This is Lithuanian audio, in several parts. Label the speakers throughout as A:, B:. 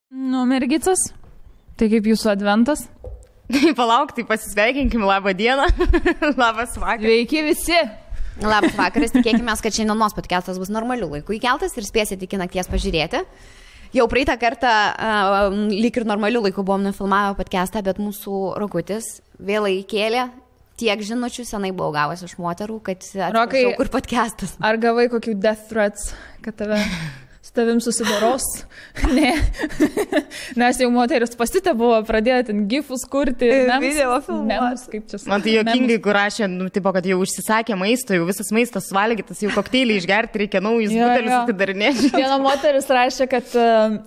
A: Nu, mergicas, tai kaip jūsų adventas?
B: Palauk, tai pasisveikinkim, labą dieną, labas vakaras.
A: Sveiki visi.
C: Labas vakaras, tikėkime, kad šiandienos podcastas bus normaliu laiku įkeltas ir spėsite iki nakties pažiūrėti. Jau praeitą kartą lyg ir normaliu laiku buvom nufilmavę podcastą, bet mūsų Rokutis vėlai įkėlė. Tiek žinučių senai buvau gavęs iš moterų, kad atsiprašau, kur podcastas.
A: Ar gavai kokių death threats, kad su tavim susidoros? Ne. Nes jau moteris pasitė buvo pradėti gifus kurti.
C: Video filmuos.
B: Man tai jokingai, kur rašė, tipo, kad jau užsisakė maisto, jau visas maistas suvalgytas, jau kokteilį išgerti, reikia naujus butelius atidarinėti.
A: Viena moteris rašė, kad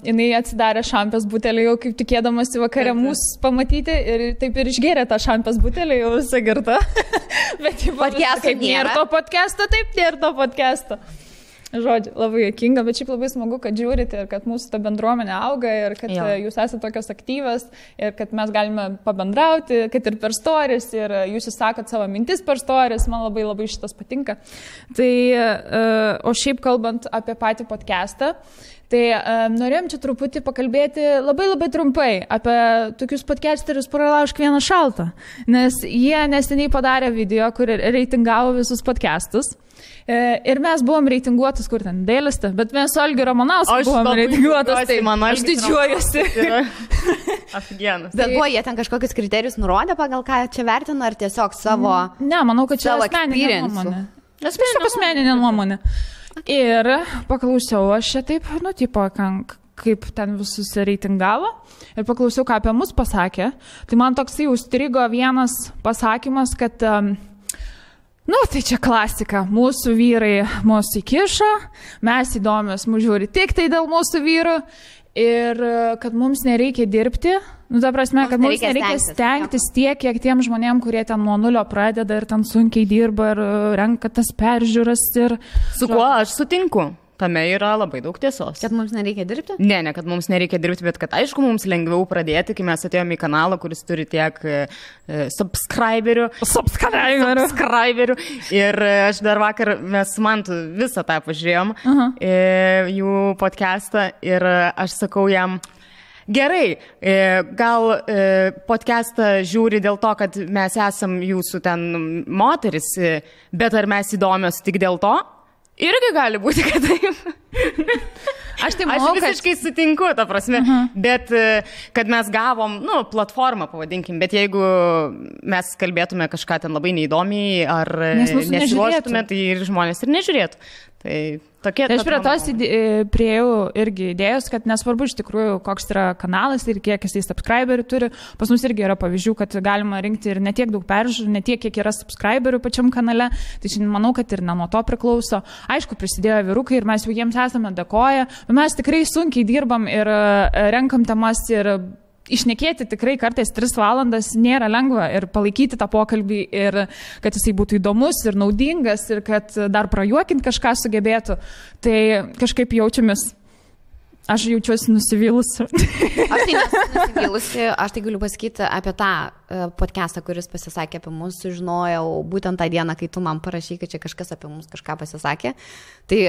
A: jinai atsidarė šampės butelį, jau kaip tikėdamasi vakare mūsų pamatyti ir taip ir išgėrė tą šampės butelį, jau visą girtą. Bet kaip nėra to podcast'o, taip nėra to podcast'o. Žodžiu, labai juokinga, bet šiaip labai smagu, kad žiūrite ir kad mūsų ta bendruomenė auga ir kad jūs esate tokios aktyvios ir kad mes galime pabendrauti, kad ir per stories ir jūs išsakot savo mintis per stories, man labai labai šitas patinka. Tai, o šiaip kalbant apie patį podcastą, tai norėjom čia truputį pakalbėti labai trumpai apie tokius podcasterius Pralaužk vieną šaltą, nes jie neseniai padarė video, kur reitingavo visus podcastus. Ir mes buvom reitinguotas, kur ten dėliste, bet mes su Algiu Ramanausku buvom reitinguotas, tai aš didžiuojuosi.
B: Afigienas.
C: Bet buvo jie ten kažkokius kriterijus nurodė, pagal ką čia vertino, ar tiesiog savo...
A: Ne, manau, kad čia asmeninė nuomonė. Asmeninė nuomonė. Ir paklausiau aš čia taip, tipo, kaip ten visus reitingavo ir paklausiau, ką apie mus pasakė. Tai man toksai užstrigo vienas pasakymas, kad... tai čia klasika, mūsų vyrai mūsų įkišo, mes įdomios mūsų žiūri tik tai dėl mūsų vyrų ir kad mums nereikia dirbti, ta prasme, kad mums nereikia stengtis tiek, kiek tiem žmonėm, kurie ten nuo nulio pradeda ir ten sunkiai dirba ir renka tas peržiūras ir...
B: Su kuo aš sutinku? Tame yra labai daug tiesos.
C: Kad mums nereikia dirbti?
B: Ne, kad mums nereikia dirbti, bet kad aišku mums lengviau pradėti, kai mes atėjome į kanalą, kuris turi tiek subscriberių. Ir aš dar vakar mes Mantu visą tą pažiūrėjom, jų podcastą ir aš sakau jam, gerai, gal podcastą žiūri dėl to, kad mes esam jūsų ten moteris, bet ar mes įdomios tik dėl to? Irgi gali būti, kad taip. Aš visiškai sutinku, ta prasme, bet kad mes gavom, platformą, pavadinkim, bet jeigu mes kalbėtume kažką ten labai neįdomiai ar nesiruoštume, tai ir žmonės ir nežiūrėtų. Tai tokie...
A: Tai aš prie tos priejau irgi idėjos, kad nesvarbu iš tikrųjų, koks yra kanalas ir kiek jisai subscriberių turi. Pas mus irgi yra pavyzdžių, kad galima rinkti ir ne tiek daug peržiūrų, ne tiek, kiek yra subscriberių pačiam kanale. Tai šiandien manau, kad ir ne nuo to priklauso. Aišku, prisidėjo vyrukai ir mes jau jiems esame dėkoję. Mes tikrai sunkiai dirbam ir renkam temas ir išnekėti tikrai kartais 3 valandas nėra lengva ir palaikyti tą pokalbį ir kad jisai būtų įdomus ir naudingas ir kad dar prajuokinti kažką sugebėtų. Tai kažkaip jaučiamės. Aš jaučiuosi nusivylusi.
C: Aš tai nesu nusivylusi, aš tai galiu pasakyti apie tą podcastą, kuris pasisakė apie mus, sužinojau būtent tą dieną, kai tu man parašy, kad čia kažkas apie mus kažką pasisakė. Tai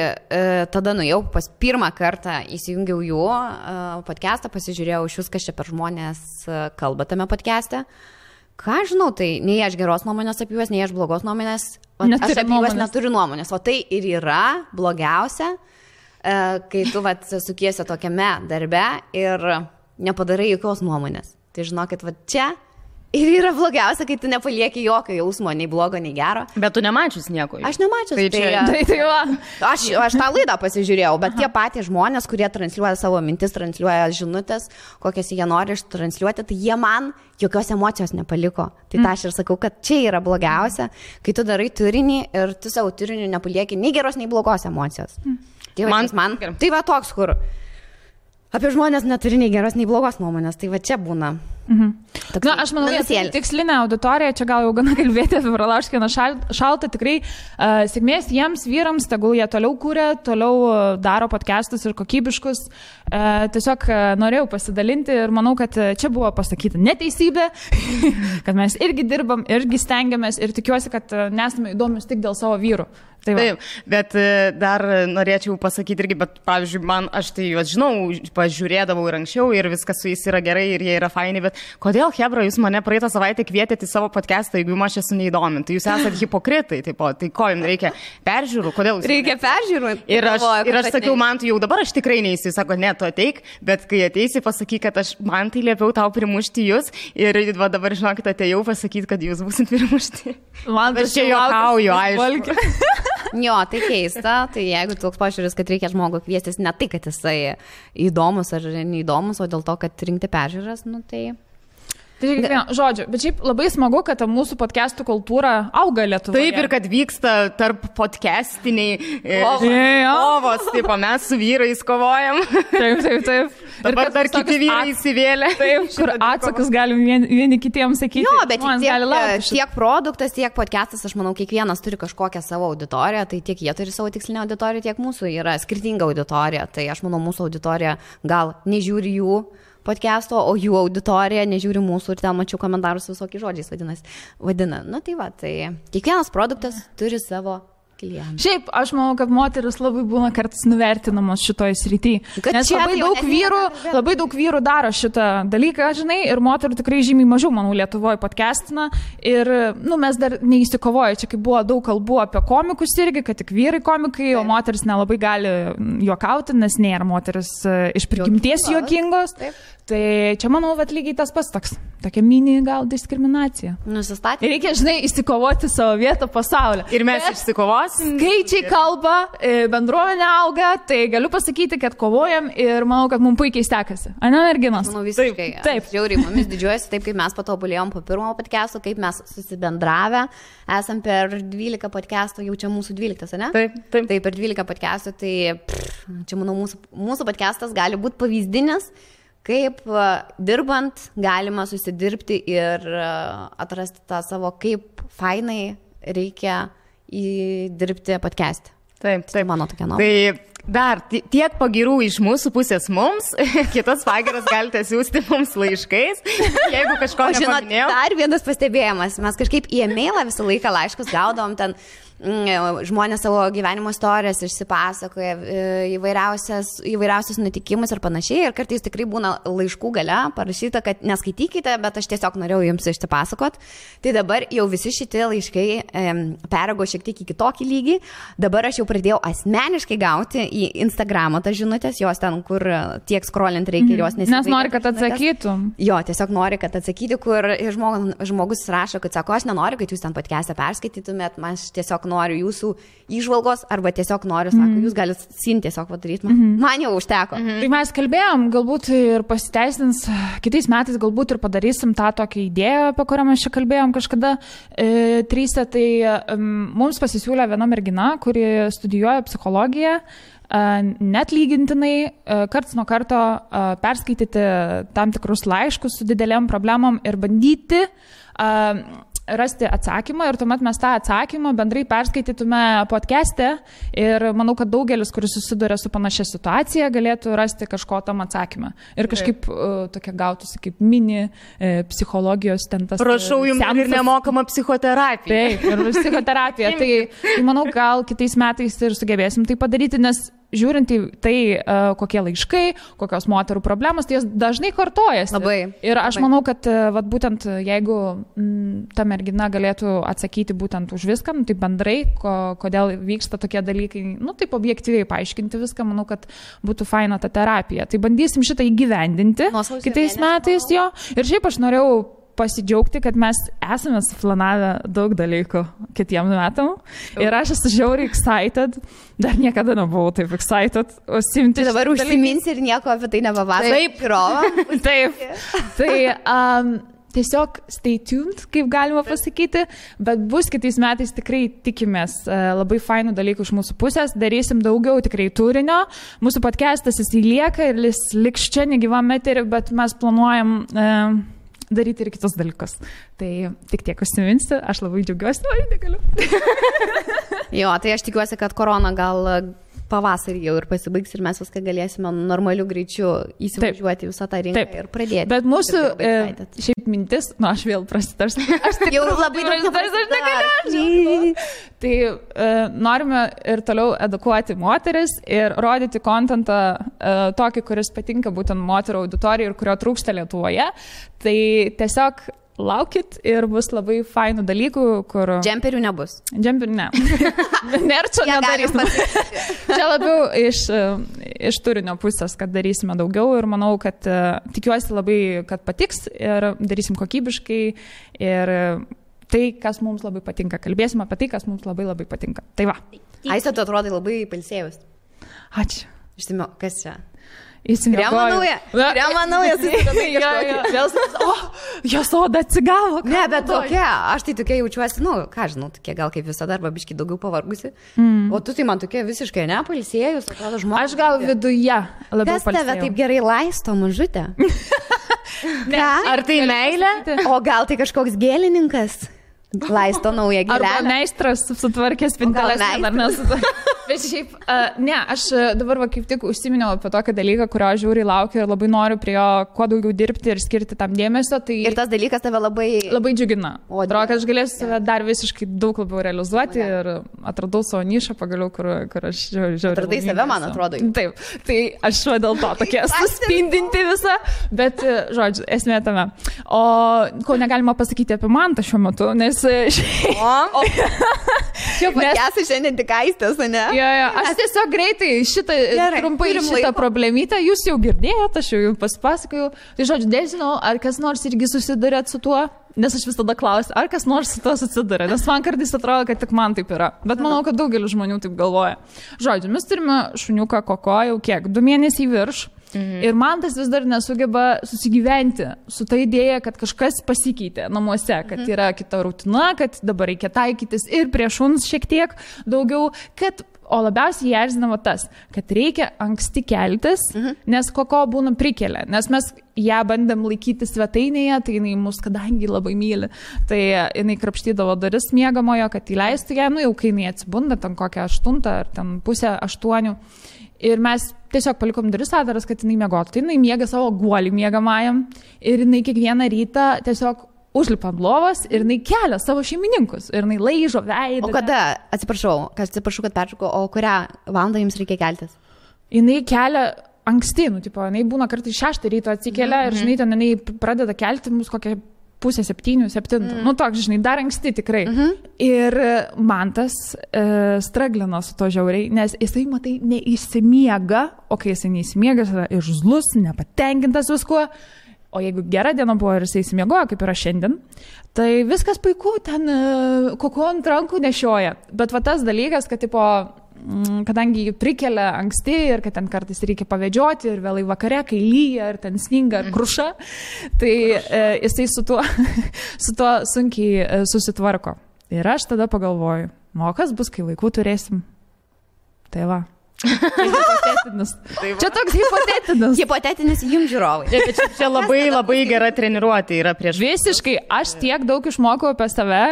C: tada nuėjau pirmą kartą, įsijungiau jų podcastą, pasižiūrėjau iš kas čia per žmonės kalba tame podcast'e. Ką žinau, tai nei aš geros nuomonės apie juos, nei aš blogos nuomonės, aš apie juos neturiu nuomonės, o tai ir yra blogiausia. Kai tu sukiesi tokiame darbe ir nepadarai jokios nuomonės. Tai žinokit, čia ir yra blogiausia, kai tu nepalieki jokio jausmo, nei blogo, nei gero.
B: Bet tu nemačius nieko.
C: Aš nemačius. Aš tą laidą pasižiūrėjau, bet tie patys žmonės, kurie transliuoja savo mintis, transliuoja žinutės, kokias jie nori transliuoti, tai jie man jokios emocijos nepaliko. Tai aš ir sakau, kad čia yra blogiausia, kai tu darai turinį ir tu savo turiniu nepalieki nei geros, nei blogos emocijos. Tai man tai va toks, kur apie žmonės neturi nei geros, nei blogos nuomonės, tai va čia būna.
A: Aš manau, tikslinė auditorija, čia gal jau gana kalbėti apie Pralaužk vieną šaltą, tikrai sėkmės jiems, vyrams, tegul jie toliau kūrė, toliau daro podcastus ir kokybiškus. Tiesiog norėjau pasidalinti ir manau, kad čia buvo pasakyta neteisybė, kad mes irgi dirbam, irgi stengiamės ir tikiuosi, kad nesame įdomius tik dėl savo vyrų.
B: Taip, bet dar norėčiau pasakyti irgi, bet pavyzdžiui, aš tai juos žinau, pažiūrėdavau ir anksčiau ir viskas su jais yra gerai ir jie yra faini, bet kodėl, hebra, jūs mane praeitą savaitę kvietėte į savo podcastą, jeigu aš esu neįdomi, tai jūs esate hipokritai, tai ko jums reikia peržiūrų, kodėl jūs...
C: Reikia peržiūrų.
B: Ir aš sakiau, man tu jau dabar aš tikrai neįsiu, jis sako, ne, tu ateik, bet kai ateisi, pasakyk, kad man tai liepiau tau primušti jūs ir va, dabar žinokit, atėjau pasakyti, kad jūs būsit primušti.
A: Man
B: aš čia juokauju, aišku.
C: Jo, tai keista, tai jeigu toks požiūris, kad reikia žmogų kviestis ne tai, kad jisai įdomus ar neįdomus, o dėl to, kad rinkti peržiūras, tai...
A: Žodžiu, bet šiaip labai smagu, kad mūsų podcastų kultūra auga Lietuvoje.
B: Taip, ir kad vyksta tarp podcastiniai kovos, taip, mes su vyrais kovojam.
A: Taip.
B: Dabar dar kiti vyrai įsivėlė.
A: Taip, kur atsakus galim vieni kitiems sakyti.
C: Jo, bet tiek produktas, tiek podcastas, aš manau, kiekvienas turi kažkokią savo auditoriją, tai tiek jie turi savo tikslinę auditoriją, tiek mūsų yra skirtinga auditorija. Tai aš manau, mūsų auditorija gal nežiūri jų podcast'o, o jų auditorija nežiūri mūsų ir ten mačiau komentarus visokiais žodžiais vadina. Tai va, tai kiekvienas produktas turi savo klientą.
A: Šiaip, aš manau, kad moteris labai būna kartais nuvertinamos šitoje srityje. Nes labai daug vyrų daro šitą dalyką, žinai, ir moterų tikrai žymiai mažiau, manau, Lietuvoje podcastina. Ir, mes dar neįsikovoja, čia kaip buvo daug kalbų apie komikus irgi, kad tik vyrai komikai, o moteris nelabai gali juokauti, nes nėra moteris iš prigimties juokingos. Tai čia, manau, lygiai tas pats toks. Tokia mini gal diskriminacija.
C: Nusistatė.
A: Reikia, žinai, įsikovoti savo vietą pasaulyje.
B: Ir mes išsikovosim.
A: Skaičiai kalba, bendruomenė auga, tai galiu pasakyti, kad kovojam ir manau, kad mums puikiai sekasi. Ane, merginos?
C: Manau, visiškai. Taip. Žiauriai, mumis didžiuojasi taip, kaip mes patobulėjom po pirmo podcast'o, kaip mes susibendravę. Esam per 12 podcast'o, jau čia mūsų 12, ne?
B: Taip.
C: Tai per 12 podcast'o, tai čia, manau, mūsų podcast'as gali būti pavyzdinis, kaip dirbant galima susidirbti ir atrasti tą savo, kaip fainai reikia įdirbti podcast'e.
B: Taip.
C: Mano tokia nuomonė.
B: Tai dar tiek pagirų iš mūsų pusės mums, kitas pagiras galite siūsti mums laiškais, jeigu kažko nepaminėjau.
C: Dar vienas pastebėjimas, mes kažkaip į e-mailą visą laiką laiškus gaudom, ten žmonės savo gyvenimo istorijas išsipasakoja, įvairiausius nutikimus ir panašiai, ir kartais tikrai būna laiškų gale parašyta, kad neskaitykite, bet aš tiesiog norėjau jums išsipasakot. Tai dabar jau visi šitie laiškai peraugo šiek tiek į kitokį lygį. Dabar aš jau pradėjau asmeniškai gauti į Instagramą tas žinutės, jos ten, kur tiek scrollint reikia, jos nesivaikyti.
A: Nes nori, kad atsakytum.
C: Jo, tiesiog nori, kad atsakyti, kur žmogus rašo, kad sako, aš nenoriu, kad jūs ten podcast'e perskaitytumėt, man tiesiog noriu jūsų įžvalgos, arba tiesiog noriu, sako, jūs galite tiesiog padaryti. Man jau užteko.
A: Tai mes kalbėjom, galbūt ir pasiteisins, kitais metais galbūt ir padarysim tą tokią idėją, apie kurią mes čia kalbėjom kažkada tryse. Tai mums pasisiūlė viena mergina, kuri studijuoja psichologiją, net lygintinai karts nuo karto perskaityti tam tikrus laiškus su didelėm problemom ir bandyti rasti atsakymą, ir tuomet mes tą atsakymą bendrai perskaitytume podcast'e, ir manau, kad daugelis, kuris susiduria su panašia situacija, galėtų rasti kažko tam atsakymą. Ir kažkaip tokia gautųsi kaip mini psichologijos ten tas.
B: Prašau, jums ir nemokama psichoterapija.
A: Taip, ir psichoterapija. Tai manau, gal kitais metais ir sugebėsim tai padaryti, nes žiūrint į tai, kokie laiškai, kokios moterų problemos, tai jas dažnai kartojasi.
C: Labai.
A: Ir aš manau, kad būtent jeigu ta mergina galėtų atsakyti būtent už viską, tai bendrai, kodėl vyksta tokie dalykai, taip objektyviai paaiškinti viską, manau, kad būtų faina ta terapija. Tai bandysim šitą įgyvendinti kitais metais jo. Ir šiaip aš norėjau pasidžiaugti, kad mes esame suplanavę daug dalykų kitiem metam. Ir aš esu žiauriai excited. Dar niekada nebuvau taip excited.
C: Tai dabar užsiminsi ir nieko apie tai nepapasakosi.
A: Taip. Tai tiesiog stay tuned, kaip galima pasakyti, bet bus kitais metais tikrai tikimės labai fainų dalykų iš mūsų pusės, darysim daugiau tikrai turinio. Mūsų podcastas jis lieka ir jis liks čia negyvam eterį, bet mes planuojam daryti ir kitus dalykus. Tai tik tiek užsiminsiu, aš labai džiaugiuosi, negaliu.
C: Jo, tai aš tikiuosi, kad korona gal pavasarį jau ir pasibaigs ir mes viską galėsime normaliu greičiu įsivažiuoti visą tą rinką ir pradėti.
A: Bet mūsų šiaip mintis, aš vėl prasitarsiu. Aš
C: jau labai daug
A: Tai norime ir toliau edukuoti moteris ir rodyti kontentą tokį, kuris patinka būtent moterų auditorijai ir kurio trūksta Lietuvoje. Tai tiesiog laukit ir bus labai fainų dalykų, kur...
C: Džemperių nebus.
A: Džemperių ne. Nerčio nedarysim. Čia labiau iš turinio pusės, kad darysime daugiau ir manau, kad tikiuosi labai, kad patiks ir darysim kokybiškai ir tai, kas mums labai patinka. Kalbėsim apie tai, kas mums labai labai patinka. Tai va.
C: Aiste, tu atrodai labai pailsėjus.
A: Ačiū.
C: Išsimio, kas čia?
A: Krema
C: nauja,
A: jos oda atsigavo.
C: Ne, bet tokia, aš tai tokia jaučiuosi, ką žinau, tokia gal kaip visada, arba biškai daugiau pavargusi. O tu tai man tokia visiškai nepailsėjus, atrodo žmogus.
A: Aš gal viduje labiau
C: pailsėjau. Kas tave taip gerai laisto, mažutė?
B: Ar tai meilė?
C: O gal tai kažkoks gėlininkas? Laisto naują gėlelę.
A: Arba meistras sutvarkė spinteles. Bet šiaip, ne, aš dabar kaip tik užsiminiau apie tokį dalyką, kurio aš žiūriai laukiu ir labai noriu prie jo kuo daugiau dirbti ir skirti tam dėmesio. Tai
C: ir tas dalykas tave labai
A: džiugina. Atrodo, kad aš galėsiu save dar visiškai daug labiau realizuoti ir atradau savo nišą pagaliau, kur aš žiūriu.
C: Atradai save, man atrodo.
A: Taip, tai aš dėl to tokia suspindinti visą, bet, žodžiu, esmė tame. O ko negalima pasakyti apie Mantą šiuo metu, nes
C: čia esi šiandien tik Aistės, ne?
A: Jo, aš tiesiog greitai trumpai šitą problemytę, jūs jau girdėjote, aš jau pasipasakojau. Tai žodžiu, nežinau, ar kas nors irgi susidurėt su tuo, nes aš visada klausiu, ar kas nors su tuo susidurė, nes man kartais atrodo, kad tik man taip yra. Bet manau, kad daugelis žmonių taip galvoja. Žodžiu, mes turime šuniuką Koko jau kiek, 2 mėnesiai virš. Ir man tas vis dar nesugeba susigyventi su ta idėja, kad kažkas pasikeitė namuose, kad yra kita rutina, kad dabar reikia taikytis ir prie šuns šiek tiek daugiau, o labiausiai jį erzinama tas, kad reikia anksti keltis, nes Koko būna prikelia, nes mes ją bandėm laikyti svetainėje, tai jinai mus kadangi labai myli, tai jinai krapštydavo duris miegamojo, kad įleistų ją, jau kai jinai atsibunda, ten kokią 8 ar ten pusę 8. Ir mes tiesiog palikom duris atviras, kad jinai miegotų. Tai jinai miega savo guolį miegamajam ir jinai kiekvieną rytą tiesiog užlipa ant lovos ir jinai kelia savo šeimininkus. Ir jinai laižo veidą.
C: O kada, atsiprašau, kad peršaukiu, o kurią valandą jums reikia keltis?
A: Jinai kelia anksti, jinai būna kartais 6 ryto atsikelia ir žinai, ten jinai pradeda kelti mus kokią 6:30, 7. Toks, žinai, dar anksti tikrai. Ir Mantas straglino su to žiauriai, nes jisai, matai, neįsimiega, o kai jisai neįsimiega, jis yra irzlus, nepatenkintas viskuo. O jeigu gera diena buvo ir jisai įsimiegojo, kaip yra šiandien, tai viskas puiku, ten Koko ant rankų nešioja. Bet va tas dalykas, kad tipo, kadangi jį prikelia anksti ir kad ten kartais reikia pavedžioti ir vėlai vakare, kai lyja ir ten sninga ir kruša, tai jisai su tuo sunkiai susitvarko. Ir aš tada pagalvoju, kas bus, kai vaikų turėsim? Tai va. Čia toks hipotetinis.
C: Hipotetinis jums žiūrovai.
B: Čia labai gera treniruotė yra prieš.
A: Visiškai, aš tiek daug išmokau apie save,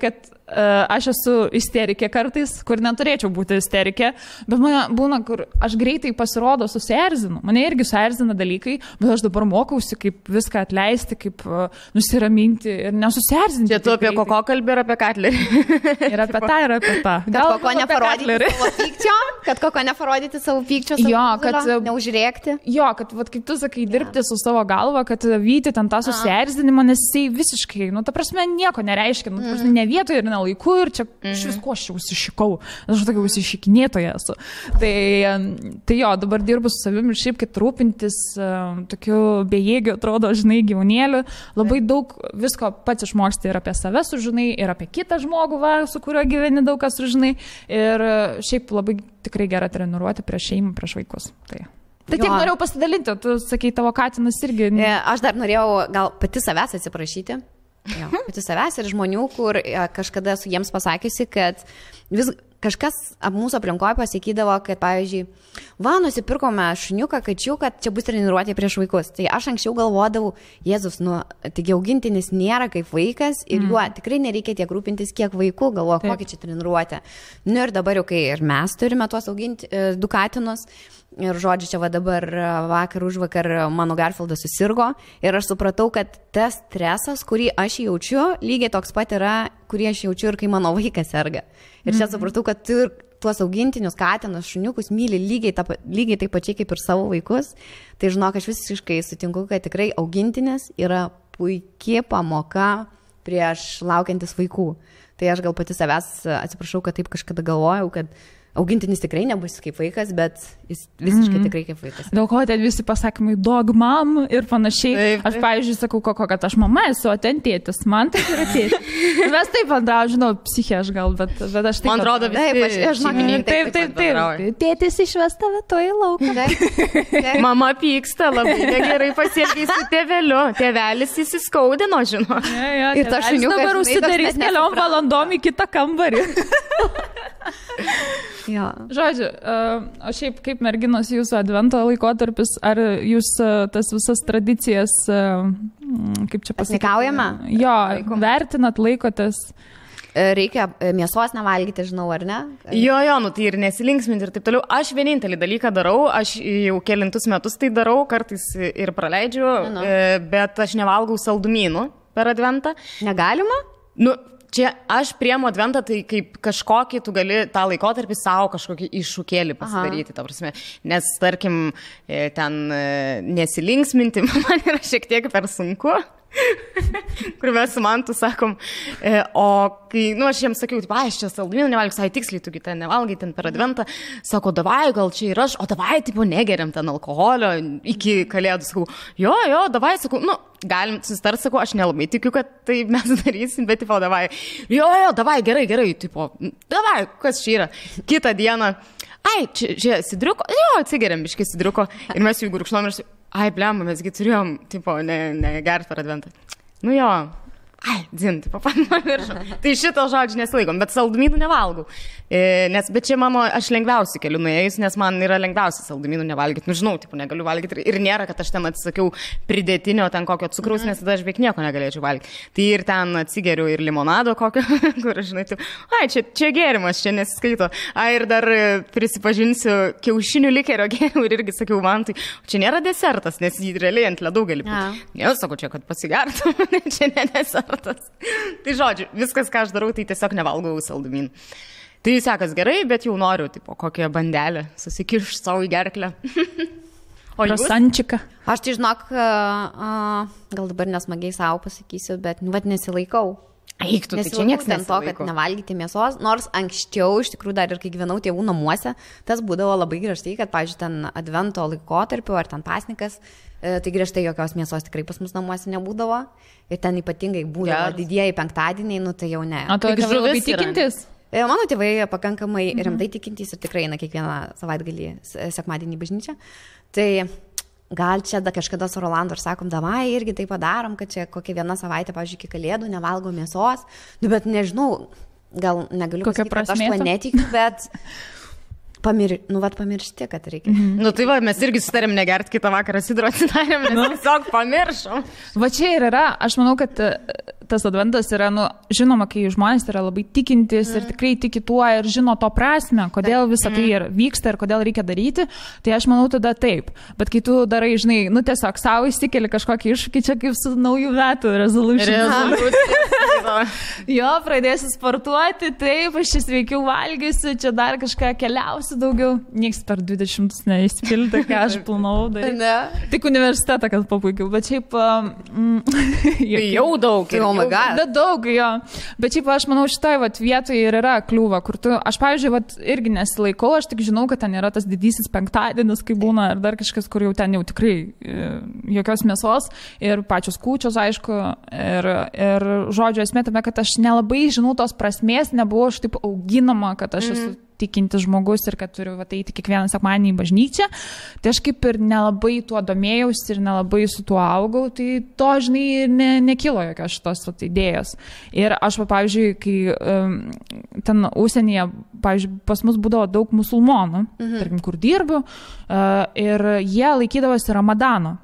A: kad aš esu isterikė kartais, kur neturėčiau būti isterikė, bet mane būna, kur aš greitai pasirodo susierzinu. Mane irgi susierzina dalykai, bet aš dabar mokausi, kaip viską atleisti, kaip nusiraminti ir nesusierzinti.
B: Čia tu apie Koko kalbį ir apie Katlerį.
A: Ir apie tą, ir apie tą.
C: Kad Koko neparodyti savo pykčio, kad neužrėkti.
A: Jo, kad kaip tu sakai, dirbti su savo galva, kad vyti ten tą susierzinimą, nes jisai visiškai, ta prasme, nieko nereiškia, ne vietoje ir ne laiku ir čia iš visko aš jau užsišikau. Aš tokia užsišikinėtoja esu. Tai jo, dabar dirbu su savimi ir šiaip, kad rūpintis tokiu bejėgiu, atrodo, žinai, gyvūnėliu. Labai daug visko pats išmoksti ir apie save sužinai, ir apie kitą žmogų, su kuriuo gyveni daug kas sužinai. Ir šiaip labai tikrai gera treniruoti prieš šeimą, prieš vaikus. Tai tiek norėjau pasidalinti, tu sakai, tavo katinas irgi.
C: Aš dar norėjau gal pati savęs atsiprašyti. Pati savęs ir žmonių, kur kažkada esu jiems pasakiusi, kad kažkas mūsų aplinkoje pasakydavo, kad, pavyzdžiui, nusipirkome šuniuką, kačiuką, čia bus treniruotė prieš vaikus. Tai aš anksčiau galvodavau, Jėzus, taigi augintinis nėra kaip vaikas ir juo tikrai nereikia tiek rūpintis, kiek vaikų, galvoju, kokį čia treniruotę. Ir dabar jau, kai ir mes turime tuos auginti 2 katinus, ir žodžiu, čia dabar vakar užvakar mano Garfieldas susirgo ir aš supratau, kad tas stresas, kurį aš jaučiu, lygiai toks pat yra, kurį aš jaučiu ir kai mano vaikas serga. Ir čia supratau, kad tu tuos augintinius, katinus, šuniukus myli lygiai taip pačiai kaip ir savo vaikus. Tai žinok, aš visiškai sutinku, kad tikrai augintinis yra puikia pamoka prieš laukiantis vaikų. Tai aš gal pati savęs atsiprašau, kad taip kažkada galvojau, kad augintinis tikrai nebus kaip vaikas, bet jis visiškai tikrai kaip vaikas.
A: Dėl ko ten visi pasakymai dog mom ir panašiai. Taip. Aš, pavyzdžiui, sakau, kad aš mama esu, o ten tėtis. Man tai yra tėtis. Mes taip bendrau, žinau, psichė aš gal, bet aš taip...
B: Man atrodo,
A: taip. Tėtis išves tave to į lauką.
B: Mama pyksta, labai gerai pasielgiai su tėveliu. Tėvelis įsiskaudino, žinau.
A: Ir ta šuniukas dabar užsidarys keliom valandom į kitą kambarį.
C: Jo.
A: Žodžiu, o šiaip kaip merginos jūsų advento laikotarpis, ar jūs tas visas tradicijas, kaip čia pasakyti?
C: Pasnikaujame?
A: Jo, vertinat, laikotės?
C: Reikia mėsos nevalgyti, žinau, ar ne?
B: Jo, tai ir nesilinksminti ir taip toliau. Aš vienintelį dalyką darau, aš jau kelintus metus tai darau, kartais ir praleidžiu, bet aš nevalgau saldumynų per adventą.
C: Negalima?
B: Čia aš priemu adventą, tai kaip kažkokį tu gali tą laikotarpį savo kažkokį iššūkėlį pasidaryti, ta prasme. Nes, tarkim, ten nesilinksminti man yra šiek tiek per sunku. Kur mes su Mantu sakom, o kai, aš jiems sakiau, aš čia saldumynų nevalgiu, sai tiksliai, tugi ten nevalgai ten per adventą, sako, davai, gal čia ir aš, o davai, tipo, negeriam ten alkoholio iki kalėdų, sakau, jo, davai, sakau, galim susitart, sakau, aš nelabai tikiu, kad tai mes darysim, bet, tipo, davai, jo, davai, gerai, tipo, davai, kas čia yra, kitą dieną, čia sidriuko, jo, atsigeriam biškai sidriuko, ir mes jų gurkšnom ir blemba, mesgi turėjom, tipo, negert per adventą. Dzin, tipo, pamiršau. Tai šito žodžio nesilaikom, bet saldumynų nevalgau. Bet čia mano, aš lengviausiai keliu nuėjus, nes man yra lengviausia saldumynų nevalgyti. Žinau, tipo, negaliu valgyti. Ir nėra, kad aš ten atsisakiau pridėtinio ten kokio cukraus, nes tada aš beveik nieko negalėčiau valgyti. Tai ir ten atsigeriu ir limonado kokio, kur, žinai, taip, čia gėrimas, čia nesiskaito. Ir dar prisipažinsiu, kiaušinių likerio gėriau ir irgi sakiau, man tai, čia nėra desertas, nes jį realiai ant ledų gali būti. Ne, sakau, čia, kad pasigertų, čia ne desertas. Tai žodžiu, viskas, ką aš darau, tai tiesiog nevalgau saldumynų. Tai sekas gerai, bet jau noriu, tipo, kokią bandelę susikišti savo į gerklę.
A: O jūs? Rosančiką.
C: Aš tai žinok, gal dabar nesmagiai savo pasakysiu, bet nesilaikau.
B: Eiktų, tai čia nieks
C: nesilaiko. To, kad nevalgyti mėsos, nors anksčiau, iš tikrųjų, dar ir kai gyvenau tėvų namuose, tas būdavo labai griežtai, kad, pavyzdžiui, ten advento laikotarpiu ar ten pasnikas, tai griežtai jokios mėsos tikrai pas mus namuose nebūdavo. Ir ten ypatingai būdavo didieji penktadieniai, tai jau ne.
A: O tu tėvai labai tikintis?
C: Mano tėvai pakankamai rimtai tikintys ir tikrai eina kiekvieną savaitgalį sekmadienį į bažnyčią. Tai gal čia kažkada su Rolandu ir sakom, davai irgi tai padarom, kad čia kokią vieną savaitę, pavyzdžiui, iki kalėdų nevalgo mėsos. Bet nežinau, gal negaliu pasakyti, kad aš to netikiu, bet... pamiršti, kad reikia.
B: Tai va, mes irgi sutarėm negerti kitą vakarą sidro atsidarėm, nes tiesiog pamiršom.
A: Va čia ir yra, aš manau, kad tas adventas yra, žinoma, kai žmonės yra labai tikintis ir tikrai tiki tuo ir žino to prasme, kodėl visą tai vyksta ir kodėl reikia daryti, tai aš manau tada taip. Bet kai tu darai, žinai, tiesiog savo įsikeli kažkokį iššūkį, čia kaip su naujų metų resolution. Jo, pradėsiu sportuoti, taip, aš čia sveikiau valgysiu, čia dar kažką keliausiu daugiau. Niekas per 20 neįspilti, ką aš planavau daryti. Tik universitetą, kad papaikiau, bet šiaip...
B: jau daug.
A: Bet daug, jo. Bet šiaip aš manau, šitoj vietoje ir yra kliūva, kur tu, aš pavyzdžiui, irgi nesilaikau, aš tik žinau, kad ten yra tas didysis penktadienis, kai būna, ar dar kažkas, kur jau ten jau tikrai jokios mėsos ir pačios kūčios, aišku, ir žodžio esmė tame, kad aš nelabai žinau tos prasmės, nebuvau aš taip auginama, kad aš esu tikintis žmogus ir kad turiu eiti kiekvieną sekmadienį į bažnyčią, tai aš kaip ir nelabai tuo domėjausi ir nelabai su tuo augau, tai to, žinai, nekilo jokios šitos idėjos. Ir aš, pavyzdžiui, kai ten užsienyje, pavyzdžiui, pas mus būdavo daug musulmonų, tarkim, kur dirbu, ir jie laikydavosi Ramadano.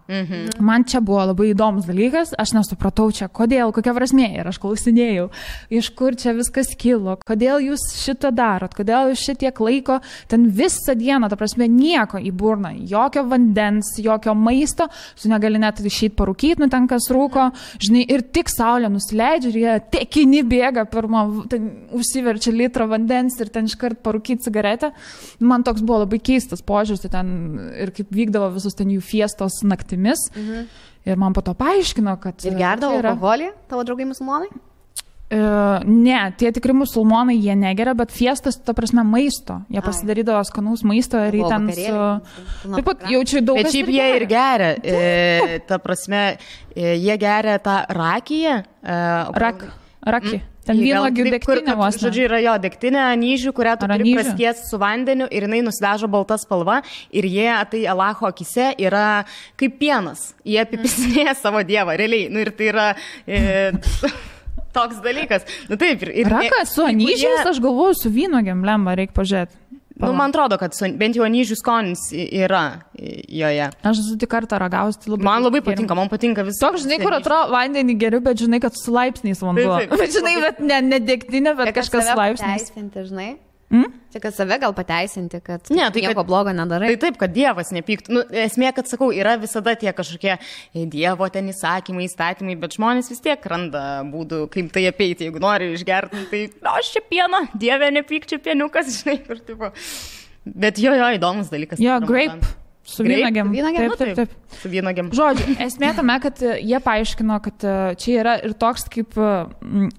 A: Man čia buvo labai įdomus dalykas, aš nesupratau čia, kodėl, kokia prasmė, ir aš klausinėjau, iš kur čia viskas kilo, kodėl jūs šitą darot, kodėl jūs šitiek laiko, ten visą dieną, ta prasme, nieko į burną, jokio vandens, jokio maisto, tu negali net išeiti parūkyti, nu ten kas rūko, žinai, ir tik saulė nusileidžia ir jie tekini bėga pirmą, ten užsiverčia litrą vandens ir ten iškart parūkyti cigaretę. Man toks buvo labai keistas požiūris, tai ten ir kaip vykdavo visus ten jų fiestos naktimis. Ir man po to paaiškino, kad...
C: Ir gerdavo alkoholį, tavo draugai musulmonai?
A: Ne, tie tikri musulmonai, jie negeria, bet fiestas, ta prasme, maisto. Jie pasidarydavo skanaus maisto ir jį ten su... Taip pat jaučiu daug...
B: Bet šiaip jie ir geria. Ta prasme, jie geria tą rakiją.
A: Rakį. Ten vynuogių degtinė vos.
B: Žodžiu, yra jo degtinė anyžių, kurią tu turi praskiesti su vandeniu ir jinai nusidažo balta spalva ir jie, tai Alacho akise, yra kaip pienas. Jie apipisinėja savo dievą, realiai. Nu ir tai yra... toks dalykas. Nu taip.
A: Rakas su anyžiais, aš galvoju, su vynuogėm lemba, reikia pažiūrėti.
B: Nu, man atrodo, kad bent jau anyžių skonis yra joje.
A: Aš esu tik kartą ragausi, tai labai...
B: Man labai patinka, man patinka visą.
A: Toks, žinai, kur atrodo vandenį geriu, bet žinai, kad su laipsniais vanduo. Bet žinai, bet ne degtinė, bet kažkas laipsniais.
C: Žinai? Čia, kad save gal pateisinti, kad nieko blogo nedarai.
B: Tai taip, kad Dievas nepyktų. Nu, esmė, kad sakau, yra visada tie kažkokie Dievo ten įsakymai, įstatymai, bet žmonės vis tiek randa būdų, kaip tai apeiti. Jeigu nori išgerti, tai aš čia pieną, Dieve nepyk, čia pieniukas, žinai, kur tipo. Bet jo, įdomus dalykas.
A: Jo, grape. Su vynuogėm.
B: Taip. Su vynuogėm.
A: Žodžiu, esmė tame, kad jie paaiškino, kad čia yra ir toks kaip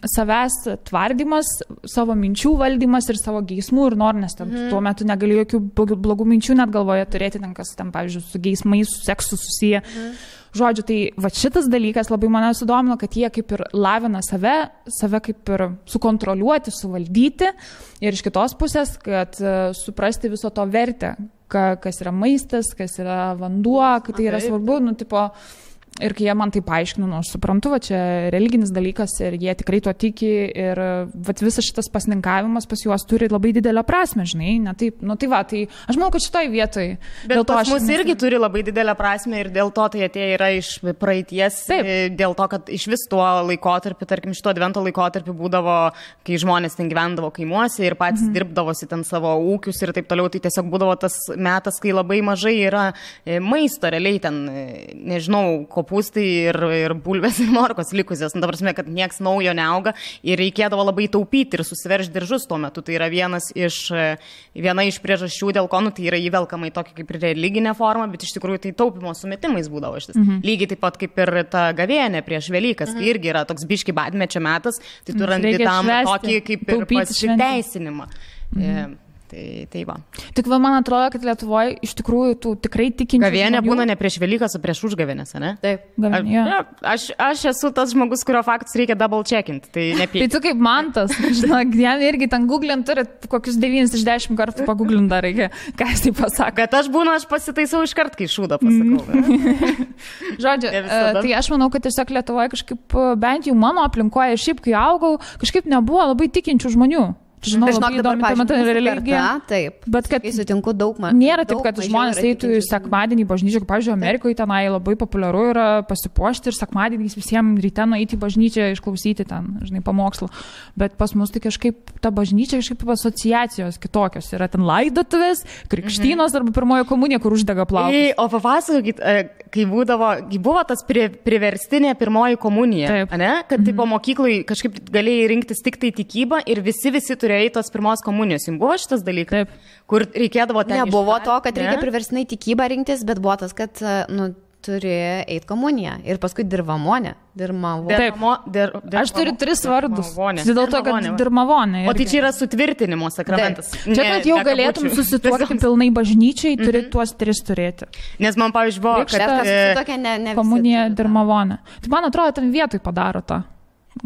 A: savęs tvardymas, savo minčių valdymas ir savo geismų ir nor, nes ten tuo metu negali jokių blogų minčių net galvoje turėti, ten kas ten, pavyzdžiui, su geismais, su seksu susiję. Žodžiu, tai va šitas dalykas labai mane sudomino, kad jie kaip ir lavina save kaip ir sukontroliuoti, suvaldyti ir iš kitos pusės, kad suprasti viso to vertę, kas yra maistas, kas yra vanduo, kad tai yra svarbu, nu, tipo, ir kai jie man tai paaiškino, nu, aš suprantu, va, čia religinis dalykas ir jie tikrai tuo tiki ir va, visas šitas pasninkavimas pas juos turi labai didelę prasmę, žinai, ne taip, nu, tai va, tai aš manau, kad šitoj vietoj.
B: Bet pas mus irgi turi labai didelę prasmę ir dėl to tai atėjo yra iš praeities, dėl to, kad iš vis tuo laikotarpiu, tarkim, šito advento laikotarpiu būdavo, kai žmonės ten gyvendavo kaimuose ir patys dirbdavosi ten savo ūkius ir taip toliau, tai tiesiog būdavo tas metas, kai labai mažai yra maisto, realiai ten, nežinau, kopūstai ir bulvės ir morkos likusios. Nu, ta prasme, kad nieks naujo neauga ir reikėdavo labai taupyti ir susiveršti diržus tuo metu. Tai yra viena iš priežasčių, dėl ko, nu, tai yra įvelkama į tokį kaip ir religinę formą, bet iš tikrųjų tai taupimo sumetimais būdavo šitas. Lygiai taip pat kaip ir ta gavėnė prieš Velykas, kai irgi yra toks biški badmečio metas, tai tu randi tam tokį kaip ir pasiteisinimą. Tai va.
A: Tik man atrodo, kad Lietuvoje iš tikrųjų tų tikrai tikinčių
B: gavėnė būna ne prieš Velykas, o prieš užgavėnės, ne?
C: Taip.
B: Aš esu tas žmogus, kurio faktus reikia double checkinti, tai nepyk.
A: Tai tu kaip Mantas, žinok, jam irgi ten googlint turi kokius 9 iš 10 kartų pagooglint dar reikia, ką jis tai pasako.
B: Bet aš pasitaisau iš kart, kai šūdą pasakau.
A: Žodžiu, tai aš manau, kad tiesiog Lietuvoje kažkaip, bent jau mano aplinkoje, šiaip kai augau, kažkaip nebuvo labai tikinčių žmonių. Žinau, labai įdomi tuo metu religija.
C: Taip,
A: bet kad
C: sutinku daug
A: nėra taip, kad žmonės eitų į sekmadienį bažnyčią, kaip, pavyzdžiui, Amerikoje tenai labai populiaru yra pasipuošti ir sekmadieniais visiems ryte nueiti į bažnyčią, išklausyti ten, žinai, pamokslų. Bet pas mus tai kažkaip ta bažnyčia, kažkaip asociacijos kitokios. Yra ten laidotuvės, krikštynos arba pirmoji komunija, kur uždega plaukus.
B: O papasakokit, kai buvo tas priverstinė pirmoji komunija, ne? Kad tipo mokyklai kažkaip galėjai rinktis tik tai tikybą ir visi turėjai tos pirmos komunijos. Jums buvo šitas dalykas?
A: Taip.
B: Kur reikėdavo ten...
C: Nebuvo to, kad reikia priverstinai tikybą rinktis, bet buvo tas, kad, nu, turi eiti komuniją. Ir paskui dirvamonė.
A: Aš turiu 3 vardus. Dėl to, kad dirmavonė.
B: O tai čia yra sutvirtinimo sakramentas.
A: Čia, kad jau galėtum susituokti pilnai bažnyčiai, turi tuos 3 turėti.
B: Nes man, pavyzdžiui, buvo,
C: kad
A: komunija dirmavonė. Tai man atrodo, ten vietoj padaro tą.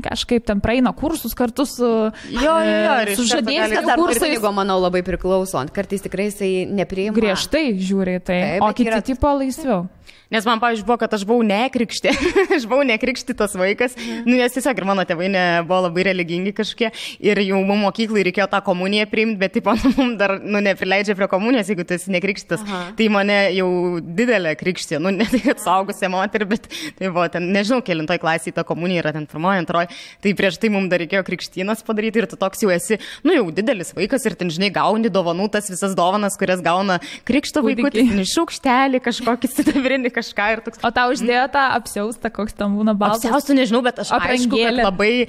A: kažkaip ten praeina kursus kartu su žadėjais.
C: Tas dar kunigo, manau, labai priklauso. Kartais tikrai jisai nepriima.
A: Griežtai žiūri tai, o kiti tipo laisviau.
B: Nes man, pavyzdžiui, buvo, kad aš buvau nekrikštė. Aš buvau nekrikštytas vaikas. Nu, nes tiesiog ir mano tėvai buvo labai religingi kažkokie. Ir jau mums mokyklai reikėjo tą komuniją priimti, bet taip, mums dar, neprileidžia prie komunijos, jeigu tu esi nekrikštytas. Tai mane jau didelė krikštė. Nu, ne tai, kad saugusia moterį, bet tai buvo ten, nežinau, kelintoj klasėje ta komunija yra ten pirmoji, antroji. Tai prieš tai mums dar reikėjo krikštynas padaryti ir tu toks jau esi, jau didelis vaikas ir ten, žinai, gauni dovanų, tas visas dovanas, kurias gauna krikšto vaikutis, šaukštelį, kažkokį sidabrinį kažką ir toks.
A: O tau uždėjo tą apsiaustą, koks tam būna baltas?
B: Apsiaustų nežinau, bet aš aišku, kad labai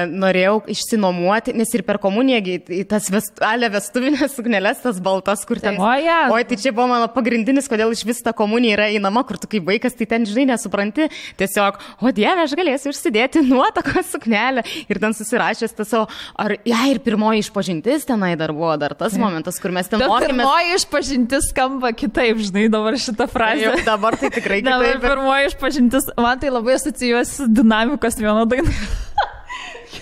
B: norėjau išsinuomuoti, nes ir per komuniją tas vestuvinės sukneles, tas baltas, kur ten. Oi, tai čia buvo mano pagrindinis, kodėl iš vis ta komunija yra einama, kur tu kaip vaikas, tai ten, žinai, nesupranti. Tiesiog, o Dieve, aš galėsiu užsidėti nuotakos suknelę ir ten susirašęs tas savo, ir pirmoji išpažintis tenai dar buvo, dar tas momentas, kur mes ten mokėmės.
A: Pirmoji išpažintis skamba kitaip, žinai, dabar šitą frazę.
B: Dabar tai tikrai kitaip.
A: Dabar pirmoji išpažintis, man tai labai asocijuosi dinamikos vieno dainą.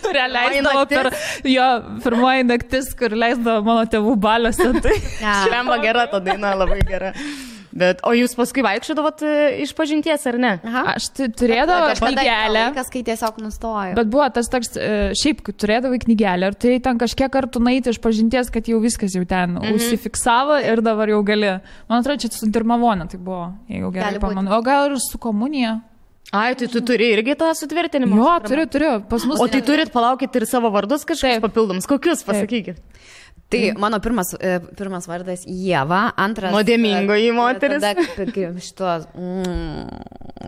A: Kurią leisdavo per jo pirmoji naktis, kur leisdavo mano tėvų baliuose. Tai
B: šlemba gera ta daina, labai gera. Bet, o jūs paskui vaikščiodavot išpažinties, ar ne?
A: Aš turėdavau knygelę.
C: Kas, kai tiesiog nustojo.
A: Bet buvo tas toks, šiaip, kai turėdavai knygelę, ir tai ten kažkiek kartų nueiti išpažinties, kad jau viskas jau ten užsifiksavo ir dabar jau gali. Man atrodo, čia su dirmavonė tai buvo, jeigu gerai pamanu. O gal ir su komunija.
B: Ai, tai tu turi irgi tą sutvirtinimą?
A: Jo, turiu. Pas mus.
B: O tai turit palaukit ir savo vardus kažkokius papildomus. Kokius, pasakykit?
C: Tai mano pirmas vardas Ieva, antras...
B: Nuodėmingoji moteris.
C: Tada šitos...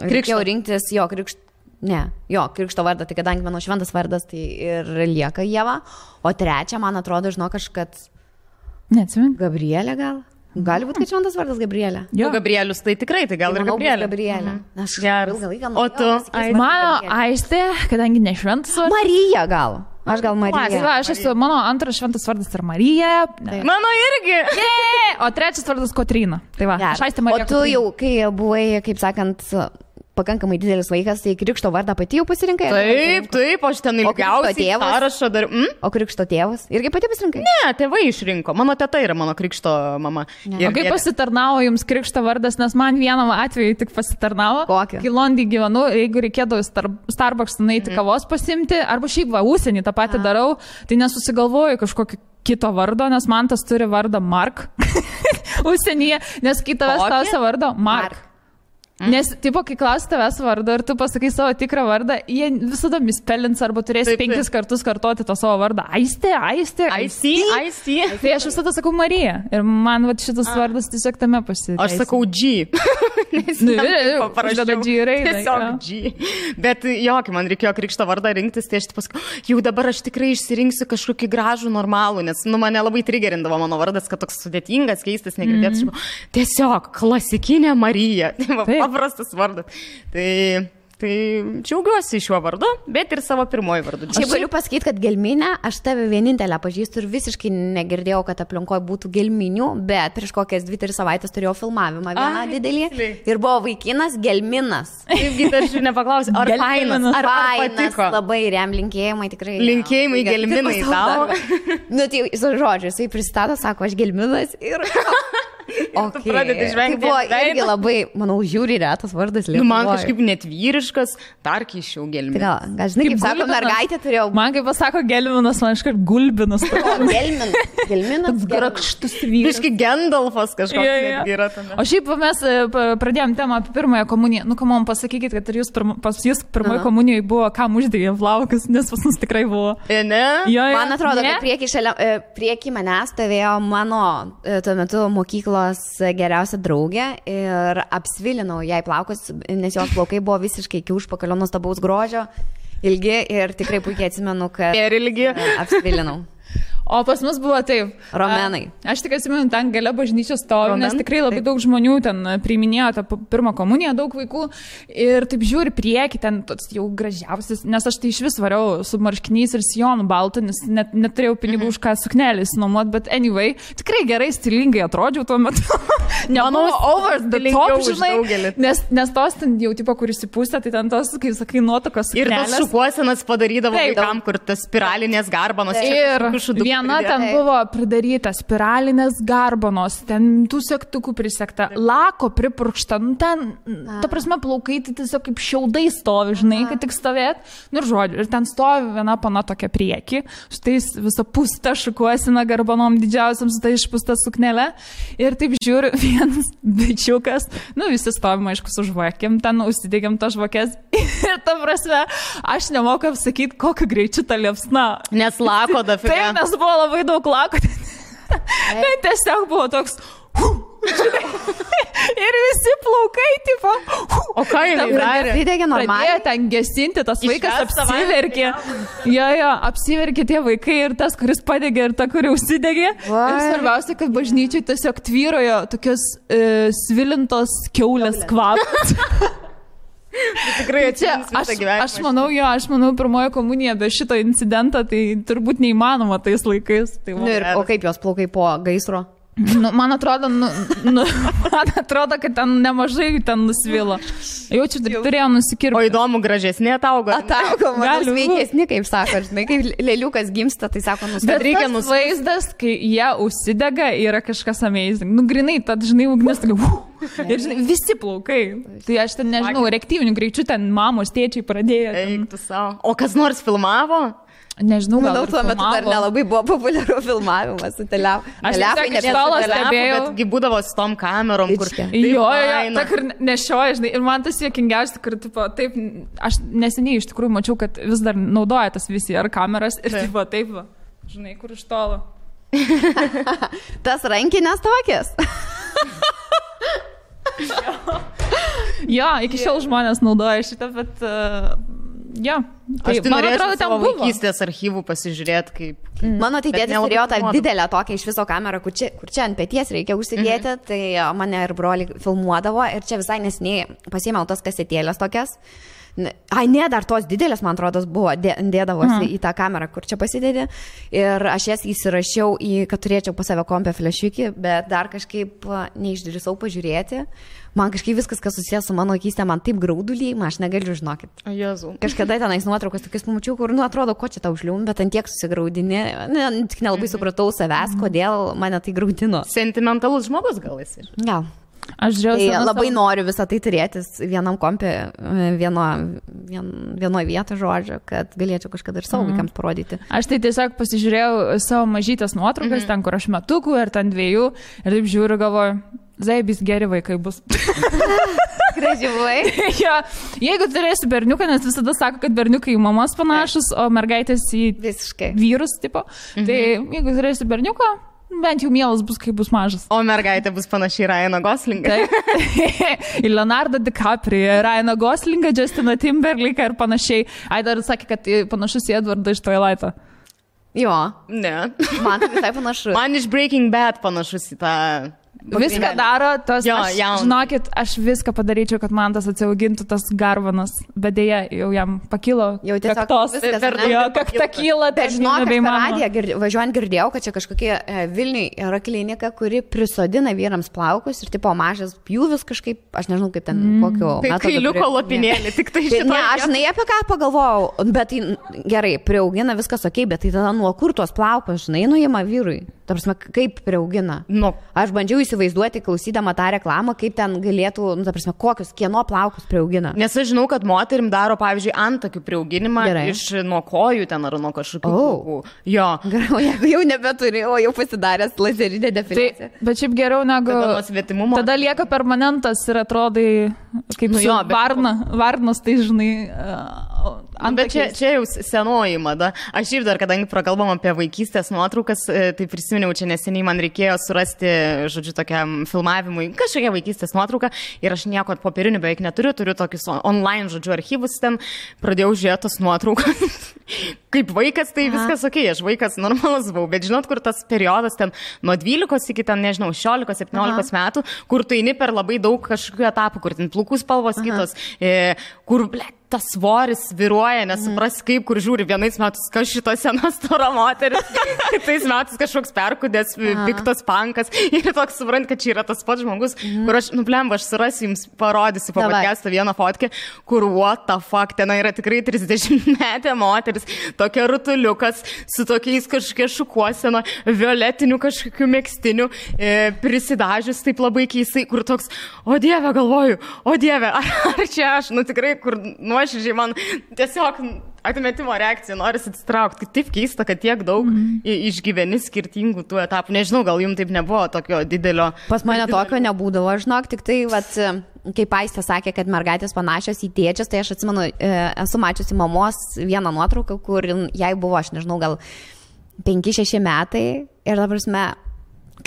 C: Reikėjo rinktis krikšto vardą, tai kadangi mano šventas vardas, tai ir lieka Ieva. O trečia, man atrodo, žinok, kad...
A: Neatsimenu.
C: Gabrielė gal? Gali būti, kad šventas vardas Gabrielė.
B: Jo, Gabrielius, tai tikrai, tai gal ir Gabrielė.
C: Aš ilgą laiką...
B: O tu?
A: Mano Aistė, kadangi ne šventas vardas.
C: Marija gal. Aš gal Marija.
A: Mano antras šventas vardas yra Marija.
B: Mano irgi.
A: O trečias vardas Kotryna. Tai va, aš Aistė Marija.
C: O tu jau, kai buvai, kaip sakant, pakankamai didelis vaikas, tai krikšto vardą pati jau pasirinkai?
B: Taip, aš ten ilgiausiai sąrašą dar...
C: O krikšto tėvas? Irgi pati pasirinkai?
B: Ne, tėvai išrinko. Mano teta yra mano krikšto mama.
A: O kaip pasitarnavo jums krikšto vardas, nes man vienam atveju tik pasitarnavo.
C: Kokį?
A: Kai Londį gyvenu, jeigu reikėdavo Starbucks nueiti kavos pasimti, arba šiaip užsienį tą patį darau, tai nesusigalvoju kažkokį kito vardo, nes man tas turi vardą Mark užsienyje, nes kai tavęs klausia vardo Mark. Nes, tipo, kai klausi tavęs vardą ir tu pasakai savo tikrą vardą, jie visada mispelins arba turės 5 kartus kartoti to savo vardą. Aistė. Tai aš visada sakau Marija. Ir man šitas vardas tiesiog tame pasiteisina.
B: Aš sakau G.
A: Parašydavo G raidę.
B: Tiesiog G. Bet kai man reikėjo krikšto vardą rinktis, tai aš pasakau, jau dabar aš tikrai išsirinksiu kažkokį gražų, normalų, nes mane labai trigerindavo mano vardas, kad toks sudėtingas, keistas, negirdėtas. Tiesiog klasikinė Marija. Paprastas vardas. Tai džiaugiuosi šiuo vardu, bet ir savo pirmoji vardu.
C: Čia galiu pasakyti, kad gelminę, aš tave vienintelę pažįstu ir visiškai negirdėjau, kad aplinkoje būtų gelminių, bet prieš kokias 2-3 savaitės turėjau filmavimą vieną didelį ir buvo vaikinas gelminas.
B: Taipgi aš ir nepaklausiu, ar fainas, ar patiko.
C: Labai linkėjimai tikrai.
B: Linkėjimai gelminai tau.
C: Nu, tai žodžiu, jisai pristato, sako, aš gelminas ir...
B: Tu pradedi žvengti.
C: Tai buvo irgi labai, manau, žiūri retas vardas Lietuvoje.
B: Man kažkaip net vyriškas, dar keičiau gelminas.
C: Gal žinai, kaip sako, mergaitė turėjau.
A: Man kaip pasako gelminas, man iškart gulbinas.
C: Gelminas.
A: Grakštus vyras.
B: Biški Gandalfas kažkoks yra tame.
A: O šiaip mes pradėjom temą apie pirmąją komuniją. Nu, ką man pasakykit, kad ir pas jūs pirmoje komunijoje buvo, kam uždėjo plaukus, nes pas mus tikrai buvo.
B: Ne?
C: Man atrodo, kad prieki manęs stovėjo mano tuo metu mokyklos geriausia draugė ir apsvilinau jai plaukus, nes jos plaukai buvo visiškai iki užpakalio nuostabaus grožio, ilgi ir tikrai puikiai atsimenu, kad
B: ir ilgi
C: apsvilinau.
A: O pas mus buvo taip.
C: Romenai.
A: Aš tik atsimenu, ten gale bažnyčios stovi, nes tikrai labai daug žmonių ten priiminėjo tą pirmą komuniją, daug vaikų. Ir taip žiūri prieki, ten jau gražiausias, nes aš tai iš vis variau su marškiniais ir sijonu baltu, nes neturėjau pinigų už ką suknelis nuomot, bet anyway, tikrai gerai stilingai atrodžiau tuo metu. Nemanau, over the top, žinai, nes tos ten jau tipo, kur įsipūstė, tai ten tos, kaip sakai, nuotokos suknelės.
B: Ir tos šukuosenas padarydavo vaikam, kur tas spiralinės garbanos.
A: Ir viena ten buvo pridaryta spiralinės garbanos, ten tų sektukų prisekta, lako pripurkšta, nu ten, ta prasme, plaukai tai tiesiog kaip šiaudai stovi, žinai, kad tik stovėt. Nu ir žodžiu, ir ten stovi viena pana tokia prieki, su tais visą pustą šukuosena garbanom didžiausiam, su tai išpūsta suknelė. Ir taip žiūri, vienas bičiukas, nu visi stovim, aišku, su žvakėm, ten užsidėgiam tas žvakės. Ir ta prasme, aš nemoku apsakyti, kokiu greičiu ta liepsna.
B: Nes lako dafiga.
A: Taip, nes buvo labai daug lako. Tai tiesiog buvo toks... Ir visi plaukai, tipo...
B: O ką jie darė?
C: Pridegė normaliai.
A: Pradėjo ten gesinti, tas vaikas apsiverkė. Jo, apsiverkė tie vaikai ir tas, kuris padegė ir ta, kuri užsidegė. Ir svarbiausia, kad bažnyčiai tiesiog tvyrojo tokios svilintos kiaulės kvapas.
B: Tikrai
A: aš manau, pirmoji komunija be šito incidento, tai turbūt neįmanoma tais laikais. Tai
C: o kaip jos plaukai po gaisro?
A: Nu, man atrodo, kad ten nemažai ten nusvilo. Jaučiu, taip turėjo nusikirpti.
B: O įdomu, gražesnė ataugo.
C: Ataugo, man sveikesni, kaip sako, žinai, kaip lėliukas gimsta, tai sako,
A: bet reikia vaizdas, kai jie užsidega, yra kažkas amazing. Nu, grinai, tad, žinai, ugnis, ir, žinai, visi plaukai. Tai aš ten, nežinau, reaktyvinių greičių ten mamos, tėčiai pradėjo.
B: Eiktų savo. O kas nors filmavo?
A: Nežinau,
C: manau, tuo metu dar nelabai buvo populiaru filmavimas su telefonai.
A: Aš tiesiog iš tolo stebėjau.
B: Betgi būdavo su tom kamerom, kur...
A: Jo, ta, kur nešioja, žinai. Ir man tas juokingiausia, kur, tipo, taip, aš neseniai iš tikrųjų mačiau, kad vis dar naudoja tas VCR kameras ir, tipo, taip, žinai, kur iš tolo.
C: Tas rankinės tokias.
A: Jo, iki šiol žmonės naudoja šitą, bet... Jo,
B: tai man atrodo, ten buvo vaikystės archyvų pasižiūrėti, kaip...
C: Mano tai tėtis turėjo tą didelę tokią iš viso kamerą, kur čia ant peties reikia užsidėti, tai mane ir broli filmuodavo ir čia visai nesiniai pasiėmiau tos kasetėlės tokias. Ai, ne, dar tos didelės, man atrodo, buvo, dėdavosi į tą kamerą, kur čia pasidėdė. Ir aš jas įsirašiau, kad turėčiau pas save kompę flašiukį, bet dar kažkaip neišdrįsau pažiūrėti. Man kažkaip viskas, kas susijęs su mano vaikystė, man taip graudulį, aš negaliu, žinokit.
B: O Jėzau.
C: Kažkada tenais nuotraukas tokius pamačiau, kur, nu, atrodo, ko čia tau užlium, bet ant tiek susigraudinė. Tik nelabai supratau savęs, kodėl mane tai graudino.
B: Sentimentalus žmogus gal esi?
C: Gal.
A: Aš žiūrėjau,
C: tai labai noriu visą tai turėtis vienam kompė, vienoje vietoje, žodžio, kad galėčiau kažkada ir savo vaikams parodyti.
A: Aš tai tiesiog pasižiūrėjau savo mažytės nuotraukas, ten, kur aš metukų ir ten 2, ir taip žiūriu, galvoju, zaibis geri vaikai bus.
C: Gražiai.
A: Jo, jeigu turėsi berniuką, nes visada sako, kad berniukai į mamas panašus, o mergaitės į vyrus, tipo. Tai jeigu turėsi berniuką, bent jau mielas bus, kai bus mažas.
B: O mergaitė bus panašiai Ryaną Goslingą.
A: Į Leonardo DiCaprio, Ryaną Goslingą, Justiną Timberlake'ą ir panašiai. Ai, dar sakė, kad panašus į Edvardą iš Twilight'o.
C: Jo.
B: Ne.
C: Man tai visai panašus.
B: Man iš Breaking Bad panašus į tą...
A: Viską daro, tos,
B: jo,
A: žinokit, aš viską padaryčiau, kad man tas atsiaugintų tas garbanas, bet dėja jau jam pakilo kaktos, kakta kyla.
C: Bet žinok, aš per radiją važiuojant girdėjau, kad čia kažkokie Vilniui yra klinika, kuri prisodina vyrams plaukus ir tipo mažas pjūvis kažkaip, aš nežinau kaip ten, kokio
B: metodo. Tai kailiuko lopinėlį, tik tai šitą.
C: Ne, aš žinai apie ką pagalvojau, bet tai gerai, priaugina viskas ok, bet tai tada nuo kur tuos plaukus, žinai, nuima vyrui. Ta prasme, kaip priaugina. Aš bandžiau įsivaizduoti, klausydama tą reklamą, kaip ten galėtų, ta prasme, kokius, kieno plaukus priaugina.
B: Nes aš žinau, kad moterim daro, pavyzdžiui, antakių priauginimą iš nuo kojų ten ar nuo kažkokių plaukų. Jo.
C: Gerai, jeigu jau nebeturi, o jau pasidaręs lazerinė definicija.
A: Tai, bet šiaip geriau negu... Tada lieka permanentas ir atrodai kaip varnas, tai žinai,
B: Bet čia jau senoji mada. Aš ir dar, kadangi prakalbam apie vaikystės nuotraukas, tai prisiminiau, čia neseniai man reikėjo surasti, žodžiu, tokiam filmavimui kažkokią vaikystės nuotrauką ir aš nieko popierinių beveik neturiu, turiu tokius online, žodžiu, archyvus ten, pradėjau žiūrėti tos nuotraukas. Kaip vaikas, tai viskas ok, aš vaikas normalus buvau, bet žinot, kur tas periodas ten nuo 12 iki ten, nežinau, 16-17 metų, kur tu eini per labai daug kažkokių etapų, kur ten plukų spalvos kitos, kur, tas svoris viruoja, nesupras kaip, kur žiūri, vienais metais kas šito sena stora moteris, kitais metais kažkoks perkudęs, piktas pankas ir toks suprant, kad čia yra tas pats žmogus, kur aš, blemba, aš surasiu jums, parodysiu po podcast'o vieną fotkę, kur what the fuck, ten yra tikrai 30-metė moteris, tokia rutuliukas, su tokiais kažkokia šukuosena, violetinių kažkokių megstinių, prisidažius taip labai keistai, kur toks, o dieve, galvoju, o dieve, ar čia aš, tikrai, kur nuoširdžiai man tiesiog atmetimo reakcija, norisi atsitraukti. Taip keista, kad tiek daug išgyveni skirtingų tų etapų. Nežinau, gal jums taip nebuvo tokio didelio.
C: Pas mane tokio nebūdavo, žinok, tik tai, kaip Aistė sakė, kad mergaitės panašios į tėčius, tai aš atsimenu, esu mačiusi mamos vieną nuotrauką, kur jai buvo, aš nežinau, gal 5-6 metai ir dabar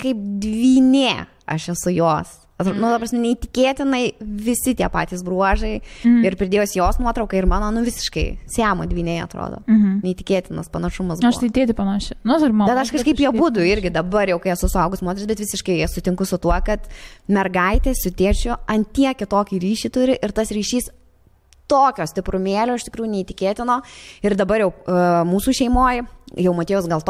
C: kaip dvynė aš esu jos. Neįtikėtinai visi tie patys bruožai ir pridėjus jos nuotrauką ir mano, visiškai Siamo dvyniai atrodo. Neįtikėtinas panašumas buvo.
A: Aš tai tėti panašiai.
C: Bet aš kažkaip jie būdu irgi dabar jau, kai esu suaugus moteris, bet visiškai sutinku su tuo, kad mergaitė su tėčiu ant tiek kitokį ryšį turi ir tas ryšys tokio stiprumėlio, iš tikrųjų neįtikėtino. Ir dabar jau mūsų šeimoje, jau Matėjus gal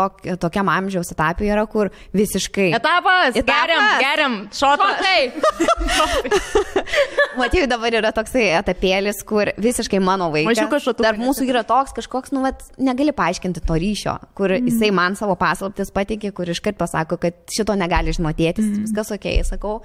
C: tokiam amžiaus etapui yra, kur visiškai...
B: Etapas! Geriam! Šotai!
C: Matėjus dabar yra toksai etapėlis, kur visiškai mano vaikas. Tarp mūsų yra toks kažkoks, negali paaiškinti to ryšio, kur jisai man savo paslaptis pateikė, kur iškart pasako, kad šito negali žinotėtis, viskas ok, sakau.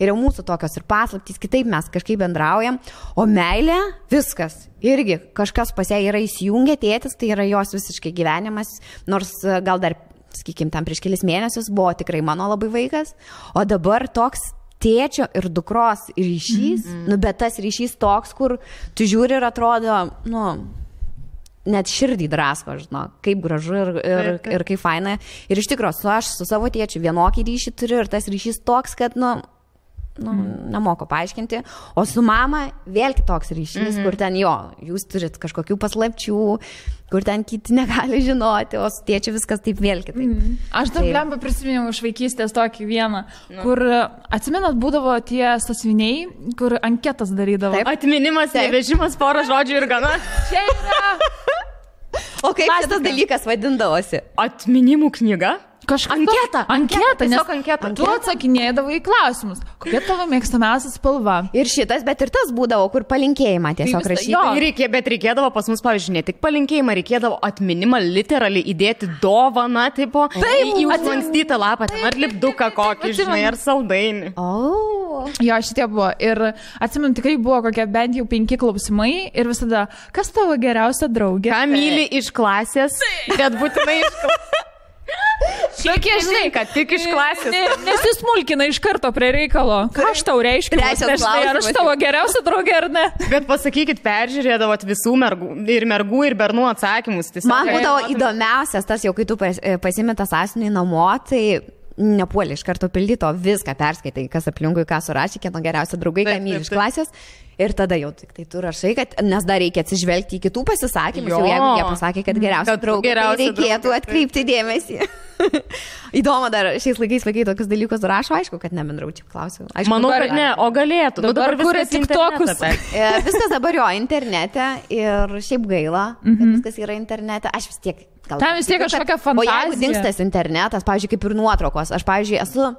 C: Ir jau mūsų tokios ir paslaptys, kitaip mes kažkaip bendraujam, o meilė viskas. Irgi kažkas pas ją yra įsijungę, tėtis, tai yra jos visiškai gyvenimas, nors gal dar, sakykim, tam prieš kelis mėnesius buvo tikrai mano labai vaikas, o dabar toks tėčio ir dukros ryšys, bet tas ryšys toks, kur tu žiūri ir atrodo, net širdį drasko, žinau, kaip gražu ir kaip faina. Ir iš tikrųjų, aš su savo tėčiu vienokį ryšį turiu ir tas ryšys toks, kad, nemoku paaiškinti, o su mama vėl kitoks ryšys, kur ten jūs turit kažkokių paslapčių, kur ten kiti negali žinoti, o su tėčiu viskas taip vėl kitaip.
A: Aš dar blemba prisiminiau iš vaikystės tokį vieną, kur atsimenat būdavo tie sąsiuviniai, kur anketas darydavo.
B: Taip. Atminimas, nevežimas, porą žodžių ir gana.
A: Čia yra.
C: O kaip šitas dalykas vadindavosi?
B: Atminimų knyga?
A: Anketa, tiesiog anketa. Tu atsakinėdavai į klausimus. Kokia tavo mėgstamiausia spalva?
C: Ir šitas, bet ir tas būdavo, kur palinkėjimą tiesiog rašyti.
B: Bet reikėdavo pas mus, pavyzdžiui, ne tik palinkėjimą, reikėdavo atminimą literaliai įdėti dovaną, tipo, į užlankstytą lapą, ar lipduką kokį, žinai, ar saldainį.
A: Jo, šitie buvo. Ir atsimenu, tikrai buvo kokie bent jau 5 klausimai ir visada, kas tavo geriausia draugė?
B: Ką myli iš klasės, bet būtinai iš klasės.
A: Tokie, žinai,
B: kad tik iš klasės.
A: Nesismulkina iš karto prie reikalo. Ką aš tau reiškiu? Ar aš tavo geriausia draugė ar ne?
B: Bet pasakykit, peržiūrėdavot visų mergų ir bernų atsakymus.
C: Man būdavo įdomiausias tas, jau kai tu pasimė tą sąsiuvinį namo, tai nepuolė iš karto pildyto, viską perskaitai, kas aplinkui, ką surašė, kieno geriausia draugai, ką myli iš klasės. Ir tada jau tik tai tu rašai, kad, nes dar reikia atsižvelgti į kitų pasisakymus, jau jeigu jie pasakė, kad geriausia draugė, tai reikėtų atkreipti dėmesį. Įdomu, dar šiais laikais vaikai tokius dalykus rašo, aišku, kad nebendraučiau, klausiu.
B: Manau, kad ne, o galėtų.
A: Dabar kuria TikTokus.
C: Viskas dabar jo internete ir šiaip gaila, kad viskas yra internete. Aš vis tiek...
A: Tam vis tiek kažkokia fantazija.
C: O jeigu dingstas internetas, pavyzdžiui, kaip ir nuotraukos, aš, pavyzdžiui, esu...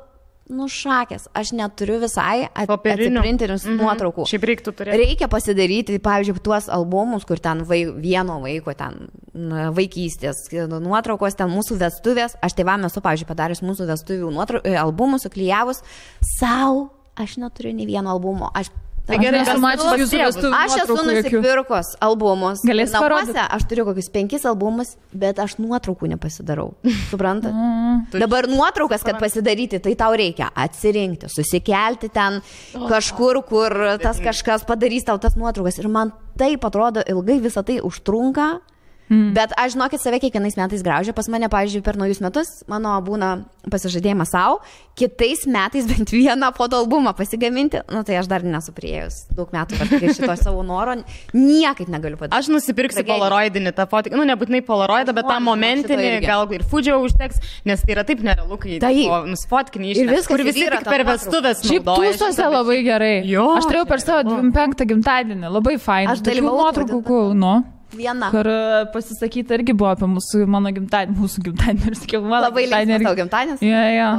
C: šakės, aš neturiu visai atsiprintinius nuotraukų.
B: Šiaip reiktų turėti.
C: Reikia pasidaryti, pavyzdžiui, tuos albumus, kur ten vieno vaiko, ten vaikystės nuotraukos, ten mūsų vestuvės. Aš tėvam esu, pavyzdžiui, padarius mūsų vestuvių albumus, suklijavus. Sau, aš neturiu nei vieno albumo. Aš
B: Tai gerai,
A: esu mačius jūsų vestuvių
C: Aš esu
A: nuotraukų jokių.
C: nusipirkus albumus.
A: Galės parodyti?
C: Namuose aš turiu kokius 5 albumus, bet aš nuotraukų nepasidarau. Suprantat? Dabar nuotraukas, kad pasidaryti, tai tau reikia atsirinkti, susikelti ten kažkur, kur tas kažkas padarys tau tas nuotraukas. Ir man taip atrodo ilgai visą tai užtrunka. Bet aš, žinokit, save kiekvienais metais graužiu. Pas mane, pavyzdžiui, per naujus metus mano būna pasižadėjimas savo, kitais metais bent vieną fotoalbumą pasigaminti. Nu, tai aš dar nesu priėjus daug metų, kad šito savo noro niekaip negaliu padaryti.
B: Aš nusipirksiu polaroidinį tą fotoką, nu nebūtinai polaroidą, bet tą momentinį, gal ir Fudžio užteks, nes tai yra taip nerealu, kai nusfotkinį ištekti, kur visi tik per vestuvės
A: naudoja. Šiaip tūsose labai gerai. Jo, aš turėjau per savo 25 gimtadienį, labai fainai.
C: Aš dalyvavau
A: nuotraukų, nu.
C: Viena.
A: Kur pasisakyti irgi buvo apie mano gimtadienį, mūsų gimtadienį ir sakiau, mano
C: labai linksmas tavo gimtadienis.
A: Ja.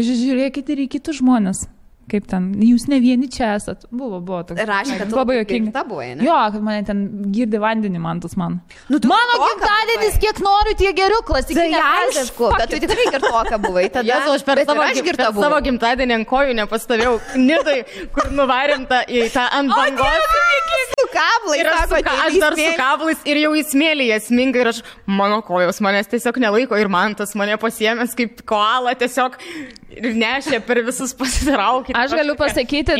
A: Žiūrėkite ir į kitus žmonės. Kaip ten, jūs ne vieni čia esat. Buvo toks.
C: Rašė, kad
A: labai jokinga. Jo, kad mane ten girdi vandenį mantas man.
C: Nu,
A: mano gimtadienis, kiek noriu, tiek geriau, klasikinė.
C: Tai aišku, bet tu tikrai girtoka buvai. Tada
B: aš per savo gimtadienį ant kojų nepastovėjau. Nidai, kur nuvarėm į tą ant bangos.
C: Su kablais.
B: Aš dar su kablais ir jau įsmėlyje sminga ir aš, mano kojos manęs tiesiog nelaiko ir man tas mane pasiėmęs kaip koala tiesiog ir nešė per visus pasitraukti.
A: Aš galiu pasakyti,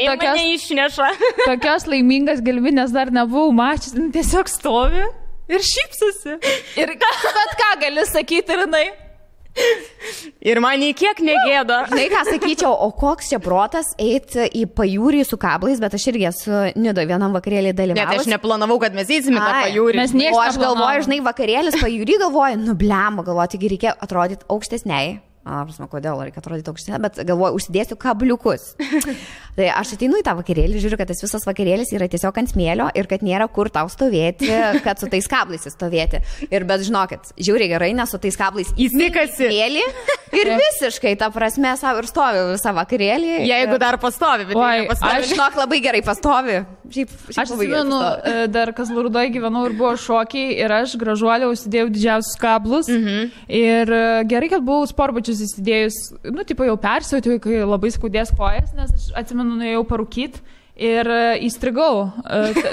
A: tokios laimingas galvinės dar nebuvau mačius, tiesiog stovi ir šypsosi. Ir bet ką gali sakyti ir jinai.
B: Ir man nei kiek negėda.
C: Žinai, ką sakyčiau, o koks čia protas eiti į pajūrį su kablais, bet aš irgi esu Nidoje vienam vakarėlį dalyvavus.
B: Net aš neplanavau, kad mes eisime tą pajūrį.
C: O aš galvoju, žinai, vakarėlis pajūrį galvoju, nubliamo, galvoju, taigi reikia atrodyti aukštesniai. Prasme, kodėl reikia atrodyti aukštesnė, bet galvoju, užsidėsiu kabliukus. Tai aš ateinu į tą vakarėlį, žiūriu, kad tas visas vakarėlis yra tiesiog ant smėlio ir kad nėra kur tau stovėti, kad su tais kablais stovėti. Ir bet žinokit, žiūri gerai, nes su tais kablais
B: įsikasi
C: smėlį ir visiškai, ta prasme, savo ir stovi visą vakarėlį.
B: Jeigu dar pastovi, bet
C: aš žinok labai gerai pastovi.
A: Aš atsimenu, dar Kazlų Rūdoje gyvenau ir buvo šokiai ir aš gražuolė užsidėjau didžiausius kablus. Ir gerai, kad buvau sportbačius įsidėjus, nu, tipo jau persiauti, kai labai skaudės kojas, nes aš atsimenu, nuėjau parūkyti ir įstrigau.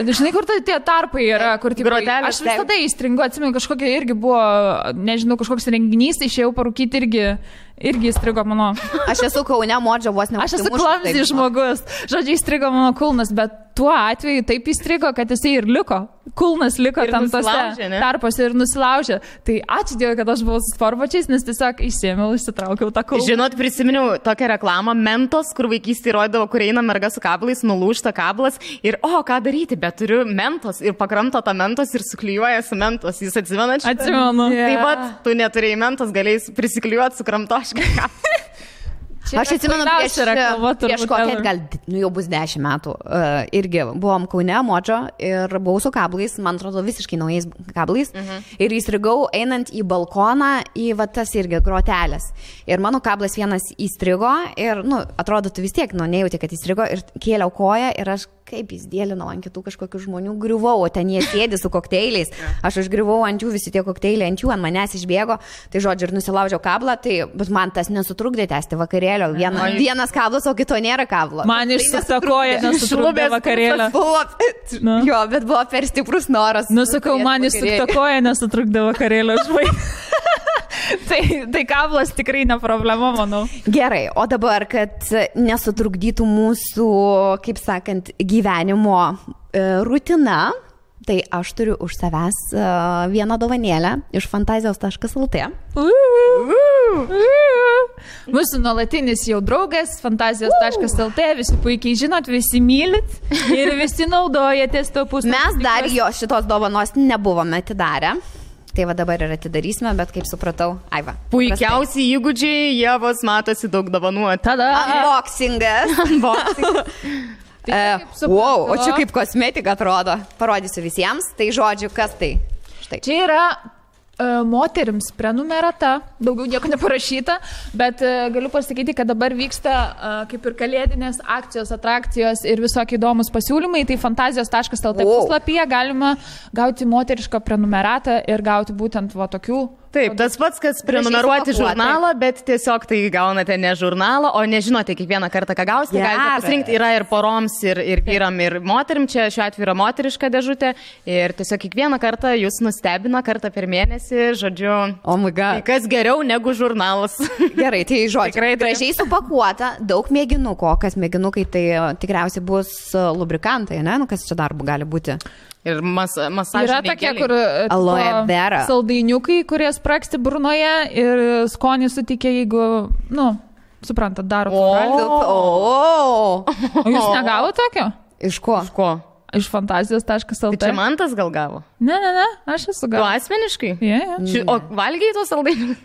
A: Žinai, kur tie tarpai yra, kur tipo, aš visada įstringu, atsimenu, kažkokia irgi buvo, nežinau, kažkoks renginys, išėjau parūkyti irgi įstrigo mano.
C: Aš esu Kaune, Modžio vos ne.
A: Aš esu klamsi žmogus. Žodžiu, įstrigo mano kulnas, bet tuo atveju taip įstrigo, kad jisai ir liko. Kulnas liko tam tose tarpose ir nusilaužė. Tai ačiū Dievui, kad aš buvau su sportbačiais, nes tiesiog išsėmiau, išsitraukiau tą kulną.
B: Žinot, prisiminiau tokią reklamą Mentos, kur vaikystėje rodavo, kur eina merga su kablais, nulūžta kablas ir, ką daryti, bet turiu Mentos ir pakramto tą Mentos ir suklijuoja su Mentos. Jūs atsimenat?
A: Atsimenu.
B: Taip pat, tu neturėjai Mentos, galėjai prisiklijuoti su kramtoškai.
C: Aš atsimenu, prieš kokią, gal jau bus 10 metų, irgi buvom Kaune, Modžio ir buvau su kablais, man atrodo visiškai naujais kablais ir įstrigau einant į balkoną į tas irgi grotelės. Ir mano kablas vienas įstrigo ir, atrodo, tu vis tiek, nejauti, kad įstrigo ir kėliau koją ir aš kaip jis dėlinau ant kitų kažkokių žmonių, griuvau, o ten jie sėdi su kokteiliais. Aš užgriuvau ant jų, visi tie kokteiliai ant jų, ant manęs išbėgo. Tai žodžiu, ir nusilaužiau kablą, bet man tas nesutrukdė tęsti vakarėlio. Vienas kablas, o kito nėra kablo.
A: Man išsukta koja nesutrukdė vakarėlio.
C: Jo, bet buvo per stiprus noras.
A: Nusakau, man išsukta koja nesutrukdė vakarėlio žvai. Tai kablas tikrai ne problema, manau.
C: Gerai, o dabar, kad nesutrukdytų mūsų, kaip sakant, gyvenimo rutina, tai aš turiu už savęs vieną dovanėlę iš fantazijos.lt.
A: Mūsų nuolatinis jau draugas, fantazijos.lt, visi puikiai žinot, visi mylit ir visi naudojatės to puslapį.
C: Mes dar jo šitos dovanos nebuvome atidarę. Tai va dabar ir atidarysime, bet kaip supratau, Aiva.
B: Puikiausi įgūdžiai, Ievos matosi daug dovanų.
C: Tada unboxingas. Wow, o čia kaip kosmetika atrodo. Parodysiu visiems. Tai žodžiu, kas tai? Štai.
A: Čia yra moterims prenumerata, daugiau nieko neparašyta, bet galiu pasakyti, kad dabar vyksta kaip ir kalėdinės akcijos, atrakcijos ir visokie įdomus pasiūlymai. Tai fantazijos.lt puslapyje galima gauti moterišką prenumeratą ir gauti būtent tokių
B: Taip, tas pats, kas prenumeruoti žurnalą, bet tiesiog tai gaunate ne žurnalą, o nežinote kiekvieną kartą, ką gausite. Galite pasirinkti, yra ir poroms, ir vyram, ir moterim. Čia šiuo atveju yra moteriška dėžutė. Ir tiesiog kiekvieną kartą jūs nustebina kartą per mėnesį, žodžiu.
C: Oh my God.
B: Tai kas geriau negu žurnalas.
C: Gerai, tai žodžiu. Tikrai gražiai supakuota, daug mėginuko. Kas mėginukai, tai tikriausiai bus lubrikantai, ne? Nu, kas čia darbu gali būti?
B: Ir masažai.
A: Yra tokie, kur
C: aloe vera.
A: Saldainiukai, kurie spraksti burnoje ir skonį suteikia, jeigu, nu, suprantat, daro valgį. O jūs negavo tokio?
C: Iš ko?
B: Iš ko?
A: Iš fantazijos.lt.
B: Tai čia Mantas gal gavo?
A: Ne, aš esu gavęs.
B: Tu asmeniškai?
A: Yeah.
B: O valgiai tos saldainius?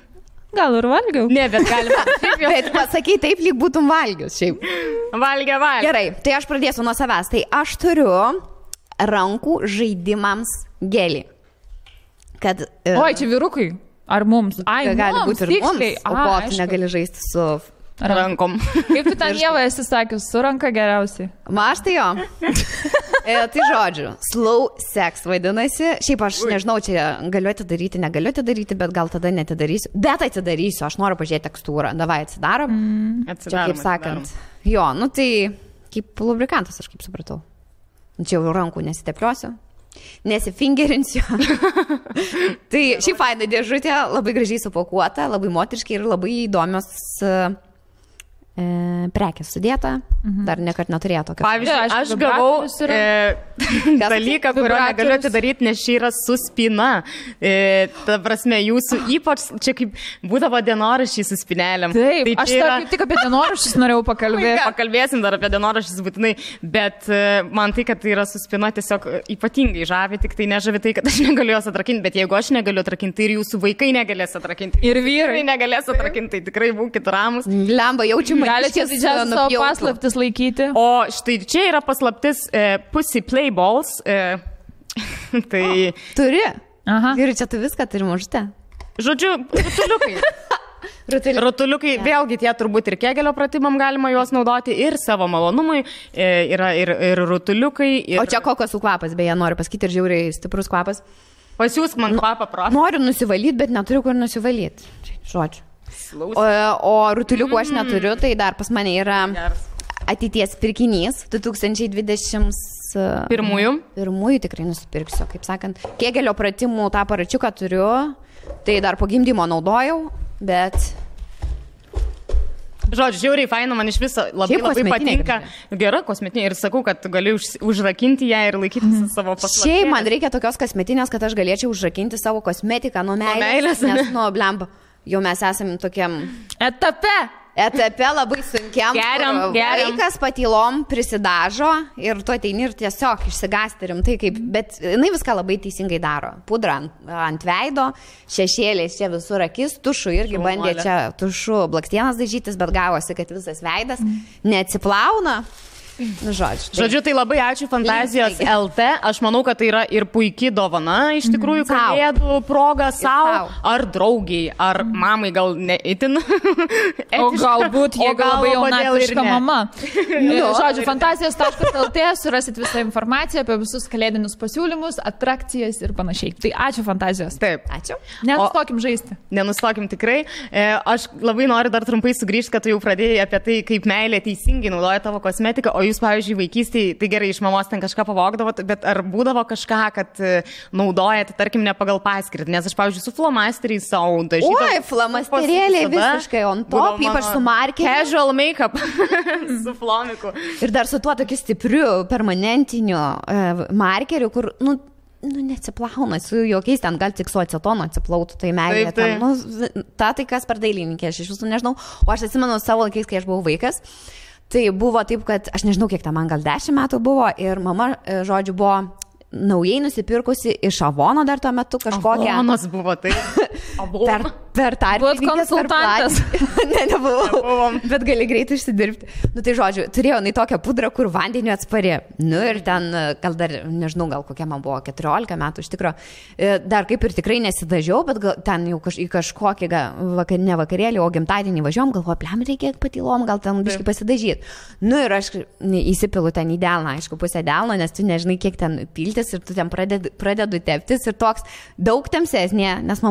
A: Gal ir valgiau.
B: Ne, bet galima.
C: Bet pasakai taip, lyg būtum valgius šiaip.
B: Valgia.
C: Gerai, tai aš pradėsiu nuo savęs. Tai aš turiu rankų žaidimams gelį. Kad...
A: Oi, čia vyrukai. Ar mums? Ai,
C: gali būti ir mums.
A: Tiksliai.
C: O ko tu negali žaisti su...
B: rankom.
A: Kaip tu ten Ieva esi sakius, su ranka geriausiai.
C: Aš tai jo. Tai žodžiu, slow sex vadinasi. Šiaip aš nežinau, čia galiu atidaryti, negaliu atidaryti, bet gal tada netidarysiu. Bet atidarysiu, aš noriu pažiūrėti tekstūrą. Davai, atsidarom. Čia kaip sakant. Jo, nu tai kaip lubrikantas, aš kaip supratau. Čia jau rankų nesitepliosiu. Nesifingerinsiu. Tai šį faina dėžutė, labai gražiai supakuota, labai moteriškai ir labai įdomios prekės sudėta. Dar nekart neturėjo tokio.
B: Pavyzdžiui, aš gavau dalyką, kurio negaliu atidaryti, nes čia yra su spyna. Ta prasme, jūsų ypač čia kaip būdavo dienoraščiai su spynelėm.
A: Taip, tai aš yra... tik apie dienoraščius norėjau pakalbėti.
B: Pakalbėsim dar apie dienoraščius būtinai, bet man tai, kad tai yra su spyna, tiesiog ypatingai žavi, tik tai nežavi tai, kad aš negaliu jos atrakinti, bet jeigu aš negaliu atrakinti, tai ir jūsų vaikai negalės atrakinti.
A: Ir vyrai
B: negalės atrakinti, tai tikrai būkit ramus.
C: Lemba, jaučiu.
A: Galite didžiausią savo paslaptis laikyti.
B: O štai čia yra paslaptis Pussy Play Balls. Tai...
C: Turi?
A: Aha.
C: Ir čia tu viską turi mažutę.
B: Žodžiu, rutuliukai. Rutuliukai, vėlgi tie turbūt ir kegelio pratimam galima juos naudoti ir savo malonumui. Yra ir rutuliukai. Ir...
C: O čia kokosų kvapas, beje, noriu pasakyti, ir žiauriai stiprus kvapas.
B: Pasiūsk man kvapą prašau.
C: Noriu nusivalyti, bet neturiu kur nusivalyti. Žodžiu. O rutuliukų aš neturiu, tai dar pas mane yra ateities pirkinys 2021. Pirmųjų tikrai nusipirksiu, kaip sakant. Kegelio pratimų tą aparačiuką turiu, tai dar po gimdymo naudojau, bet...
B: Žodžiu, žiauriai faina, man iš viso labai patinka. Gera kosmetinė ir sakau, kad gali užrakinti ją ir laikyti savo paslaptį.
C: Šiaip man reikia tokios kosmetinės, kad aš galėčiau užrakinti savo kosmetiką nuo meilės. Nes nuo blemba. Jau mes esame tokiam etape labai sunkiam.
B: Geriam.
C: Vaikas patylom prisidažo ir tu ateini ir tiesiog išsigąsti rimtai kaip, bet jinai viską labai teisingai daro. Pudra ant veido, šešėliais čia visur akis, tušu irgi bandė čia tušu blakstienas dažytis, bet gavosi, kad visas veidas neatsiplauna. Nu, žodžiu,
B: tai labai ačiū Fantazijos LT. Aš manau, kad tai yra ir puikiai dovana, iš tikrųjų, kalėdų proga savo, ar draugiai, ar mamai gal neįtin.
A: O galbūt jie labai jaunatviška mama. Žodžiu, Fantazijos.lt surasit visą informaciją apie visus kalėdinius pasiūlymus, atrakcijas ir panašiai. Tai ačiū Fantazijos.
B: Taip.
C: Ačiū.
A: Nenustokim žaisti.
B: Nenustokim tikrai. Aš labai noriu dar trumpai sugrįžti, kad tu jau pradėjai apie tai, kaip meilė teisingai naudoja tavo kosmetiką. O jūs, pavyzdžiui, vaikystėje, tai gerai, iš mamos ten kažką pavogdavot, bet ar būdavo kažką, kad naudojate, tarkim, ne pagal paskirtį? Nes aš, pavyzdžiui, su flomasteriais savo dažydavau.
C: Oi, flomasterėliai visiškai on top, ypač su markeriu.
B: Casual make-up su flomiku.
C: Ir dar su tuo tokiu stipriu, permanentiniu markeriu, kur, neatsiplauna, su jokiais ten gal tik su acetono atsiplautų, tai meilė. Tai kas per dailininkė, aš iš visų nežinau. O aš atsimenu savo laikais, kai aš buvau vaikas. Tai buvo taip, kad aš nežinau, kiek man gal 10 metų buvo ir mama, žodžiu, buvo naujai nusipirkusi iš Avono dar tuo metu kažkokią.
B: Avonas buvo tai.
C: Per tarpininkės.
A: Buvot konsultantas.
C: Nebuvom. Bet gali greitai išsidirbti. Tai žodžiu, turėjau tokią pudrą, kur vandeniu atspari. Ir ten, gal dar, nežinau, gal kokia man buvo 14 metų, iš tikrųjų. Dar kaip ir tikrai nesidažiau, bet ten jau į kažkokį, ne vakarėlį, o gimtadienį važiuom, galvoju, plem reikia patylom, gal ten biškai pasidažyti. Ir aš įsipilu ten į delną, aišku, pusę delno, nes tu nežinai, kiek ten piltis ir tu ten pradedu teptis ir toks daug tamsesnė, nes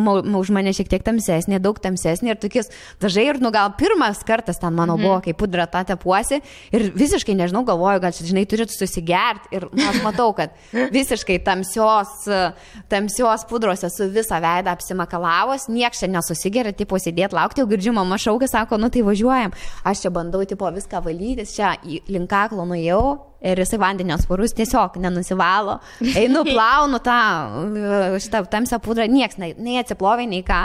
C: už mane šiek tiek tamsesnė, daug tamsesnė ir tokius dažai ir, gal pirmas kartas ten mano buvo, kai pudra tą tepuosi ir visiškai, nežinau, galvoju, gal čia, žinai, turit susigerti ir aš matau, kad visiškai tamsios pudros esu visą veidą apsimakalavos, nieks čia nesusigeria, tipo sėdėti, laukti, jau girdžiu, mama šaukia, sako, nu tai važiuojam, aš čia bandau, tipo, viską valytis, čia link kaklo nuėjau. Ir jisai vandenio sparus tiesiog nenusivalo. Einu, plaunu šitą tamsią pudrą, nieks nei atsiplovė, nei ką.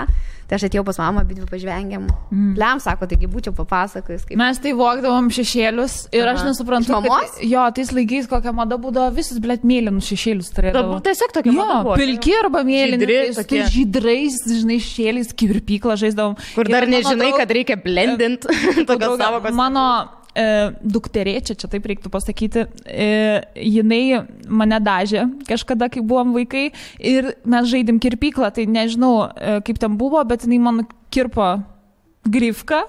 C: Tai aš atėjau pas mamą, bet pažvengiam. Lem, sako, taigi būčiau papasakojus.
A: Mes tai vogdavom šešėlius ir aš nesuprantu, kad jo, tais laikais kokia mada būdavo, visus, blėt, mėlynus šešėlius turėdavo.
B: Tiesiog tokia mada buvo.
A: Pilki arba mėlyni, žydrais, žinai, šešėliais, kirpyklą žaisdavom.
B: Kur dar nežinai, kad reikia blendint.
A: Mano dukterėčia, čia taip reiktų pasakyti, jinai mane dažė kažkada, kai buvom vaikai ir mes žaidėm kirpyklą, tai nežinau, kaip ten buvo, bet jinai man kirpo grifką,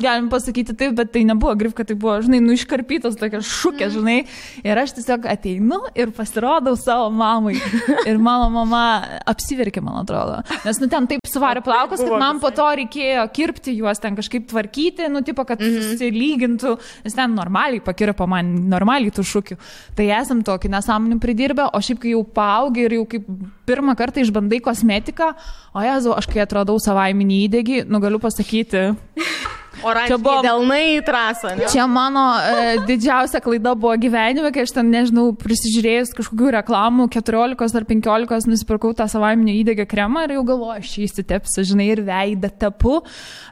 A: galim pasakyti taip, bet tai nebuvo grifka, tai buvo, žinai, iškarpytos tokia šukė, žinai, ir aš tiesiog ateinu ir pasirodau savo mamai ir mano mama apsiverkė, man atrodo, nes, ten taip suvarė plaukus, kad man po to reikėjo kirpti juos, ten kažkaip tvarkyti, tipo, kad susilygintų, nes ten normaliai pakirpo man, normaliai tų šukių, tai esam tokį nesąmonį pridirbę, o šiaip, kai jau paaugi ir jau kaip pirmą kartą išbandai kosmetiką, o jezu, aš kai atradau savaiminį įdegį, galiu pasakyti,
B: Oranžiniai delnai į trasą. Ne?
A: Čia mano didžiausia klaida buvo gyvenime, kai aš ten, nežinau, prisižiūrėjus kažkokių reklamų, 14 ar 15 nusipirkau tą savaiminio įdegio kremą ir jau galvoju, aš jį įsitepsiu, žinai, ir veidą tepu.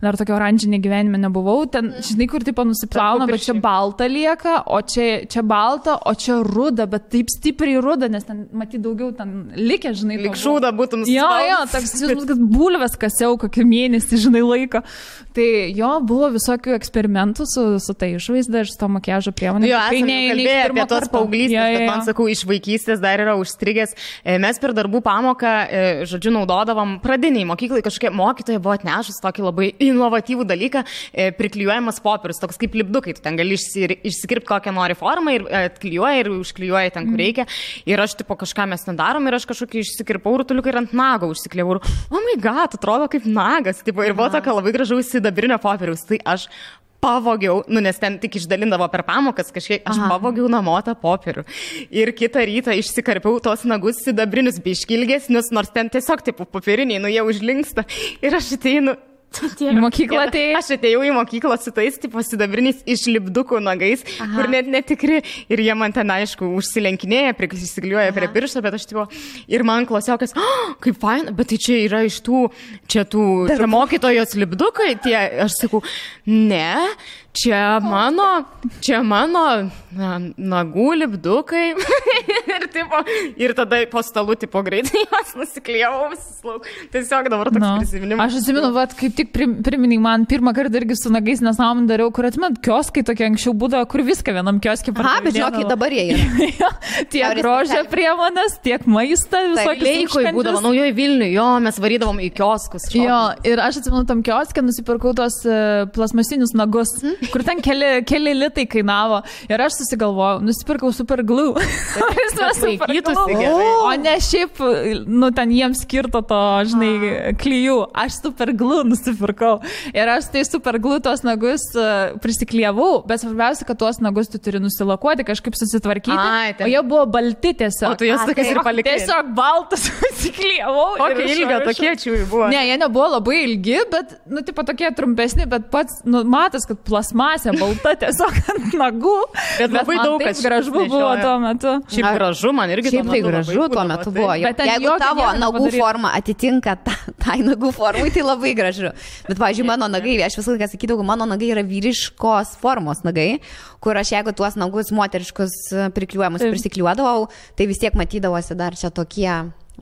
A: Dar tokio oranžinė gyvenime nebuvau. Ten, žinai, kur tipo nusiplauna, bet čia balta lieka, o čia balta, o čia ruda, bet taip stipriai ruda, nes ten, matyt, daugiau ten likę, žinai.
B: Lik šūda būtum suspaus.
A: Jo, toks, kad bulves kasiau kokį mėnesį, žinai, laiko. Tai jo, buvo visokių eksperimentų su tai išvaizda ir su to makiažo priemonė.
B: Jo, esame kalbėję apie tos paauglystės, bet man, sakau, iš vaikystės dar yra užstrigęs. Mes per darbų pamoką, žodžiu, naudodavom pradiniai mokyklai, kažkokie mokytojai buvo atnešus tokį labai inovatyvų dalyką, priklijuojamas popierius, toks kaip lipdukai, tu ten gali išsikirpti kokią nori formą ir atklijuoji ir užklijuoji ten, kur reikia. Ir aš, tipo, kažką mes ten darom ir aš kažkokį išsikirpau rutuliuką ir ant nago užsikliavau. Oh my god, atrodo kaip nagas. Tipo, ir buvo tokia labai gražaus sidabrinio popieriaus. Tai aš pavogiau, nes ten tik išdalindavo per pamokas kažkiek, aš pavogiau namo tą popierių. Ir kitą rytą išsikarpiau tos nagus sidabrinius biškilgesnius, nors ten tiesiog, tipo, popieriniai, jie užlinksta. Ir aš ateinu.
A: Į mokyklą atėjai?
B: Aš atėjau į mokyklą su tais, tipo, sidabriniais išlipdukų nagais, kur net netikri. Ir jie man ten, aišku, užsilenkinėja, prisiklijuoja prie piršto, bet aš, tipo, ir man klasiokas, kaip fain, bet tai čia yra iš čia mokytojos lipdukai, tie, aš sakau, ne, čia mano nagų lipdukai. ir tada po stalu, tipo, greitai juos nusiklijavau visus lauk. Tiesiog dabar toks prisiminimas.
A: Aš atsimenu, kaip tik priminai man pirmą kartą irgi su nagais nesąmonę dariau, kur atmet kioskai tokie anksčiau būdavo, kur viską vienam kioskį pardavinėdavo.
C: Bet žinokit, dabar jie yra.
A: Tiek grožio priemonės, tiek maistą, visokius
B: Leikoj būdavo, naujoji Vilniuje, jo, mes varydavom į kioskus.
A: Jo, ir aš atsimenu tam kioskė, nusipirkau tos plasmasinius nagus, kur ten keli litai kainavo. Ir aš susigalvojau, nusipirkau super glue. O ne šiaip, ten jiems skirto to, žinai, klijų. Aš super glue nusipirkau. Ir aš tai super glue tos nagus prisiklijavau, bet svarbiausia, kad tuos nagus tu turi nusilakuoti, kažkaip susitvarkyti. O jie buvo balti tiesiog.
B: O tu jas tokias ir palikai.
A: Tiesiog baltas nusiklijavau.
B: Kokio ilgio tokie čiūjai buvo?
A: Ne, jie nebuvo labai ilgi, bet, tipo tokie trumpesni, bet pats, matas, kad plasmasė balta tiesiog ant nagų.
B: Bet labai daug kas
A: gražu buvo tuo metu.
B: Šiaip gražu, man irgi
C: šiaip tai gražu tuo metu buvo. Jeigu tavo nagų forma atitinka tai nagų formai, tai labai gražu. Bet, pavyzdžiui, mano nagai, aš visą laiką sakydavau, mano nagai yra vyriškos formos nagai, kur aš jeigu tuos nagus moteriškus prikliuojamus prisikliuodavau, tai vis tiek matydavosi dar čia tokie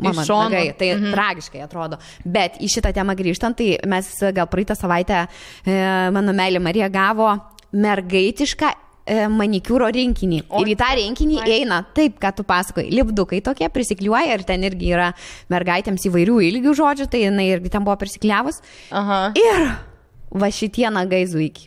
C: mano nagai. Tai tragiškai atrodo. Bet į šitą temą grįžtant, tai mes gal praeitą savaitę mano meilė Marija gavo mergaitišką manikiūro rinkinį. Ir į tą rinkinį eina taip, ką tu pasakoji. Lipdukai tokie prisikliuoja ir ten irgi yra mergaitėms įvairių ilgių žodžių, tai jinai irgi ten buvo prisikliavus. Ir va šitie nagai zuiki.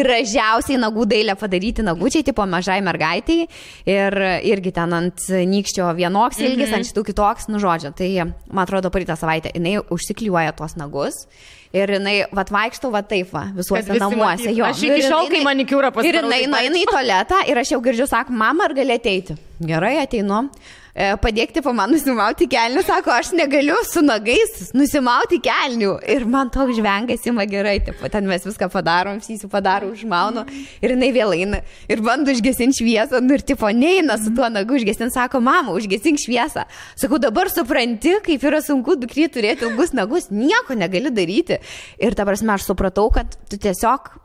C: gražiausiai nagų dailę padaryti nagučiai, tipo mažai mergaitiai ir irgi ten ant nykščio vienoks ilgis, ant šitų kitoks, nu žodžio. Tai, man atrodo, praeitą savaitę jinai užsiklijuoja tuos nagus. Ir jinai, vaikštau, taip, visuose namuose. Jo.
B: Aš iki šiol, kai manikiūrą pasidarau.
C: Ir jinai eina į tualetą ir aš jau girdžiu, sako, mama, ar gali ateiti? Gerai, ateinu. Padėkti po man nusimauti kelnių, sako, aš negaliu su nagais nusimauti kelnių. Ir man toks žvengas ima gerai, taip, ten mes viską padarom, visi padaro, užmaunu. Ir jinai vėl eina ir bando užgesinti šviesą, nu ir tipo neina su tuo nagu užgesinti, sako, mama, užgesink šviesą. Sakau, dabar supranti, kaip yra sunku dukry turėti ilgus nagus, nieko negali daryti. Ir ta prasme, aš supratau, kad tu tiesiog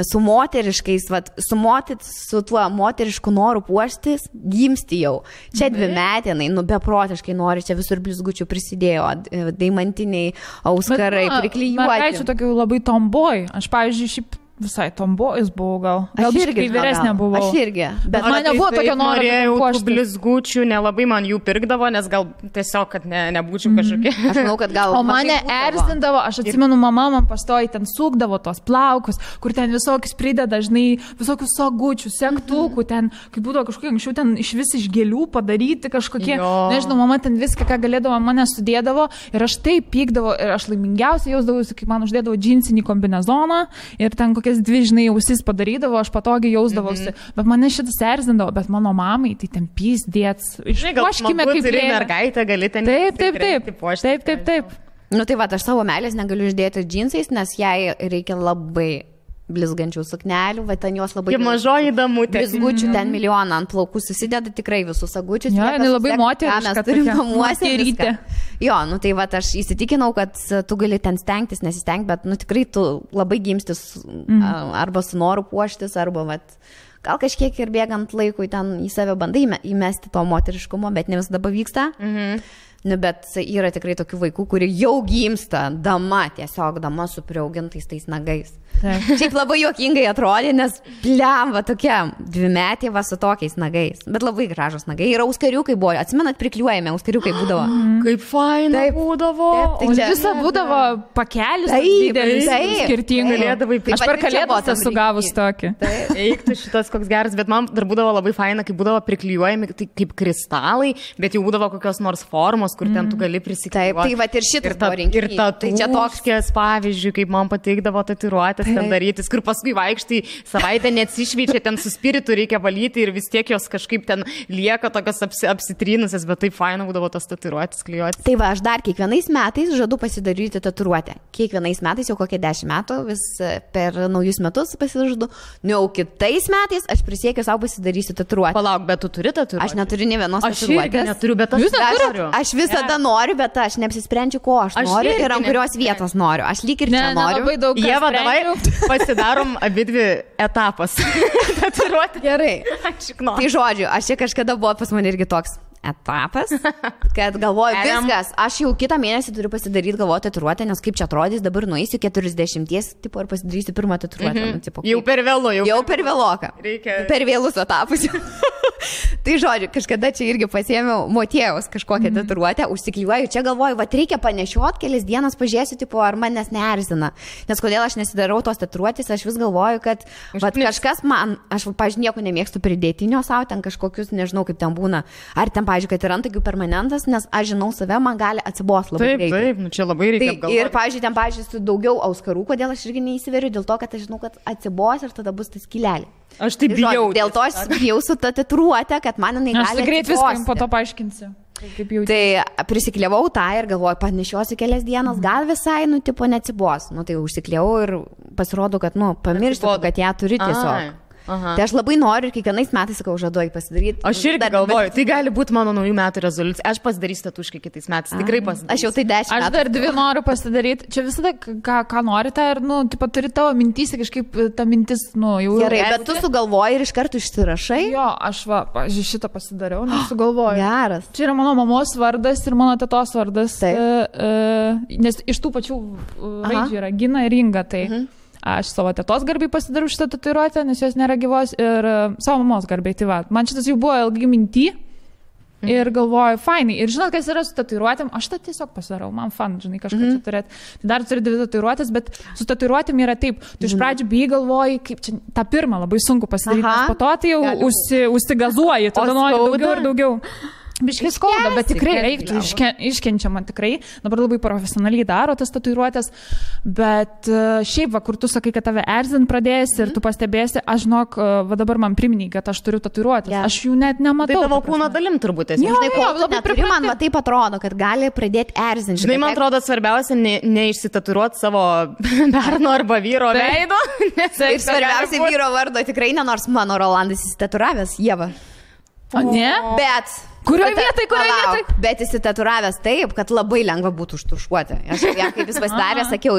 C: su moteriškais, su tuo moterišku noru puoštis, gimsti jau. Čia 2 metinai, beprotiškai nori, čia visur blizgučių prisidėjo, deimantiniai auskarai, priklijuoti.
A: Mergaičių tokių labai tomboj. Aš, pavyzdžiui, šiaip visai tombojus buvau gal. Gal biškai vyresnė buvau.
C: Aš irgi.
A: Bet man nebuvo tokio noro.
B: Norėjau tų blizgučių, nelabai man jų pirkdavo, nes gal tiesiog, kad nebūčiau kažkokia.
C: Aš manau, kad gal.
A: O mane erzindavo, aš atsimenu, mama man pastoji ten sukdavo tos plaukus, kur ten visokius prideda, žinai, visokius sagučių, sektukų, ten, kaip būdavo kažkokie anksčiau, ten iš vis iš gėlių padaryti kažkokie, nežinau, mama ten viską, ką galėdavo, mane sudėdavo ir aš taip pykdavo ir aš laimingiausiai jausdavausi, kai man uždėdavo džinsinį kombinezoną ir ten kokias 2, žinai, ausis padarydavo, aš patogiai jausdavausi. Bet mane šitas erzindavo, bet mano mamai tai ten pysdėts.
B: Išpuoškime kaip mergaitė, gali ten
A: taip.
C: Nu tai va, aš savo meilės negaliu uždėti džinsais, nes jai reikia labai blizgančių suknelių, va ten jos labai...
B: Kaip mažoji damutė.
C: Blizgučių ten milijoną ant plaukų susideda tikrai visus sagučius.
A: Jo, jinai labai moteriška.
C: Mes turim namuose. Jo, nu tai va, aš įsitikinau, kad tu gali ten stengtis, nesistengti, bet nu tikrai tu labai gimstis arba su noru puoštis, arba va... Gal kažkiek ir bėgant laikui ten į save bandai įmesti to moteriškumo, bet ne visada pavyksta. Nu, bet yra tikrai tokių vaikų, kurie jau gimsta dama su priaugintais tais nagais. Šiaip labai juokingai atrodė, nes plemba tokia 2-metė su tokiais nagais. Bet labai gražus nagai. Ir auskariukai buvo. Atsimenat, priklijuojame, auskariukai būdavo.
B: Kaip faina būdavo.
A: O visa būdavo pakelis didelis, skirtingai. Aš per kalėdas esu gavus tokį.
B: Eiktų šitas koks geras, bet man dar būdavo labai faina, kai būdavo priklijuojami kaip kristalai, bet jau būdavo kokios nors formos, kur ten tu gali prisiklijuoti.
C: Tai va ir šitas buvo rinkinys.
B: Ir tatuškės, pavyzdžiui, kaip man pateikdavo tatuiruotės ten darytis, kur paskui vaikštai savaitę neatsišveičia, ten su spiritu reikia valyti ir vis tiek jos kažkaip ten lieka tokios apsitrynusios, bet taip faina būdavo tos tatuiruotės klijuoti.
C: Tai va, aš dar kiekvienais metais žadu pasidaryti tatuiruotę. Kiekvienais metais, jau kokie 10 metų, vis per naujus metus pasižadu. Nu, jau kitais metais aš prisiekiu savo pasidarysiu tatuiruotę.
B: Palauk, bet tu turi tatuiruotę?
C: Aš neturiu nė vienos tatuiruotės.
B: Aš neturiu, bet aš noriu.
C: Aš visada noriu, bet aš neapsisprendžiu, ko aš noriu ir ant kurios vietos noriu. Aš lyg ir čia noriu.
B: Ieva, davai pasidarom abidvi etapas. Tatuiruotė.
C: Gerai. Tai žodžiu, aš čia kažkada buvo pas mane irgi toks etapas, kad galvoju, viskas, aš jau kitą mėnesį turiu pasidaryti, galvoju, tatuiruotę, nes kaip čia atrodys, dabar nueisiu 40 tipo ir pasidarysiu pirmą tatuiruotę.
B: Jau per vėlu,
C: jau per vėloką. Per vėlus etapus. Tai žodžiu, kažkada čia irgi pasiėmiau motiejaus kažkokią tatuiruotę, užsiklijuoju, čia galvoju, va reikia panešiot kelias dienas, pažiūrėsiu, tipo, ar manęs neerzina. Nes kodėl aš nesidarau tos tatuiruotės, aš vis galvoju, kad va, kažkas man, aš, pažiūrėjau, nieko nemėgstu pridėtinio savo, ten kažkokius, nežinau, kaip ten būna, ar ten, pažiūrėjau, kad yra antakių permanentas, nes aš žinau save, man gali atsibos labai greitai.
B: Taip, nu čia labai reikia apgalvoti.
C: Ir, pažiūrėjau, ten, pažiūrėjau, su daugiau auskarų, kodėl aš irgi neįsiveriu, dėl to, kad aš žinau, kad atsibos ir tada bus tas skylelė.
B: Aš taip bijau.
C: Dėl to aš bijau su ta tatuiruotė, kad man jinai gali.
A: Aš greit viską po to paaiškinsiu.
C: Tai prisikliavau tą ir galvoju, panešiosiu kelias dienas, gal visai, nu, tipo, neatsibos. Nu, tai užsikliavau ir pasirodo, kad, nu, pamirštu, kad ją turi tiesiog. Aha. Tai aš labai noriu ir kiekvienais metais, sakau, žaduoju pasidaryti.
B: Aš irgi galvoju, tai gali būti mano naujų metų rezoliucija. Aš pasidarysiu tatuškai kitais metais, tikrai pasidarysiu.
C: Aš jau tai 10 metų.
A: Aš dar 2 noriu pasidaryti. Čia visada, ką norite, ir, nu, tipo, turi tavo mintys, kažkaip ta mintis, nu, jau...
C: Gerai, bet tu sugalvoji ir iš karto išsirašai?
A: Jo, aš šitą pasidariau, nes sugalvoju.
C: Geras.
A: Čia yra mano mamos vardas ir mano tetos vardas. Nes iš tų pačių raidžių yra Gina ir Inga, tai... Aš savo tetos garbiai pasidariau šitą tatuiruotę, nes jos nėra gyvos, ir savo mamos garbiai. Tai va, man šitas jau buvo ilgai minty. Ir galvoju, fainai. Ir žinot, kas yra su tatuiruotėm, aš tą tiesiog pasidarau, man fan, žinai, kažką čia turėti. Tai dar turi 2 tatuiruotės, bet su tatuiruotėm yra taip. Tu iš pradžių bijai galvoji, kaip čia tą pirmą labai sunku pasidaryti, nes po to tai jau užsigazuoji, tada nori daugiau ir daugiau. Biškai skauda, bet tikrai reiktų, iškenčiama tikrai. Dabar labai profesionaliai daro tas tatuiruotės, bet šiaip, va, kur tu sakai, kad tave erzint pradėsi ir tu pastebėsi, aš žinok, va dabar man priminė, kad aš turiu tatuiruotės. Aš jų net nematau.
B: Tai tavo kūno dalim turbūt esi.
C: Žinai, ko labai neturi, man va taip atrodo, kad gali pradėti erzinti.
B: Žinai, man atrodo svarbiausia neišsitatuiruoti savo berno arba vyro veido.
C: Ir svarbiausia vyro vardo tikrai ne, nors mano Rolandas įsitatuiravęs, Ieva.
A: O ne?
C: Bet...
A: Kurioje vietoje?
C: Bet įsitatuiravęs taip, kad labai lengva būtų užtušuoti. Aš jam kaip jis pasidarė, sakiau,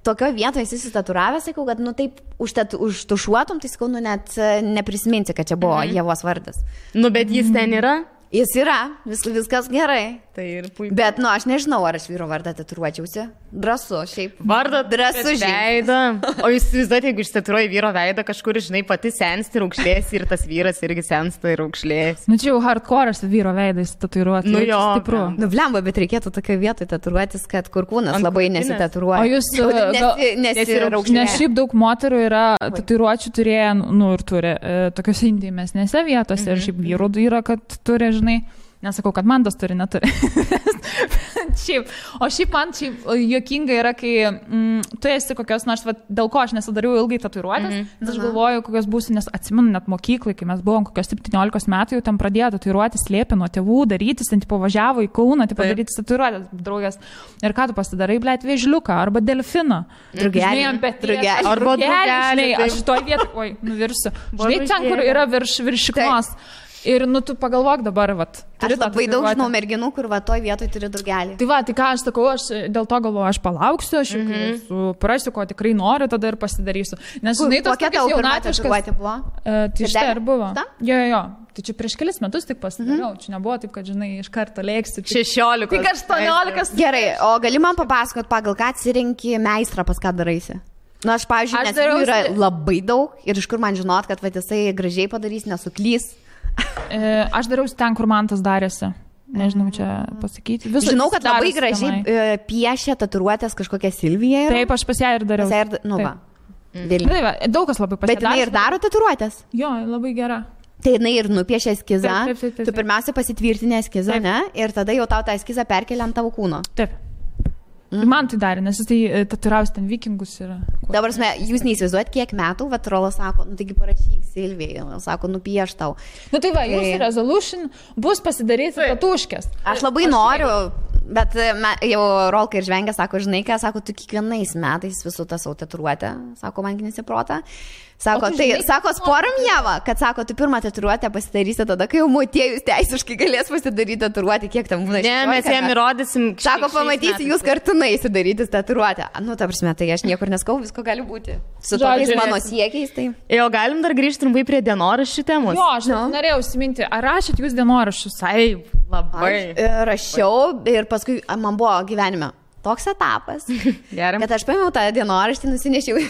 C: tokio vietoje jis įsitatuiravęs, sakiau, kad, nu taip, užtušuotum, tai sakau, nu net neprisiminti, kad čia buvo Ievos vardas.
B: Nu, bet jis ten yra?
C: Jis yra, viskas gerai.
B: Tai ir puiku.
C: Bet, nu, aš nežinau, ar aš vyro vardą tatuiruočiausi. Drąsu, šiaip.
B: Vardą
C: drąsu
B: veidą. O jūs įsivaizduojate, jeigu ištatuiruoji vyro veidą, kažkur, žinai, pati sensti ir aukšlėsi ir tas vyras irgi sensta ir aukšlėsi.
A: Nu, čia jau hardcore'as vyro veidas tatuiruoti.
B: Nu, jo.
A: Stipru.
C: Nu, blemba, bet reikėtų tokio vietoj tatuiruotis, kad kur kūnas labai nesitatuiruoja.
A: O jūs nes šiaip daug moterų yra tatuiruočių turėję, nu, ir turi tokiuose intymesnėse vietose ir šiaip vyrų yra, kad turi, žinai, nesakau, kad man tas turi, neturi. O šiaip man juokinga yra, kai tu esi kokios nors, dėl ko aš nesidariau ilgai tatuiruotės, nes aš galvoju, kokios būsiu, nes atsimenu net mokyklai, kai mes buvom kokios 17 metų, jau ten pradėjo tatuiruotės, slėpė nuo tėvų darytis, ten važiavo į Kauną, daryti tatuiruotės, draugas. Ir ką tu pasidarai, blėt, vėžliuką arba delfiną.
C: Drugelį.
B: Arba drugelį.
A: Aš toj vietoj, oi, nuvirsiu. Žinai, ten, kur yra viršiknos. Ir, nu, tu pagalvok dabar, vat.
C: Aš labai daug žinau merginų, kur va toj vietoj turi drugelį.
A: Tai va, tai ką aš sakau, aš dėl to galvoju, aš palauksiu, aš suprasiu, ko tikrai noriu, tada ir pasidarysiu. Nes, žinai, tos
C: kokia tavo jaunatviškas
A: buvo? Tai štai ir buvo. Jo. Tai čia prieš kelis metus tik pasidariau. Čia nebuvo taip, kad, žinai, iš karto lėksiu.
B: 16.
A: Tik 18.
C: Gerai, o gali man papasakot, pagal ką atsirinki meistrą, pas ką daraisi? Na, aš, pavyzdžiui, nes jų yra labai daug ir iš kur man žinot, kad va, jisai gražiai padarys, nesuklys.
A: Aš dariausi ten, kur man tas darėsi. Nežinau, čia pasakyti.
C: Žinau, kad labai gražiai piešia tatuiruotės kažkokią Silviją.
A: Taip, aš pas ją ir dariau.
C: Nu, va.
A: Daug kas labai pasidarė.
C: Bet jinai ir daro tatuiruotės?
A: Jo, labai gera.
C: Tai jinai ir nupiešia eskizą.
A: Taip.
C: Tu pirmiausia pasitvirtinė eskizą, ne? Ir tada jau tau tą eskizą perkelia ant tavo kūno.
A: Taip. Man tai darė, nes jis tai tatuiravęs ten vikingus yra.
C: Dabar, jūs neįsivaizduojat, kiek metų, vat Rolas sako, nu taigi parašyk Silvijai, sako, nupieš tau.
A: Nu tai va, jūsų resolution bus pasidaryti tatuškės.
C: Aš labai noriu, bet jau Rolka ir Žvengė sako, žinai ką, sako, tu kiekvienais metais visų tą savo tatuiruotę, sako, man nesiprota. Sako, tai, sako, sporam Ieva, kad sako, tu pirmą tatuiruotę pasidarysi tada, kai jau motiejus teisiškai galės pasidaryti tatuiruotę, kiek tam būna.
B: Ne, mes jam įrodysim.
C: Sako, pamatysi, jūs kartu naisi daryti tatuiruotę. Nu, ta prasme, tai aš niekur neskau, visko gali būti. Su tokiais mano siekiais, tai.
B: Jo, galim dar grįžti trumpai prie dienoraščių temos.
A: Jo, aš norėjau užsiminti, ar rašėt jūs dienoraščius?
B: Taip, labai.
C: Aš rašiau ir paskui man buvo gyvenime toks etapas, kad aš paėmiau tą dienoraštį, nusinešiau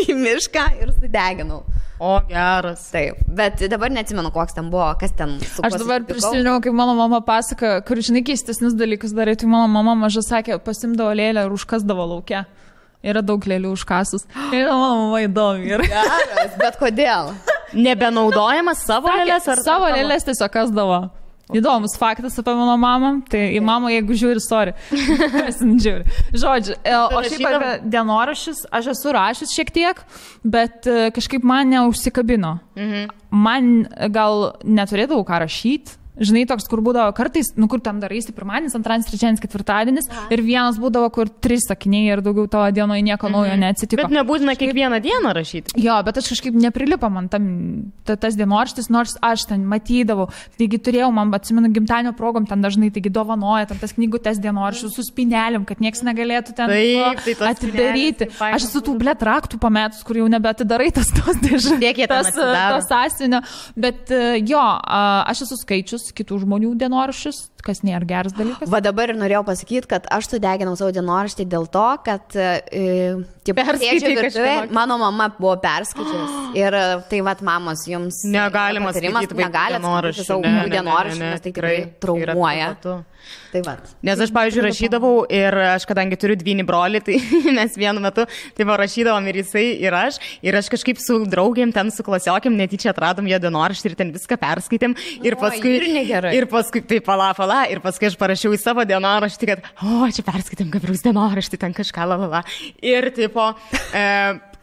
C: į mišką ir sudeginau.
B: O, geras.
C: Taip, bet dabar neatsimenu, koks ten buvo, kas ten su kuo.
A: Aš dabar prisiminiau, kaip mano mama pasaka, kur, žinai, keistesnius dalykus darai, tai mano mama maža sakė, pasimdavo lėlę ir užkasdavo lauke. Yra daug lėlių užkasus. Ir mano mama įdomi.
C: Geras, bet kodėl?
B: Nebenaudojamas savo lėlės ar?
A: Savo lėlės tiesiog kasdavo. Įdomus faktas apie mano mamą. Tai į mamą, jeigu žiūri, sorry. Žodžiu, o šiaip apie dienoraščius, aš esu rašęs šiek tiek, bet kažkaip man neužsikabino. Man gal neturėdavau ką rašyti. Žinai, toks, kur būdavo kartais, nu kur tam daraisi pirmadienis, antradienis, trečiadienis, ketvirtadienis ir vienas būdavo, kur 3 sakiniai ir daugiau tavo dienoje nieko naujo neatsitiko.
B: Bet nebūtina kiekvieną dieną rašyti.
A: Jo, bet aš kažkaip neprilipo man tas dienoraštis, nors aš ten matydavau. Taigi turėjau, man atsimenu, gimtadienio progom ten dažnai, taigi dovanoja tam tas knygutes dienoraščius su spynelėm, kad niekas negalėtų ten atidaryti. Aš esu tų blėt raktų pametus, kur jau nebeatidarai tos dėžutės, tas sąsienio. Bet jo, aš esu skaičius kitų žmonių dienoraščius, kas nėra geras dalykas.
C: Va dabar ir norėjau pasakyti, kad aš sudeginau savo dienoraštį dėl to, kad mano mama buvo perskaičius. Ir tai vat mamos jums
B: negalima skaityti
C: dienoraštį, nes tai tikrai traumuoja. Tai va.
B: Nes aš, pavyzdžiui, rašydavau ir aš, kadangi turiu dvynį brolį, tai mes vienu metu tai rašydavom ir jisai, ir aš kažkaip su draugėm ten, su klasiokėm netyčia atradom jo dienoraštį ir ten viską perskaitėm. Ir paskui tai pala, ir paskui aš parašiau į savo dienoraštį, kad, čia perskaitėm Gabrieliaus dienoraštį, ten kažką, lalala. Ir tipo...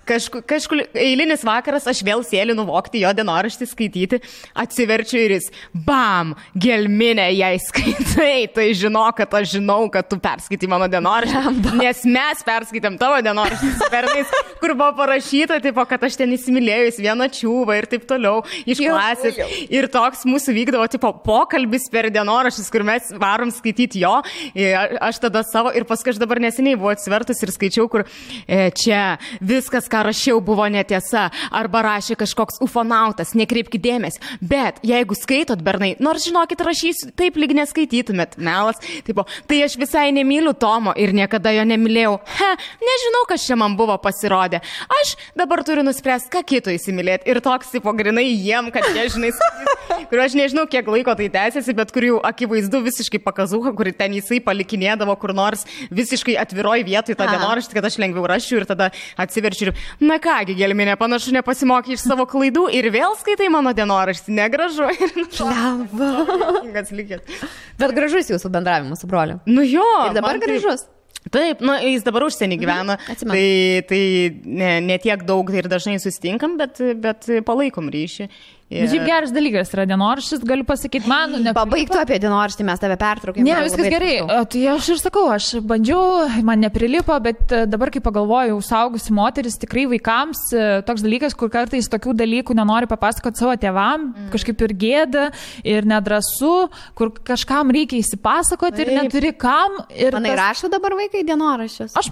B: Kažkur eilinis vakaras aš vėl sėliu nuvokti jo dienoraštį skaityti, atsiverčiu ir jis, bam, gelminė, jei skaitai, tai žinok, kad aš žinau, kad tu perskaitai mano dienoraštį, nes mes perskaitėm tavo dienoraštį su pernais, kur buvo parašyta, tipo, kad aš ten įsimylėjus vieną čiūvą ir taip toliau iš klasės. Ir toks mūsų vykdavo, tipo, pokalbis per dienoraštis, kur mes varom skaityti jo, aš tada savo, ir paskui aš dabar neseniai buvau atsivertus ir skaičiau, kur čia viskas, ką rašiau, buvo netiesa, arba rašė kažkoks ufonautas, nekreipkite dėmesį. Bet jeigu skaitot, bernai, nors žinokit, rašysiu, taip lyg neskaitytumėt, melas, tipo, tai aš visai nemyliu Tomo ir niekada jo nemylėjau. Nežinau, kas čia man buvo pasirodę. Aš dabar turiu nuspręsti, ką kito įsimylėti. Ir toks, tipo, grinai jiem, kad jie, žinai, kur aš nežinau, kiek laiko tai tęsiasi, bet kur jau akivaizdu visiškai pakazuha, kur ten jisai palikinėdavo kur nors visiškai atviroj vietoj tą dienoraštį, kad aš lengviau rašiu ir tada atsiverčiu ir, na kągi, gelminė, panašu nepasimokė iš savo klaidų ir vėl skaitai mano dienoraštį, negražu.
C: Bet gražus jūsų bendravimas su broliu.
B: Nu jo.
C: Ir dabar gražus.
B: Taip, jis dabar užsienį gyvena, tai ne tiek daug ir dažnai susitinkam, bet palaikom ryšį.
A: Šiaip geras dalykas yra dienoraštis, galiu pasakyti, man...
C: Pabaigtų apie dienoraštį, mes tave pertraukėme.
A: Ne, viskas gerai. Tai aš ir sakau, aš bandžiau, man neprilipo, bet dabar, kai pagalvoju, saugusi moteris, tikrai vaikams toks dalykas, kur kartais tokių dalykų nenori papasakoti savo tėvam, kažkaip ir gėda, ir nedrasu, kur kažkam reikia įsipasakoti ir neturi kam.
C: Manai, rašo dabar vaikai dienoraščius?
A: Aš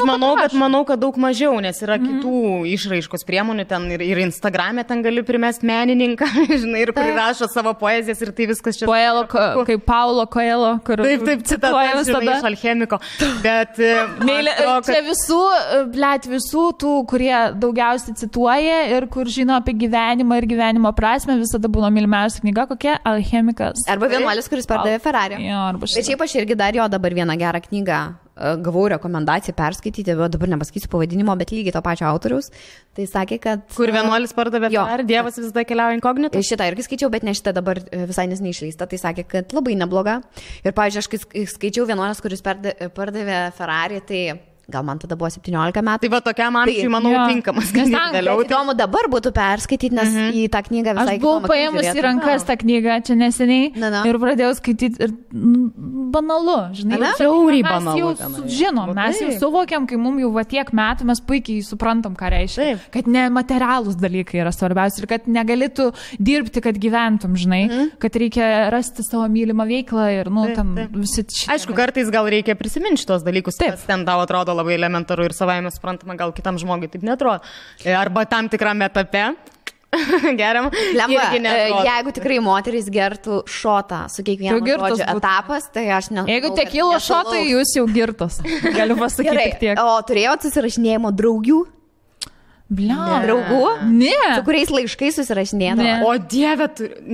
B: manau, kad daug mažiau, nes yra kitų išraiškos priemonių ten ir Instagram'e ten gali primesti menininką, žinai, ir prirašo savo poezijas ir tai viskas čia.
A: Kaip Paulo Coelho, kur...
B: Taip, citatas, žinai, iš alchemiko. Bet...
A: Čia visų tų, kurie daugiausiai cituoja ir kur žino apie gyvenimą ir gyvenimo prasme, visada būna mylimiausia knyga, kokia Alchemikas.
C: Arba vienuolis, kuris pardavė Ferrari. Bet šiaip aš irgi dar jo dabar vieną gerą knygą gavau rekomendaciją perskaityti, bet dabar nepasakysiu pavadinimo, bet lygiai to pačio autoriaus. Tai sakė, kad...
B: Kur vienuolis pardavė Ferrari, Dievas visada keliauja inkognito.
C: Šitą irgi skaičiau, bet ne šitą dabar visai neseniai išleista. Tai sakė, kad labai nebloga. Ir, pavyzdžiui, aš skaičiau vienuolis, kuris pardavė Ferrari, tai... Gal man tada buvo 17 metų.
B: Tai va tokiam amžiui, manau, tinkamas.
C: Įdomu dabar būtų perskaityti, nes į tą knygą visai...
A: Aš buvau paėmus į rankas tą knygą čia neseniai ir pradėjau skaityti ir banalu, žinai.
B: Žiauriai banalu.
A: Mes jau suvokiam, kai mums jau va tiek metų, mes puikiai suprantam, ką reiškia. Kad nematerialūs dalykai yra svarbiausia ir kad negalėtų dirbti, kad gyventum, žinai. Kad reikia rasti savo mylimą veiklą ir, ten visi...
B: Aišku, kartais gal reikia prisiminti šitos dalykus, kas ten tau atrodo labai elementaru ir savaime suprantama, gal kitam žmogui taip netrodo. Arba tam tikrame etape. Geriam.
C: Jeigu tikrai moteris gertų šotą su kiekvienu žodžiu etapas, tai aš ne...
A: Jeigu tekilo šotai, jūs jau girtos. Galiu pasakyti tik tiek.
C: O turėjot susirašinėjimo draugių? Draugų?
A: Ne.
C: Su kuriais laiškais susirašinėdavo?
B: O Dieve,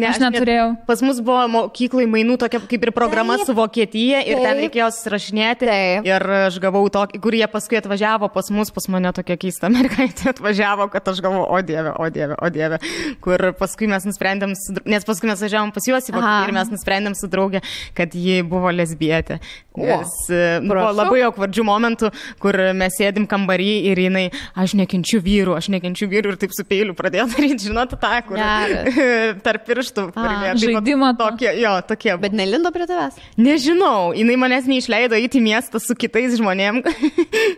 A: aš neturėjau.
B: Pas mus buvo mokyklai mainų tokia kaip ir programa su Vokietija ir ten reikėjo susirašinėti. Ir aš gavau tokį, kur jie paskui atvažiavo pas mane tokia keista mergaitė atvažiavo, kad aš galvoju, o dieve. Kur paskui mes nusprendėm, nes paskui mes važiavom pas juos į Vokietiją ir mes nusprendėm su draugė, kad ji buvo lesbietė. Nes buvo labai aukvardžių momentų, kur mes sėdim kambarį ir jinai, aš nekenčiu vyrų ir taip su peiliu pradėjo daryti, žinot, tą, kur tarp pirštų.
A: Žaidimą
B: tokie.
C: Bet nelindo prie tavęs?
B: Nežinau, jinai manęs neišleido įti miestą su kitais žmonėm,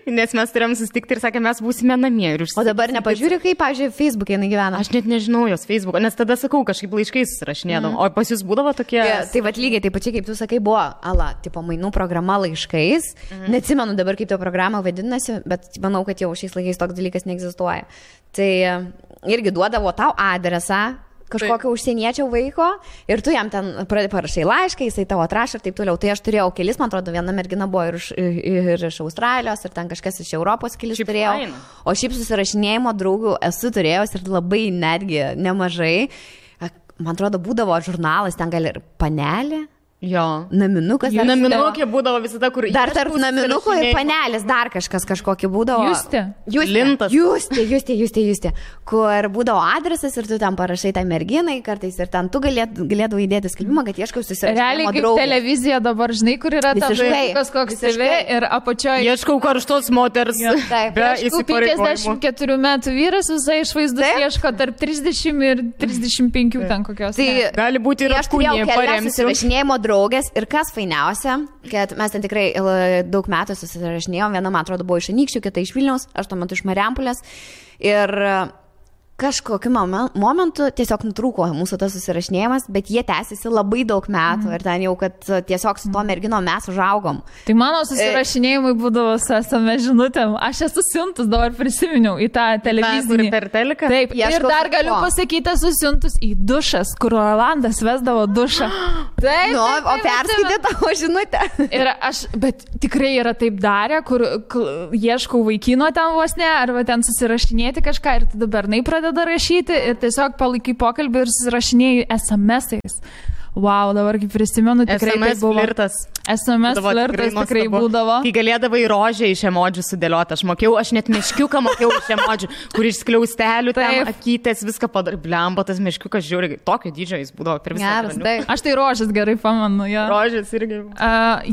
B: nes mes turėjom susitikti ir sakė, mes būsime namie.
C: O dabar nepažiūrė, kaip, pavyzdžiui, Facebook'e jinai gyvena?
B: Aš net nežinau jos Facebook'o, nes tada sakau, kažkaip laiškais susirašinėdom. O pas jūs būdavo tokie...
C: Tai vat lygiai, taip pačiai, kaip tu sakai, buvo, tipo mainų programa laiškais. Neatsimenu dabar, kaip to programa vadinasi, bet manau, kad jau šiais laikais toks dalykas neegzistuoja. Tai irgi duodavo tau adresą, kažkokio užsieniečio vaiko ir tu jam ten parašai laišką, jisai tavo atrašė ir taip toliau. Tai aš turėjau kelis, man atrodo, viena mergina buvo ir iš Australijos, ir ten kažkas iš Europos kelis turėjau. O šiaip susirašinėjimo draugų esu turėjęs ir labai netgi nemažai. Man atrodo, būdavo žurnalas, ten gal ir panelė.
B: Jo.
C: Naminukas.
B: Naminukė būdavo visada, kur...
C: Dar tarp naminuko ir panelės dar kažkokį būdavo. Justė. Kur būdavo adresas ir tu ten parašai tai merginai kartais ir ten tu galėdavai įdėti skelbimą, kad ieškau susirašinimo
A: draugės. Realiai kaip televizija dabar, žinai, kur yra ta vaikas koks TV ir apačioje.
B: Ieškau karštos moters. Be įsipareigojimų.
A: 54 metų vyras visai išvaizdus ieško tarp 30 ir 35 ten kokios.
B: Tai gali būti ir apkūnė paremsiu.
C: Draugės ir kas fainiausia, kad mes ten tikrai daug metų susirašinėjom, viena, man atrodo, buvo iš Anykščių, kita iš Vilniaus, aš tuo metu iš Marijampolės ir kažkokiu momentu tiesiog nutrūko mūsų tas susirašinėjimas, bet jie tęsiasi labai daug metų ir ten jau, kad tiesiog su to mergino mes užaugom.
A: Tai mano susirašinėjimai būdavo su SMS žinutėm. Aš esu siuntus, dabar prisiminiau į tą televizinį.
B: Per teliką?
A: Taip, ir dar galiu pasakyti, esu siuntus į dušas, kur Rolandas vesdavo dušą. Taip,
C: nu, o perskaitė tavo žinutę.
A: Ir aš, bet tikrai yra taip darę, kur ieškau vaikino ten vos ne, arba ten susirašinėti kažką ir tada bernai pradeda rašyti ir tiesiog palaikai pokalbį ir susirašinėjai SMS-ais. Wow, dabar kaip prisimenu, tikrai
B: SMS
A: tai buvo.
B: Flirtas.
A: SMS flirtas tikrai būdavo.
B: Kai galėdavai rožę iš emodžių sudėlioti. Aš net meškiuką mokėjau iš emodžių, kur iš skliaustelių, ten akytės, viską padarė. Blemba, tas meškiukas žiūri, tokio dydžio jis būdavo per visą.
A: Aš tai rožės gerai pamenu. Ja.
B: Rožės irgi.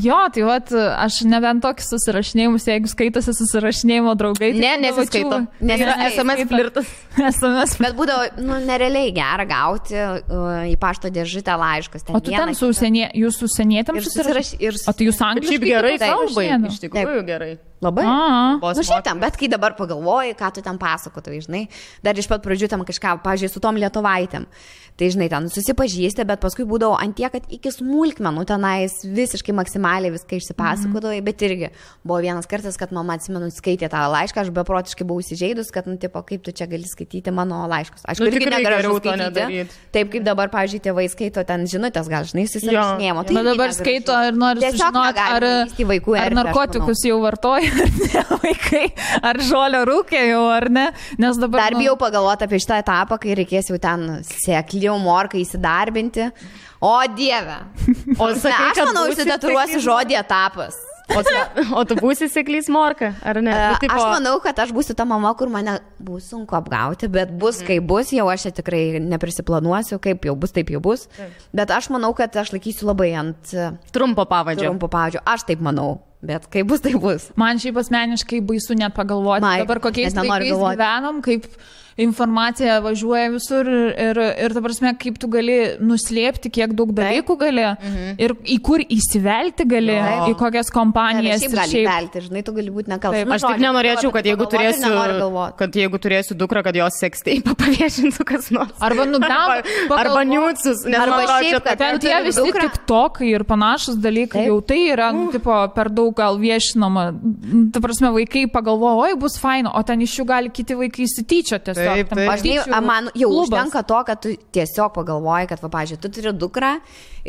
A: Jo, tai vat, aš nebent tokius susirašinėjimus, jeigu skaitosi susirašinėjimo draugai.
B: Tai nesiskaito. Nes yra SMS flirtas.
A: SMS.
C: Bet būdavo, nerealiai gera gauti į pašto dėžutę laišką.
A: O tu ten su jūs užsienietėm susirašinėjai? O tai jūs angliškai?
B: Šiaip gerai kalbai, iš tikrųjų gerai.
C: Labai. Šiaip tam, bet kai dabar pagalvoji, ką tu ten pasakotai, žinai, dar iš pat pradžių tam kažką, pažiūrėjau, su tom lietuvaitėm. Tai, žinai, ten susipažįsti, bet paskui būdavo antie, kad iki smulkmenų tenais visiškai maksimaliai viską išsipasakodavai, bet irgi buvo vienas kartas, kad mama, atsimenu, skaitė tą laišką, aš beprotiškai buvau įsižeidus, kad, tipo, kaip tu čia gali skaityti mano laiškus. Aš irgi negaliu skaityti. Taip, kaip dabar, pavyzdžiui, tėvai skaito ten žinutės, gal, žinai, susirašinėjimo.
A: Bet dabar skaito ir nori sužinoti, ar narkotikus jau vartoja, ar ne vaikai, ar žolio rūkė jau, ar ne. Nes dabar...
C: Dar bijau pagalvoti apie šitą etapą, kai reikės jau ten sekliau morką įsidarbinti. O Dieve. Aš manau, užsidaturuosiu žodį etapas.
B: O tu būsi seklys morka, ar ne?
C: Aš manau, kad aš būsiu ta mama, kur mane bus sunku apgauti, bet bus kaip bus, jau aš tikrai neprisiplanuosiu, kaip jau bus, taip jau bus. Bet aš manau, kad aš laikysiu labai ant
B: trumpo pavadžio.
C: Aš taip manau. Bet kaip bus, tai bus.
A: Man šiaip asmeniškai baisu net pagalvoti. Dabar kokiais laikais gyvenom, kaip informacija važiuoja visur ir ta prasme, kaip tu gali nuslėpti, kiek daug dalykų gali ir į kur įsivelti gali, į kokias kompanijas.
C: Šiaip gali įvelti, žinai, tu gali būti nekaltas.
B: Aš tik nenorėčiau, kad jeigu turėsiu dukrą, kad jos seksteipą paviešintų kas nors. Arba niūcus.
C: Arba šiaip, kad
A: ten tie visi tiktokai ir panašus dalykai, jau tai yra, tipo, per daug gal viešinama. Ta prasme, vaikai pagalvoja, oi, bus faino, o ten iš jų gali kiti vaikai įsityčioti.
C: Man jau užtenka to, kad tu tiesiog pagalvoji, kad, pavyzdžiui, tu turi dukrą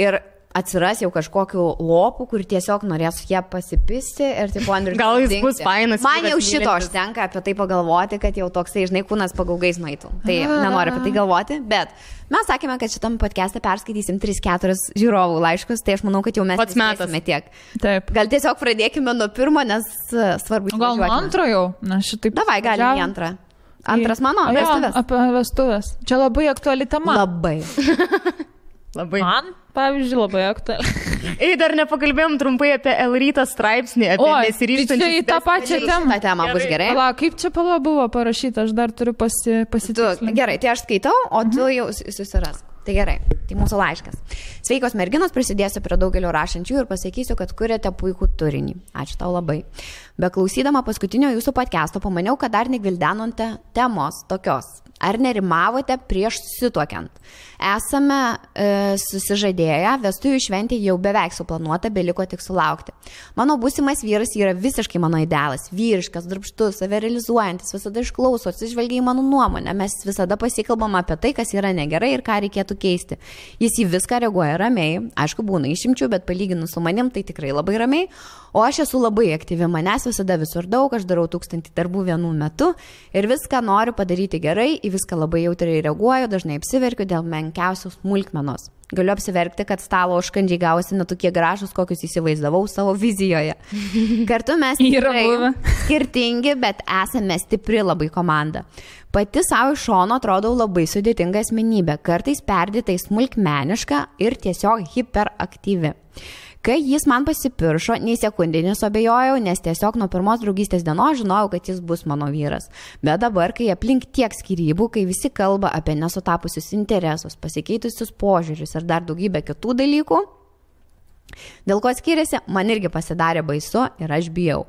C: ir atsiras jau kažkokiu lopu, kur tiesiog norės ją pasipisti ir taip Andrius.
B: Gal jis bus fainas.
C: Man jau šito užtenka apie tai pagalvoti, kad jau toksai, žinai, kūnas pagaugais nueitų. Tai nenoriu apie tai galvoti, bet mes sakėme, kad šitam podcast'e perskaitysim 3-4 žiūrovų laiškus, tai aš manau, kad jau mes nespėsime tiek.
A: Taip.
C: Gal tiesiog pradėkime nuo pirmo, nes svarbu įsivažiuoti.
A: Gal nuo antro jau? Na, šitaip.
C: Davai, galim į antrą. Antras mano, vestuvės.
A: Apie vestuvės. Čia labai aktuali tema.
C: Labai.
A: Man, pavyzdžiui, labai aktuali.
B: Dar nepakalbėjom trumpai apie L-rytą straipsnį, apie nesiryžtančius.
A: Tai į tą pačią temą.
C: Ta tema bus gerai.
A: Kaip čia buvo parašyta, aš dar turiu pasitikslinti.
C: Gerai, tai aš skaitau, o tu jau susirask. Tai gerai, tai mūsų laiškas. Sveikos merginos, prisidėsiu prie daugelio rašančių ir pasakysiu, kad kuriate puikų turinį. Ačiū tau labai. Beklausydama paskutinio jūsų podcast'o pamaniau, kad dar negvildenote temos tokios. Ar nerimavote prieš susituokiant? Esame susižadėję, vestuvių šventė jau beveik suplanuota, beliko tik sulaukti. Mano būsimas vyras yra visiškai mano idealas, vyriškas, darbštus, save realizuojantis, visada išklauso, atsižvelgia į mano nuomonę, mes visada pasikalbam apie tai, kas yra negerai ir ką reikėtų keisti. Jis į viską reaguoja ramiai, aišku, būna išimčių, bet palyginus su manim tai tikrai labai ramiai, o aš esu labai aktyvi, manęs visada visur daug, aš darau 1000 darbų vienu metu ir viską noriu padaryti gerai, į viską labai jautriai reaguoju, dažnai apsiverkiu dėl menkiausios smulkmenos. Galiu apsiverkti, kad stalo užkandžiai gavosi netokie gražus, kokius įsivaizdavau savo vizijoje. Kartu mes tikrai skirtingi, bet esame stipri labai komanda. Pati savo iš šono atrodau labai sudėtinga asmenybė, kartais perdėtai smulkmeniška ir tiesiog hiperaktyvi. Kai jis man pasipiršo, nei sekundį nesuabejojau, nes tiesiog nuo pirmos draugystės dienos žinojau, kad jis bus mano vyras. Bet dabar, kai aplink tiek skyrybų, kai visi kalba apie nesutapusius interesus, pasikeitusius požiūrius ir dar daugybę kitų dalykų, dėl ko skiriasi, man irgi pasidarė baisu ir aš bijau.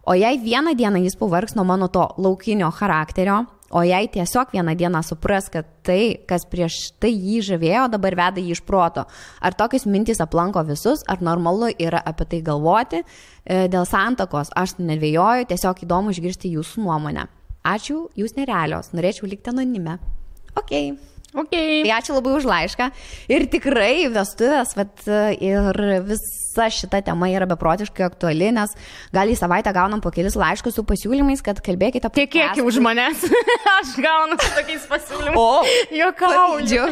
C: O jei vieną dieną jis pavargs nuo mano to laukinio charakterio, o jei tiesiog vieną dieną supras, kad tai, kas prieš tai jį žavėjo, dabar veda jį iš proto. Ar tokios mintys aplanko visus, ar normalu yra apie tai galvoti? Dėl santakos aš nedvejoju, tiesiog įdomu išgirsti jūsų nuomonę. Ačiū, jūs nerealios, norėčiau likti anonime. Okay. Tai ačiū labai už laišką. Ir tikrai vestuvės, ir visa šita tema yra beprotiškai aktuali, nes gal į savaitę gaunam po kelis laiškus su pasiūlymais, kad kalbėkite apie...
B: Kiek už manęs. Aš gaunu su tokiais pasiūlymais. O, juokauju.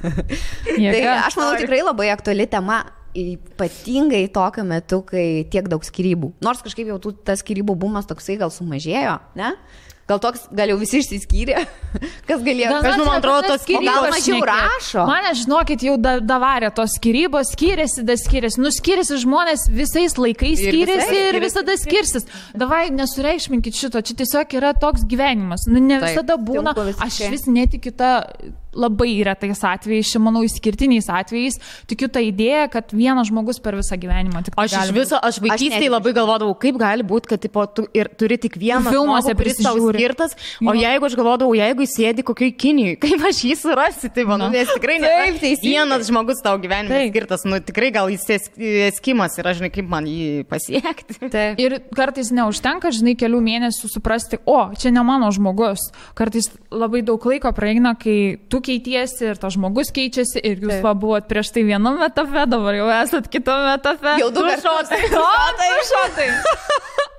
C: Tai aš manau tikrai labai aktuali tema. Ypatingai tokiu metu, kai tiek daug skyrybų. Nors kažkaip jau tas skyrybų bumas toksai gal sumažėjo, ne? Gal jau visi išsiskyrė, kas galėjo.
B: Man atrodo, tos skyrybos
C: gal mažiau rašo.
A: Mane, žinokit, jau davarė tos skyrybos, skiriasi. Skiriasi žmonės visais laikais skiriasi ir visada skirsis. Davai, nesureikšminkit šito, čia tiesiog yra toks gyvenimas. Ne visada būna, aš vis netikiu tą... Labai retais atvejais, manau, išskirtiniais atvejais, tikiu tą idėją, kad vienas žmogus per visą gyvenimą tik
B: aš iš viso, aš vaikystėje labai galvodavau, kaip gali būti, kad tipo, tu ir turi tik vieną
A: filmuose
B: skirtas, o jeigu aš galvodavau, jeigu jis sėdi kokioj Kinijoj, kaip aš jį surasi, tai manau, nes tikrai vienas žmogus tau gyvenime skirtas, nu tikrai gal jis eskimas ir aš žinai, kaip man jį pasiekti.
A: Ir kartais neužtenka, žinai, kelių mėnesių suprasti, čia ne mano žmogus. Kartais labai daug laiko praeina, kai tu keitiesi ir tas žmogus keičiasi ir jūs buvot prieš tai vienam etape, dabar jau esat kitame etape.
C: Jau du šotai.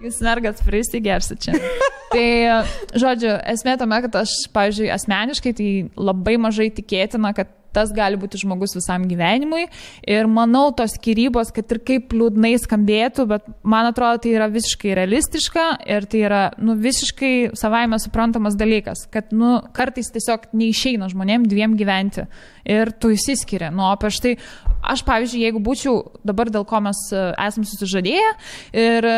A: Jūs mergat prisigersit čia. Tai, žodžiu, esmė tame, kad aš, pavyzdžiui, asmeniškai tai labai mažai tikėtina, kad tas gali būti žmogus visam gyvenimui ir manau tos skyrybos, kad ir kaip liūdnai skambėtų, bet man atrodo tai yra visiškai realistiška ir tai yra visiškai savaime suprantamas dalykas, kad kartais tiesiog neišeina žmonėm dviem gyventi ir tu įsiskiria. O prieš tai aš, pavyzdžiui, jeigu būčiau dabar dėl ko mes esam susižadėję ir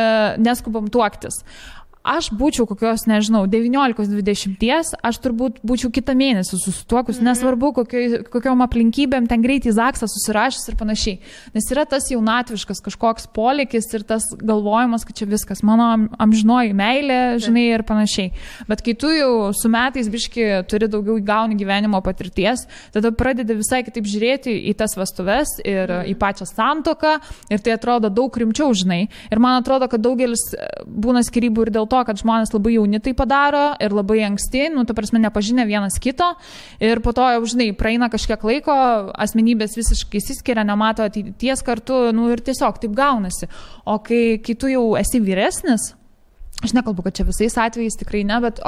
A: neskubam tuoktis, aš būčiau kokios, nežinau, 19-20, aš turbūt būčiau kitą mėnesį susituokus, nesvarbu kokiom aplinkybėm, ten greitai zaksą susirašęs ir panašiai. Nes yra tas jaunatviškas kažkoks polėkis ir tas galvojimas, kad čia viskas, mano amžinoji meilė, žinai, ir panašiai. Bet kai tu jau su metais biški turi daugiau gauni gyvenimo patirties, tada pradedi visai kitaip žiūrėti į tas vestuves ir į pačią santuoką ir tai atrodo daug rimčiau, žinai. Ir man atrodo, kad daugelis būna skyrybų ir dėl to, kad žmonės labai jauni tai padaro ir labai anksti, ta prasme, nepažinę vienas kito ir po to, žinai, praeina kažkiek laiko, asmenybės visiškai išsiskiria, nemato ateities kartu, ir tiesiog taip gaunasi. O kai tu jau esi vyresnis, aš nekalbu, kad čia visais atvejais tikrai ne, bet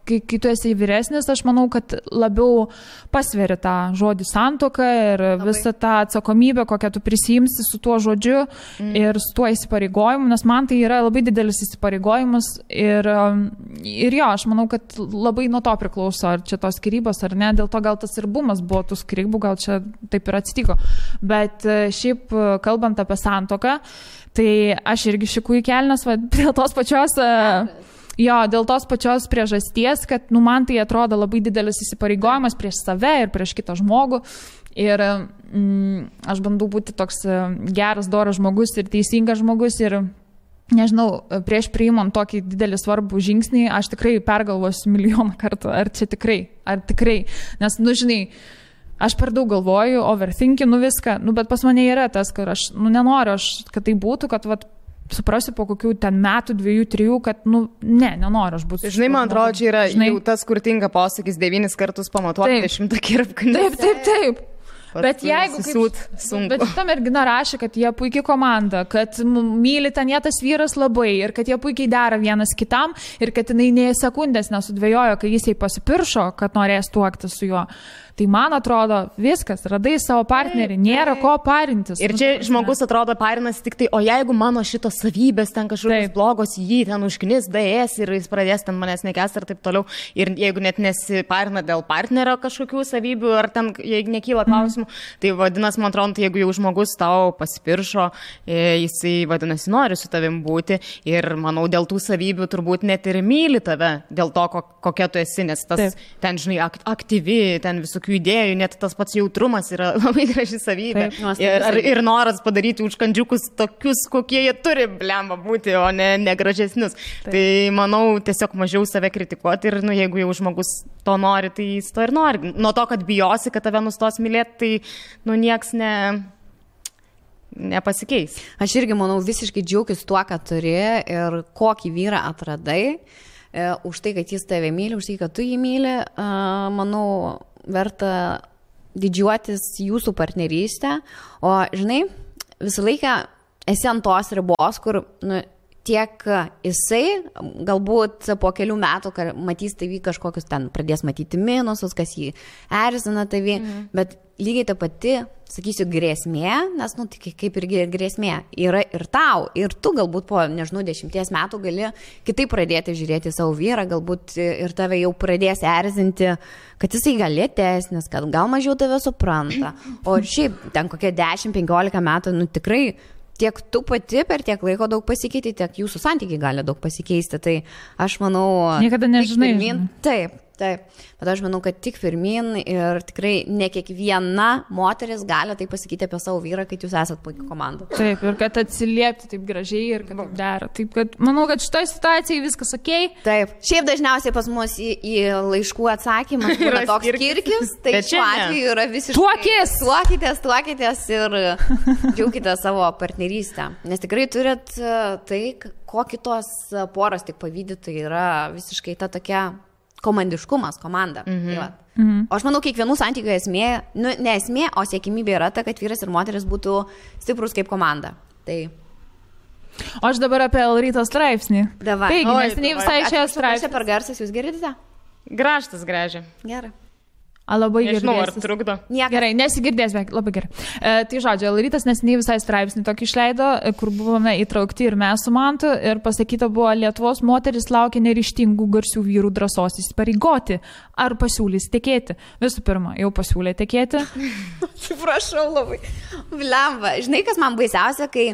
A: kai tu esi vyresnis, aš manau, kad labiau pasveri tą žodį santuoką ir visą tą atsakomybę, kokią tu prisijimsi su tuo žodžiu ir su tuo įsipareigojimu, nes man tai yra labai didelis įsipareigojimas ir jo, aš manau, kad labai nuo to priklauso, ar čia tos skyrybos ar ne, dėl to gal tas ir bumas buvo tų skyrybų, gal čia taip ir atsitiko. Bet šiaip, kalbant apie santuoką, tai aš irgi šikų į kelnes, dėl tos pačios priežasties, kad man tai atrodo labai didelis įsipareigojimas prieš save ir prieš kitą žmogų. Ir aš bandau būti toks geras, doras žmogus ir teisingas žmogus ir nežinau, prieš priimant tokį didelį svarbų žingsnį, aš tikrai pergalvosiu milijoną kartų, ar tikrai, nes, žinai, aš per daug galvoju, overthinkinu viską, bet pas mane yra tas, kad aš, nenoriu, kad tai būtų, kad, suprasiu po kokių ten metų, 2-3, kad, nenoriu aš būti.
B: Žinai, man atrodo, čia yra jau tas, kur tinka posakis 9 kartus pamatuoti, 100 kirpkų.
A: Taip. Bet jeigu bet ta mergina rašė, kad jie puikiai komanda, kad myli ten jie tas vyras labai ir kad jie puikiai dera vienas kitam ir kad jinai nė sekundės nesudvėjojo, kai jis jai pasipiršo, kad norės tuokti su juo. Tai man atrodo, viskas, radai savo partnerį, nėra ko parintis.
B: Ir čia žmogus atrodo parinasi tik tai, o jeigu mano šitos savybės ten kažkokios blogos, jį ten užknis, daės ir jis pradės ten manęs nekęsti ir taip toliau. Ir jeigu net nesiparina dėl partnerio kažkokių savybių ar ten, jeigu nekyla klausimų, tai vadinasi, man atrodo, jeigu jau žmogus tau pasipiršo, jisai vadinasi nori su tavim būti ir manau, dėl tų savybių turbūt net ir myli tave, dėl to, kokia tu esi, nes tas ten, žinai, aktyvi, ten visokių idėjų, net tas pats jautrumas yra labai graži savybė. Ir noras padaryti užkandžiukus tokius, kokie jie turi, blemba, būti, o ne gražesnius. Tai manau, tiesiog mažiau save kritikuoti ir, jeigu jau žmogus to nori, tai jis to ir nori. Nuo to, kad bijosi, kad tave nustos mylėti, tai, nieks nepasikeis.
C: Aš irgi, manau, visiškai džiaugiuosi tuo, ką turi ir kokį vyrą atradai. Už tai, kad jis tave myli, už tai, kad tu jį myli, manau, verta didžiuotis jūsų partnerystę, o, žinai, visą laiką esi ant tos ribos, kur, tiek jisai galbūt po kelių metų matys tavį kažkokius ten, pradės matyti minusus, kas jį erzina tavį, bet lygiai ta pati, sakysiu, grėsmė, nes, tai kaip ir grėsmė, yra ir tau, ir tu galbūt po, 10 metų gali kitaip pradėti žiūrėti savo vyrą, galbūt ir tave jau pradės erzinti, kad jisai gal lėtesnis, kad gal mažiau tave supranta, o šiaip ten kokie 10-15 metų, tikrai tiek tu pati per tiek laiko daug pasikeiti, tiek jūsų santykiai gali daug pasikeisti, tai aš manau...
A: Niekada nežinai.
C: Taip, bet aš manau, kad tik pirmin ir tikrai ne kiekviena moteris gali tai pasakyti apie savo vyrą, kad jūs esat puikia komanda.
A: Taip, ir kad atsiliepti taip gražiai ir kad taip dera. Taip, kad manau, kad šitoje situacijoje viskas okei.
C: Taip, šiaip dažniausiai pas mus į laiškų atsakymą yra toks kirkis, tai šiuo atveju yra visiškai... Tuokitės ir džiaukite savo partnerystę. Nes tikrai turit tai, ko kitos poros tik pavydi, tai yra visiškai ta tokia... komandiškumas, komanda. O aš manau, kiekvienų santykių esmė, ne esmė, o siekimybė yra ta, kad vyras ir moteris būtų stiprus kaip komanda. Tai...
A: O aš dabar apie Elryto straipsnį.
C: Davai.
A: Taigi, neseniai visai šią straipsnį.
C: Aš per garsas, jūs girdite?
B: Gražtas gražia.
C: Gerai.
A: Labai gerai.
B: Nežinau, ar trukdo.
A: Gerai, nesigirdės, bet labai gerai. Tai žodžiu, Elrytas neseniai visai straipsnį tokį išleido, kur buvome įtraukti ir mes su Mantu, ir pasakyta buvo, Lietuvos moteris laukia neryžtingų garsių vyrų drąsos įsipareigoti, ar pasiūlys tekėti. Visų pirma, jau pasiūlė tekėti.
C: Atsiprašau labai. Blemba, žinai, kas man baisiausia, kai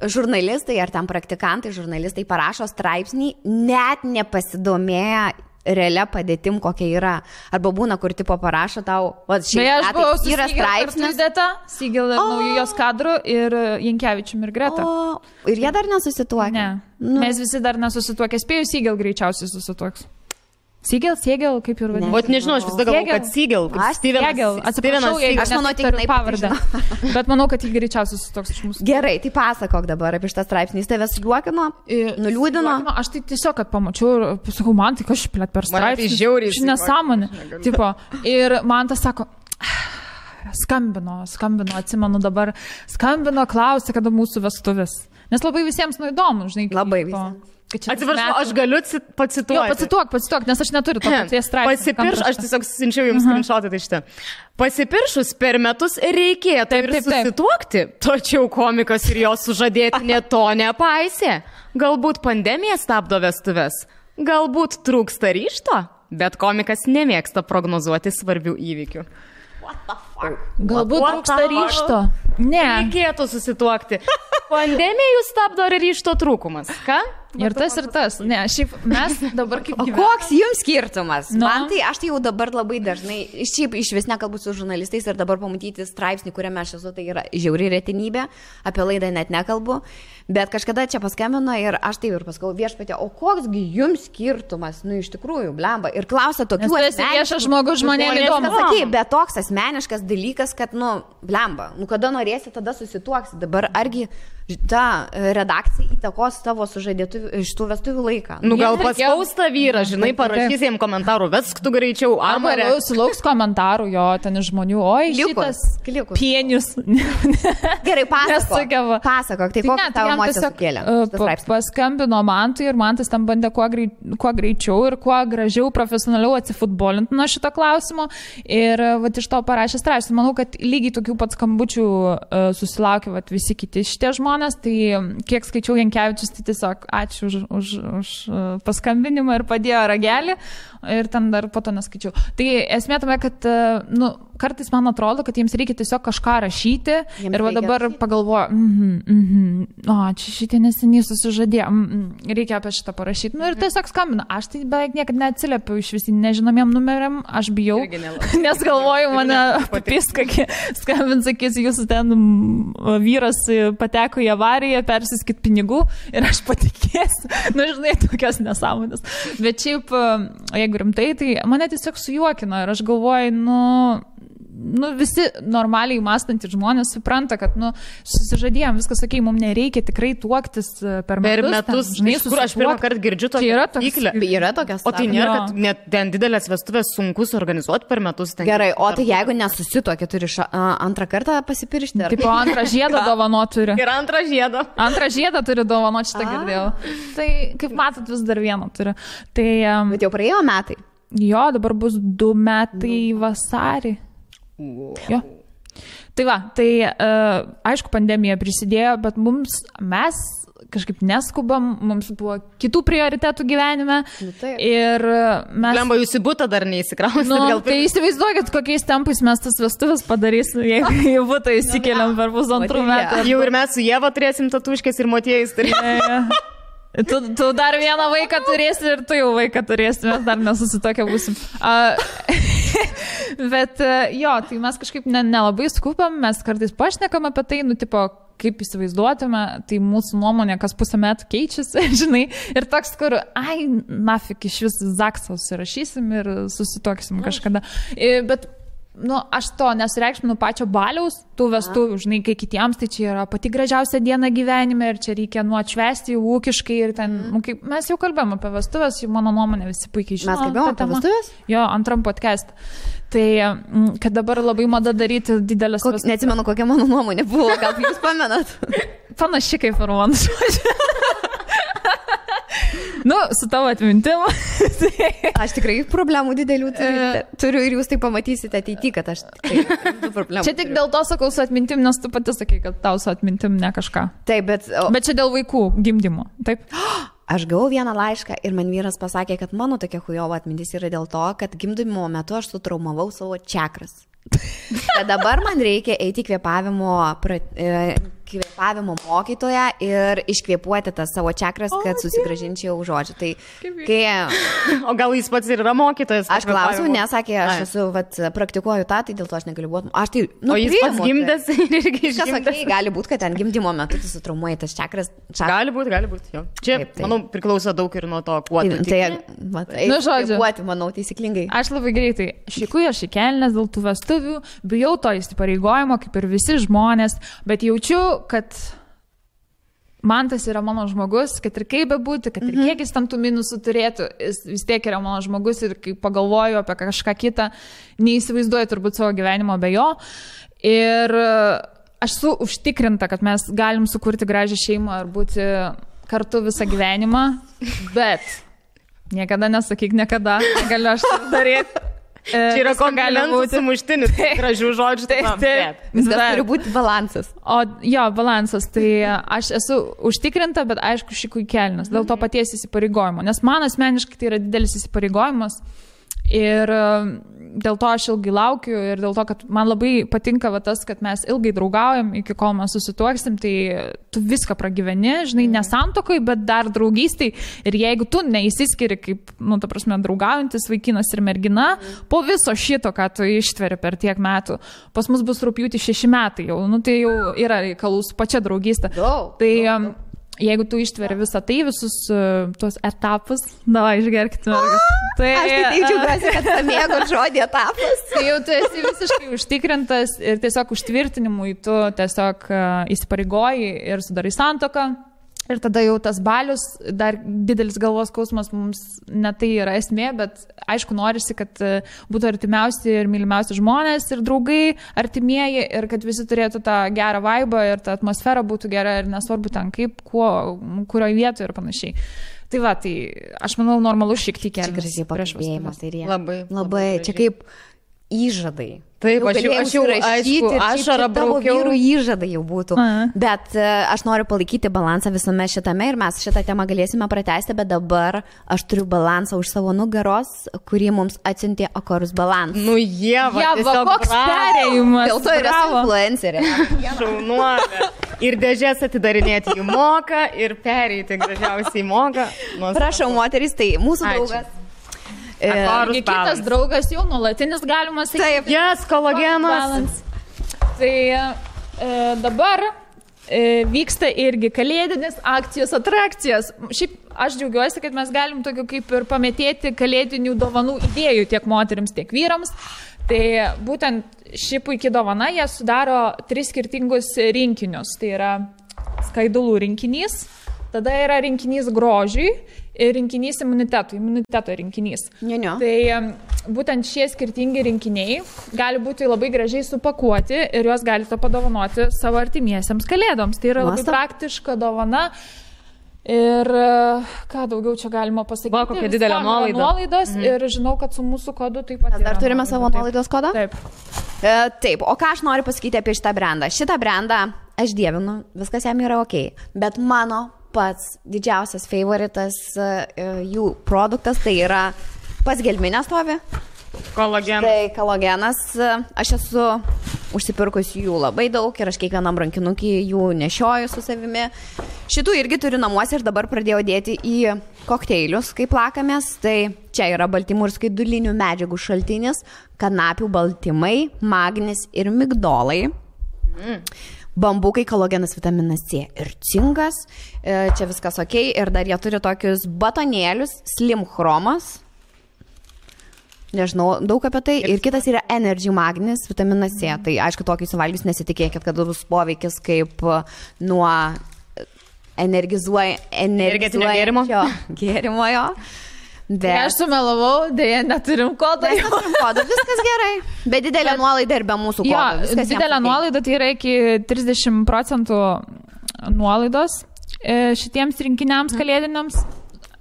C: žurnalistai ar ten praktikantai, žurnalistai parašo straipsnį, net nepasidomėję realia padėtim, kokia yra. Arba būna, kur tipo parašo tau,
A: yra straipsnis. Sigil naujos kadrų ir Jankevičium ir Greta.
C: Ir jie dar nesusituokia?
A: Ne. Mes visi dar nesusituokia. Spėjau, Sigil greičiausiai susituoks. Sigil, kaip ir vadinasi.
B: Vat nežinau, aš vis dar galvoju, kad Sigil.
A: Atsiprašau,
C: aš manau, tik
A: pavardę. Bet manau, kad jį greičiausiai susituoks iš mūsų.
C: Gerai, tai pasakok dabar apie šitą straipsnį. Jis tave sujuokino, nuliūdino.
A: Aš tai tiesiog, kad pamačiau ir pasakau, man tai kažkaip plėt per straipsnį.
B: Man tai žiauriai.
A: Ši nesąmonė. Ir man tas sako, skambino, atsimenu dabar, klausė, kada mūsų vestuvės. Nes labai visiems įdomu, žinai.
C: Labai visiems.
B: Atsiprašau, aš galiu pacituoti.
A: Jo, pacituok, nes aš neturiu to paties straipsnio.
B: Aš tiesiog siunčiau jums screenshotą tai šitą. Pasipiršus per metus reikėtų ir susituokti, tačiau komikas ir jo sužadėtinė to nepaisė. Galbūt pandemija stabdo vestuves, galbūt trūksta ryžto, bet komikas nemėgsta prognozuoti svarbių įvykių.
A: Galbūt trūksta ryžto. Ne.
B: Reikėtų susituokti. Pandemija jūs stabdo ar ryžto trūkumas? Ką?
A: Ir tas. Ne, šiaip mes dabar kaip gyvename.
C: Koks jums skirtumas? Man tai, aš tai jau dabar labai dažnai, šiaip iš vis nekalbu su žurnalistais ir dabar pamatyti straipsnį, kuriame aš esu, tai yra žiauri retenybė, apie laidą net nekalbu, bet kažkada čia paskambino ir aš taip ir paskau viešpatė, o koksgi jums skirtumas, iš tikrųjų, blemba, ir klausia tokių
A: viešas žmogus žmonėms įdomu.
C: Bet toks asmeniškas dalykas, kad, blemba, kada norėsi, tada susituoksi, dabar argi ta redakcija įtakos tavo sužadėtuvių iš tų vestuvių laiką.
B: Gal paspausta vyra, žinai, parašys jiems komentarų, vesk tu greičiau,
A: arba sulauks komentarų jo, ten iš žmonių, oi, šitas pienius.
C: Gerai, pasakok, tai kokia tavo emocija sukėlė?
A: Paskambino Mantui ir Mantas tam bandė kuo greičiau ir kuo gražiau, profesionaliau atsifutbolinti nuo šito klausimo ir iš to parašė straipsnį. Manau, kad lygiai tokių pat skambučių susilaukė visi kiti šitie žmonės. Tai kiek skaičiau Jankevičius, tai tiesiog ačiū už paskambinimą ir padėjo ragelį ir ten dar po to neskaičiau. Tai esmė tame, kad kartais man atrodo, kad jiems reikia tiesiog kažką rašyti ir dabar pagalvoju, čia šitie neseniai susižadėjo, reikia apie šitą parašyti. Ir tiesiog skambina. Aš tai beveik niekada neatsiliepiu iš visi nežinomiem numeriam, aš bijau, nes galvoju, mane papis, kokie skambins, sakys, jūsų ten vyras pateko į avariją, persiskit pinigų ir aš patikėsiu. Žinai, tokios nesąmonės. Bet šiaip, jeigu rimtai, tai mane tiesiog sujuokino ir aš galvoju, visi normaliai mąstantys žmonės supranta, kad, susižadėjom, viskas sakė, mums nereikia tikrai tuoktis per metus.
B: Žinai, kur aš pirmą kartą girdžiu tokią
C: taisyklę. Yra tokias.
B: O tai nėra, kad net ten didelės vestuvės sunku suorganizuoti per metus.
C: Gerai, o tai jeigu nesusituokė, turi antrą kartą pasipiršti?
A: Taip, antrą žiedą dovanot turi.
B: Ir antrą žiedą.
A: Antrą žiedą turi dovanot, šitą girdėjau. Tai, kaip matot, vis dar vieną turi. Tai,
C: bet jau praėjo metai?
A: Jo, dabar bus 2 metai vasarį. Jo. Tai aišku, pandemija prisidėjo, bet mes kažkaip neskubam, mums buvo kitų prioritetų gyvenime. Ir mes...
B: Lemba, jūs į butą dar neįsikrausite.
A: Tai įsivaizduokit, kokiais tempais mes tas vestuvės padarysim, jeigu į butą įsikeliam per 1,5 metų.
B: Jau ir mes su Ieva turėsim tatuškės ir motiejais.
A: Tu dar vieną vaiką turėsi ir tu jau vaiką turėsi, mes dar nesusitokę būsim. Bet tai mes kažkaip nelabai skubam, mes kartais pašnekam apie tai, kaip įsivaizduotume, tai mūsų nuomonė kas pusę metų keičiasi, žinai, ir toks, kur, nafik, iš vis zaksą užsirašysim ir susitoksim kažkada. Bet aš to nesureikšminu pačio baliaus, tų vestuvių, žinai, kai kitiems tai čia yra pati gražiausia diena gyvenime ir čia reikia atšvęsti ūkiškai ir ten, mes jau kalbėjom apie vestuvės, jau mano nuomonė visi puikiai žino.
C: Mes kalbėjom apie vestuvės?
A: Jo, antram podcast. Tai, kad dabar labai mada daryti didelės vestuvės.
C: Neatsimenu, kokia mano nuomonė buvo, gal jūs pamenat?
A: Panaši kaip ir man. Su tavo atmintim.
C: Aš tikrai problemų didelių turiu ir jūs tai pamatysite ateityje, kad aš problemų.
A: Čia tik dėl to sakau su atmintim, nes tu pati sakai, kad tau su atmintim ne kažką.
C: Taip, bet
A: čia dėl vaikų gimdymo, taip?
C: Aš gavau vieną laišką ir man vyras pasakė, kad mano tokia chujova atmintis yra dėl to, kad gimdymo metu aš sutraumavau savo čakras. Kad dabar man reikia eiti kvėpavimo mokytoją ir iškvėpuoti tas savo čakras, kad susigrąžinčiau žodžių. Tai,
B: o gal jis pats ir yra mokytojas?
C: Aš klausiau, nesakė, aš praktikuoju tą, tai dėl to aš negaliu būti.
B: O jis pats gimdęs ir irgi išgimdęs.
C: Gali būti, kad ten gimdymo metu tu sutraumuoji tas čakras.
B: Gali būti. Čia, manau, priklauso daug ir nuo to, kuo tu tiki.
C: Kvėpuoti, manau, taisyklingai.
A: Aš labai greitai šikuoju, aš įkelnės dėl tų vestuvių, bijau to įsipareigojimo, kaip ir visi žmonės, bet jaučiu, kad Mantas yra mano žmogus, kad ir kaip bebūti, kad ir kiek jis tam tų minusų turėtų, jis vis tiek yra mano žmogus ir kai pagalvoju apie kažką kitą, neįsivaizduoju turbūt savo gyvenimo be jo. Ir aš esu užtikrinta, kad mes galim sukurti gražią šeimą ir būti kartu visą gyvenimą, bet niekada nesakyk niekada, negaliu aš tai daryti.
B: Čia yra komplimentų sumuštinis, gražių žodžių.
C: Taip. Viskas turi būti balansas.
A: Balansas. Tai aš esu užtikrinta, bet aišku, šikui kelnes. Dėl to paties įsipareigojimo. Nes man asmeniškai tai yra didelis įsipareigojimas. Ir dėl to aš ilgai laukiu ir dėl to, kad man labai patinka tas, kad mes ilgai draugaujam, iki kol mes susituoksim, tai tu viską pragyveni, žinai, ne santuokoj, bet dar draugystai. Ir jeigu tu neįsiskiri kaip, ta prasme, draugaujantis vaikinas ir mergina, po viso šito, ką tu ištveri per tiek metų, pas mus bus rugpjūtį 6 metai jau, tai jau yra reikalų su pačia draugystė. Tai jeigu tu ištveri visą tai, visus tuos etapus, davai, išgerkite mergas. Tai,
C: aš taip džiaugiuosi, kad pamėgo žodį etapas.
A: Tai jau tu esi visiškai užtikrintas ir tiesiog užtvirtinimui tu tiesiog įsipareigoji ir sudarai santuoką. Ir tada jau tas balius, dar didelis galvos skausmas mums ne tai yra esmė, bet aišku norisi, kad būtų artimiausi ir mylimiausi žmonės ir draugai, artimieji ir kad visi turėtų tą gerą vaibą ir ta atmosfera būtų gera ir nesvarbu ten kaip, kurioje vietoje ir panašiai. Tai va, tai aš manau normalu šiek tiek kelias.
C: Čia gražiai pakalbėjimas.
B: Labai.
C: Čia kaip įžadai.
B: Taip, aš jau rašyti,
C: ašarą braukiau. Vyrų įžadai jau būtų. Bet aš noriu palaikyti balansą visame šitame ir mes šitą temą galėsime pratęsti, bet dabar aš turiu balansą už savo nugaros, kurį mums atsiuntė Akorus Balans.
B: Ieva,
A: koks perėjimas.
C: Dėl to yra influencerė.
B: Šaunuolė. Ir dėžės atidarinėti jų moka, ir pereiti gražiausiai moka.
C: Prašau, moterys, tai mūsų draugas.
A: Kitas draugas jau nuolatinis, galima sakyti.
B: Taip, jas, kolagenas.
A: Tai dabar vyksta irgi kalėdinis akcijos atrakcijos. Šiaip aš džiaugiuosi, kad mes galim tokiu kaip ir pametėti kalėdinių dovanų idėjų tiek moterims, tiek vyrams. Tai būtent ši puikia dovana, jie sudaro 3 skirtingus rinkinius. Tai yra skaidulų rinkinys, tada yra rinkinys grožiui ir rinkinys imuniteto rinkinys. Tai būtent šie skirtingi rinkiniai gali būti labai gražiai supakuoti ir juos galite padovanoti savo artimiesiems kalėdoms. Tai yra labai praktiška dovana. Ir ką daugiau čia galima pasakyti?
B: Va, kokia didelė nuolaida.
A: Nuolaidos ir žinau, kad su mūsų kodu taip pat.
C: Dar turime savo nuolaidos kodą?
A: Taip.
C: Taip, o ką aš noriu pasakyti apie šitą brandą? Šitą brandą aš dievinu, viskas jam yra ok, bet mano pats didžiausias favoritas jų produktas tai yra pas gelminę stovi.
B: Kolagenas.
C: Tai kolagenas. Aš esu užsipirkus jų labai daug ir aš kiekvienam rankinukį jų nešioju su savimi. Šitų irgi turiu namuose ir dabar pradėjau dėti į kokteilius, kai plakamės. Tai čia yra baltymų ir skaidulinių medžiagų šaltinis, kanapių baltymai, magnis ir migdolai. Bambukai, kolagenas, vitaminas C ir cinkas. Čia viskas ok. Ir dar jie turi tokius batonėlius, slim chromas. Nežinau daug apie tai. Ir kitas yra energy magnis, vitaminas C. Tai aišku, tokį suvalgius nesitikėkit, kad bus poveikis kaip nuo
B: energetinio
C: gėrimo jo.
A: Bet aš sumelavau, dėja neturim kodą.
C: Viskas gerai. Bet didelė nuolaida ir be mūsų kodo.
A: Didelė nuolaida tai yra iki 30% nuolaidos šitiems rinkiniams kalėdiniams.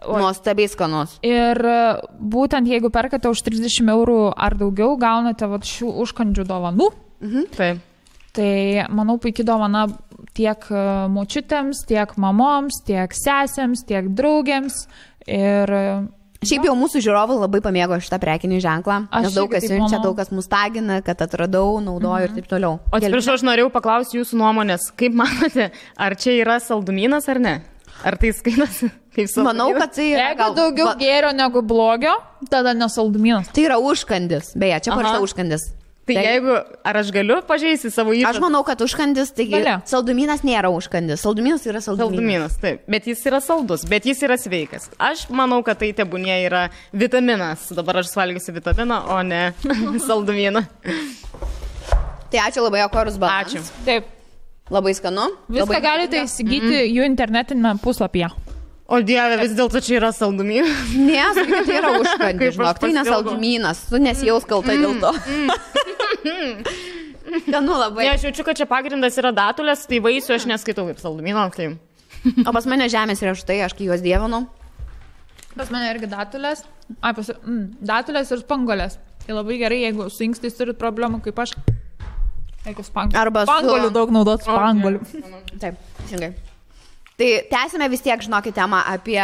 C: Nuostabiai skanus.
A: Ir būtent jeigu perkate už 30 eurų ar daugiau, gaunate šių užkandžių dovanų.
B: Taip.
A: Tai manau puikiai dovana tiek močiutėms, tiek mamoms, tiek sesėms, tiek draugėms. Ir
C: šiaip jau mūsų žiūrovai labai pamėgo šitą prekinį ženklą, nes daug kas siunčia, daug kas mus tagina, kad atradau, naudoju ir taip toliau.
B: O atsiprašau, aš norėjau paklausti jūsų nuomonės. Kaip manote, ar čia yra saldumynas ar ne? Ar tai skaitosi kaip saldumynas?
C: Manau, kad tai yra
A: jeigu daugiau gėrio negu blogio, tada nesaldumynas.
C: Tai yra užkandis. Beje, čia parašyta užkandis.
B: Tai jeigu, ar aš galiu pažeisti savo įžadą?
C: Aš manau, kad užkandis, taigi saldumynas nėra užkandis. Saldumynas yra
B: saldumynas. Taip, bet jis yra saldus, bet jis yra sveikas. Aš manau, kad tai tebūnie yra vitaminas. Dabar aš suvalgysiu vitaminą, o ne saldumyną.
C: Tai ačiū labai, Akorus Balans.
B: Ačiū.
A: Taip.
C: Labai skanu.
A: Viską galite įsigyti jų internetinėme puslapyje.
B: O Dieve, vis dėlto čia yra saldumynas.
C: Ne, sakai, tai yra užkandis, žinok, tai nesaldumynas. Tu nesijaus kaltai dėl to. Skanu labai.
B: Ne, aš jaučiu, kad čia pagrindas yra datulės, tai vaisių aš neskaitau kaip saldumino. Tai...
C: O pas mane žemės riešutai, aš kai juos dievinu.
A: Pas mane irgi datulės. Datulės ir spanguolės. Tai labai gerai, jeigu su inkstais turit problemų kaip aš.
C: Arba
A: spanguolių daug naudot spanguolių.
C: Taip, teisingai. Tai tęsime vis tiek, žinokit, temą apie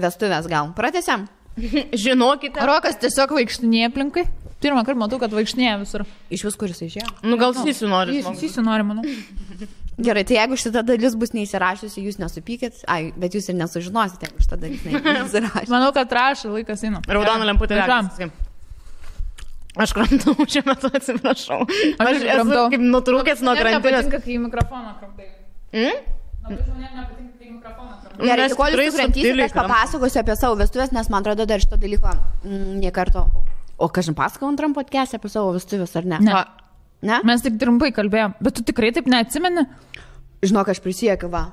C: vestuvės gal. Pratęsiam?
B: Žinokite.
A: Rokas tiesiog vaikštinėja aplinkai. Pirmą kartą matau, kad vaikštinėja visur.
C: Iš vis, kuris išėjo?
B: Nu, gal Sysiu nori.
A: Sysiu nori, manau.
C: Gerai, tai jeigu šitą dalis bus neįsirašysi, jūs nesupykit. Ai, bet jūs ir nesužinosite, jeigu šitą dalis neįsirašysi.
A: Manau, kad rašai, laikas eina.
B: Raudona lemputė. Aš kramtau šiuo metu, atsiprašau. Aš esu kaip nutrūkęs nuo krantinės.
A: Nepatinka, kai į mikrofoną kramtai. Labai žmonėm nepatinka, kai į mikrofoną kramtai.
C: Gerai, tai kol jūs suprantysit, aš papasakosiu apie savo vestuvės, nes man atrodo dar šito dalyko nie karto. O kažin pasakau antram podcast'e apie savo vestuvės, ar ne?
A: Ne? Mes tik trumpai kalbėjom, bet tu tikrai taip neatsimeni?
C: Žinok, aš prisiekiu, va.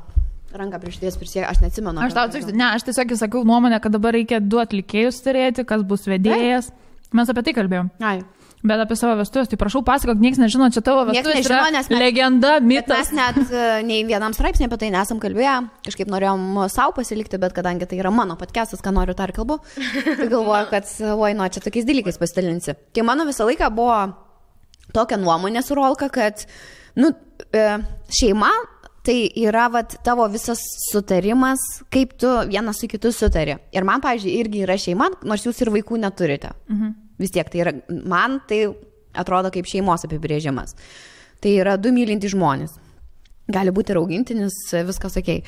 C: Ranką prieš ties prisiekiu, aš neatsimenu.
A: Aš tiesiog sakiau nuomonę, kad dabar reikia 2 atlikėjus turėti, kas bus vedėjas. Mes apie tai kalbėjom.
C: Ai.
A: Bet apie savo vestuvės, tai prašau pasakok, niekas nežino, čia tavo vestuvės yra legenda, mitas.
C: Mes net nei vienam straipsnė apie tai nesam kalbėję, kažkaip norėjom savo pasilikti, bet kadangi tai yra mano podcastas, ką noriu tą ir kalbu, tai galvoju, kad čia tokiais dalykais pasidalinsi. Tai mano visą laiką buvo tokia nuomonė su Rolka, kad šeima tai yra tavo visas sutarimas, kaip tu vienas su kitu sutari. Ir man, pavyzdžiui, irgi yra šeima, nors jūs ir vaikų neturite. Vis tiek tai yra, man tai atrodo kaip šeimos apibrėžimas. Tai yra 2 mylintys žmonės. Gali būti ir augintinis, viskas okei.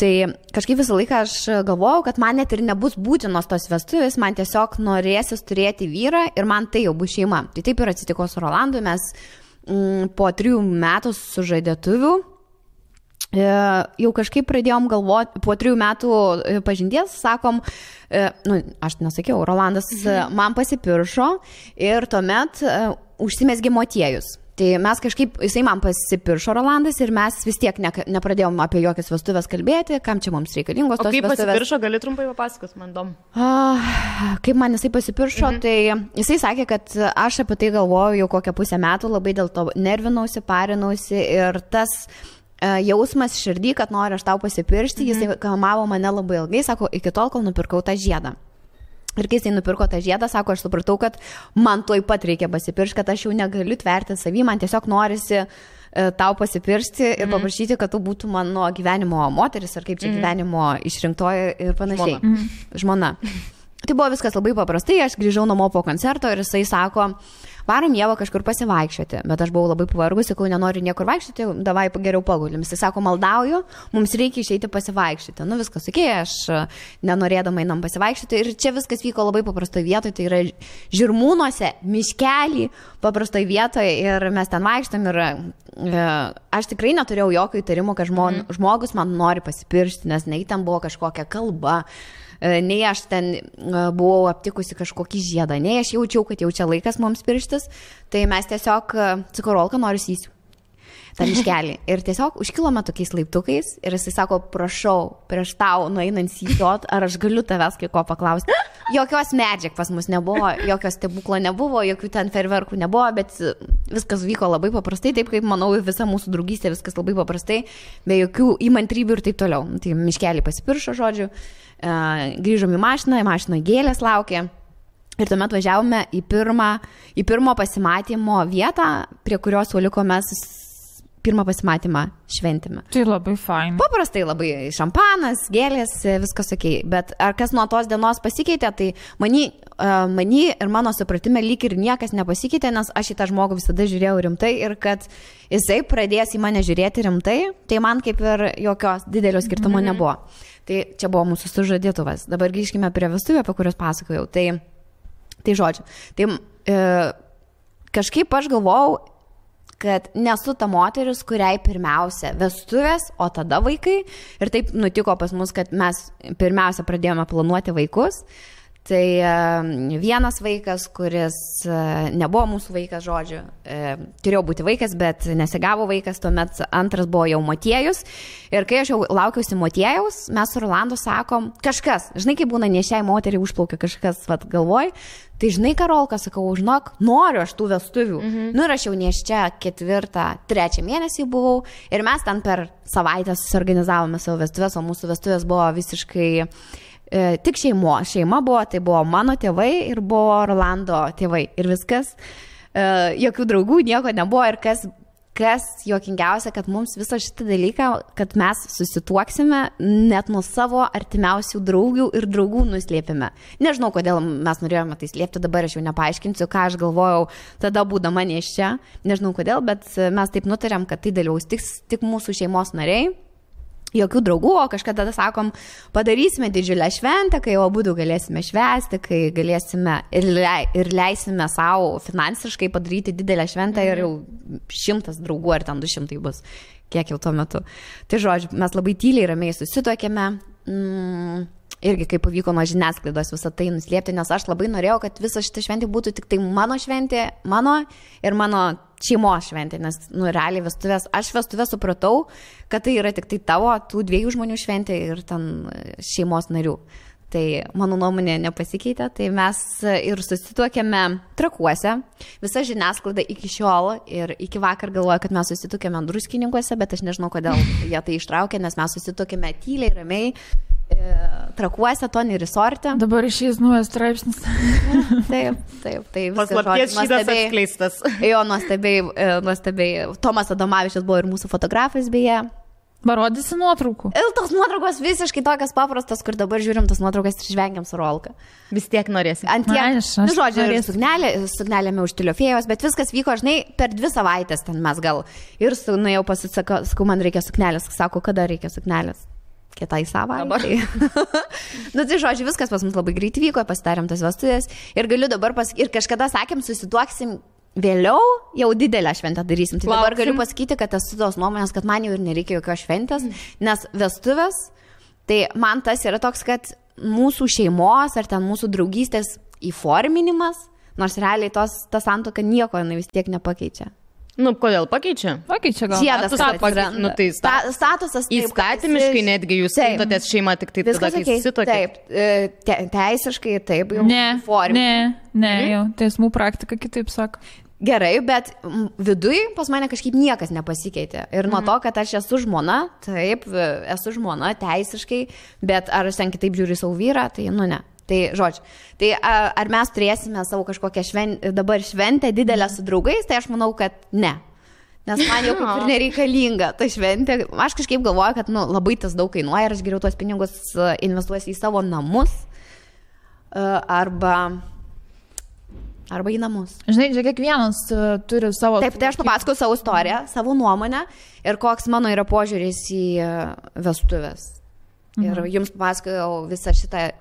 C: Tai kažkaip visą laiką aš galvojau, kad man net ir nebus būtinos tos vestuvės, man tiesiog norėsis turėti vyrą ir man tai jau bus šeima. Tai taip ir atsitiko su Rolandu, mes po 3 metų sužadėtuvių jau kažkaip pradėjom galvoti, po 3 metų pažinties, sakom, aš nesakiau, Rolandas man pasipiršo ir tuomet užsimesgė motiejus. Tai mes kažkaip, jisai man pasipiršo Rolandas ir mes vis tiek nepradėjom apie jokias vestuvės kalbėti, kam čia mums reikalingos tos vestuvės. O kaip
B: pasipiršo, gali trumpai papasakos, man įdomu.
C: Kaip man jisai pasipiršo, tai jisai sakė, kad aš apie tai galvoju jau kokią pusę metų, labai dėl to nervinausi, parinausi ir tas jausmas širdį, kad noriu aš tau pasipiršti, jisai kamavo mane labai ilgai, sako, iki tol, kol nupirkau tą žiedą. Ir kai jisai nupirko tą žiedą, sako, aš supratau, kad man tuoj pat reikia pasipiršti, kad aš jau negaliu tverti savį, man tiesiog norisi tau pasipiršti ir paprašyti, kad tu būtų mano gyvenimo moteris, ar kaip čia gyvenimo išrinktoji ir panašiai. Žmona. Tai buvo viskas labai paprastai, aš grįžau namo po koncerto ir jisai sako, varom Ievą kažkur pasivaikščioti, bet aš buvau labai pavargus, sakau, nenoriu niekur vaikščioti, davai geriau pagulim. Jisai sako, maldauju, mums reikia išeiti pasivaikščioti. Nu viskas, aš nenorėdama einam pasivaikščioti ir čia viskas vyko labai paprastoje vietoje, tai yra Žirmūnuose, miškelį, paprastoje vietoje ir mes ten vaikštam ir aš tikrai neturėjau jokio įtarimo, kad žmogus man nori pasipiršti, nes nei ten buvo kažkokia kalba, nei aš ten buvau aptikusi kažkokį žiedą, nei aš jaučiau, kad jau čia laikas mums pirštis, tai mes tiesiog, sakau, Rolka, noriu įsiu tą miškelį. Ir tiesiog užkilome tokiais laiptukais ir jisai sako, prašau, prieš tau nueinant įsiot, ar aš galiu tavęs kai ko paklausti. Jokios medžiag pas mus nebuvo, jokios stebuklo nebuvo, jokių ten ferverkų nebuvo, bet viskas vyko labai paprastai, taip kaip, manau, visa mūsų draugystė, viskas labai paprastai, be jokių įmantrybių ir taip toliau. Tai miškelį pasipiršo, žodžiu, grįžom į mašiną gėlės laukė. Ir tuomet važiavome į pirmo pasimatymo vietą, prie kurios suoliko mes pirmą pasimatymą šventėme.
A: Tai labai fain.
C: Paprastai labai šampanas, gėlės, viskas okei. Bet ar kas nuo tos dienos pasikeitė, tai many ir mano supratime lyg ir niekas nepasikeitė, nes aš į tą žmogų visada žiūrėjau rimtai ir kad jisai pradės į mane žiūrėti rimtai, tai man kaip ir jokios didelio skirtumo nebuvo. Tai čia buvo mūsų sužadėtuvas. Dabar grįžkime prie vestuvių, apie kurias pasakojau. Tai žodžiu. Tai kažkaip aš galvojau, kad nesu ta moteris, kuriai pirmiausia vestuvės, o tada vaikai. Ir taip nutiko pas mus, kad mes pirmiausia pradėjome planuoti vaikus. Tai vienas vaikas, kuris nebuvo mūsų vaikas, žodžiu, turėjo būti vaikas, bet nesigavo vaikas, tuomet antras buvo jau motiejus. Ir kai aš jau laukiausi motiejaus, mes su Rolandu sakom, kažkas, žinai, kaip būna nešiai moteriai užplaukia kažkas, galvoj, tai žinai, Karolka, sakau, žinok, noriu aš tų vestuvių. Nu ir aš jau neščia 4-3 mėnesį buvau ir mes ten per savaitę susiorganizavome savo vestuvės, o mūsų vestuvės buvo visiškai tik šeima buvo, tai buvo mano tėvai ir buvo Rolando tėvai ir viskas, jokių draugų, nieko nebuvo ir kas kas juokingiausia, kad mums visą šitą dalyką, kad mes susituoksime, net nuo savo artimiausių draugių ir draugų nuslėpime. Nežinau, kodėl mes norėjome tai slėpti, dabar aš jau nepaaiškinsiu, ką aš galvojau tada būdama nėščia. Nežinau kodėl, bet mes taip nutarėm, kad tai dalyvaus tik mūsų šeimos nariai. Jokių draugų, o kažkada sakom, padarysime didžiulę šventę, kai abudu galėsime švęsti, kai galėsime ir leisime savo finansiškai padaryti didelę šventę ir jau 100 draugų ar ten 200 bus, kiek jau tuo metu. Tai žodžiu, mes labai tyliai, ramiai susituokėme. Irgi kaip pavyko nuo žiniasklaidos visą tai nuslėpti, nes aš labai norėjau, kad visa šita šventė būtų tik tai mano šventė, mano ir mano šeimos šventė, nes, realiai aš vestuvės supratau, kad tai yra tik tai tavo, tų 2 žmonių šventė ir ten šeimos narių. Tai mano nuomonė nepasikeitė, tai mes ir susituokėme Trakuose, visa žiniasklaida iki šiol ir iki vakar galvoja, kad mes susituokėme Druskininkuose, bet aš nežinau, kodėl jie tai ištraukė, nes mes susituokėme tyliai, ramiai, Trakuose, Tony Resorte.
A: Dabar išeis naujas straipsnis.
C: Taip. Tai
B: paslapties šitas atskleistas.
C: Jo, nuostabiai. Tomas Adomavičius buvo ir mūsų fotografas beje.
A: Parodysi nuotraukų.
C: Ir tos nuotraukos visiškai tokias paprastas, kur dabar žiūrim tas nuotraukas ir žvengiam su Rolka.
B: Vis tiek norėsi.
C: Žodžiu, sugnelėme už Tiliofėjos, bet viskas vyko, žinai, per 2 savaitės ten mes gal. Ir nuėjau pasisakau, man reikia suknelės. Sako, kada reikia suknelės? Kitai savaitei. Tai žodžiu, viskas pas mus labai greit vyko, pasidarėm tas vestuvės ir galiu dabar ir kažkada sakėm, susituoksim vėliau, jau didelę šventę darysim. Tai dabar galiu pasakyti, kad esu tos nuomonės, kad man jau ir nereikia jokios šventės, nes vestuvės, tai man tas yra toks, kad mūsų šeimos ar ten mūsų draugystės įforminimas, nors realiai ta santuoka nieko vis tiek nepakeičia.
B: Kodėl pakeičia?
A: Pakeičia gal.
C: Žiedas
B: tai
C: statusas.
B: Įstatymiškai netgi jūs skaitotės šeimą tik taip tada, kai susituokėt.
C: Taip, teisiškai taip.
A: Ne, jau teismų praktika kitaip sako.
C: Gerai, bet viduj pas mane kažkaip niekas nepasikeitė. Ir nuo to, kad aš esu žmona, taip, esu žmona teisiškai, bet ar aš ten kitaip žiūriu savo vyrą, tai ne. Tai žodžiu, tai ar mes turėsime savo kažkokią dabar šventę didelę su draugais, tai aš manau, kad ne. Nes man jau kaip ir nereikalinga ta šventė. Aš kažkaip galvoju, kad labai tas daug kainuoja ir aš geriau tuos pinigus investuosiu į savo namus arba į namus.
A: Žinai, čia kiekvienas turi savo...
C: Taip, tai aš papasakau savo istoriją, savo nuomonę ir koks mano yra požiūris į vestuvės. Ir jums papasakojau visą šitą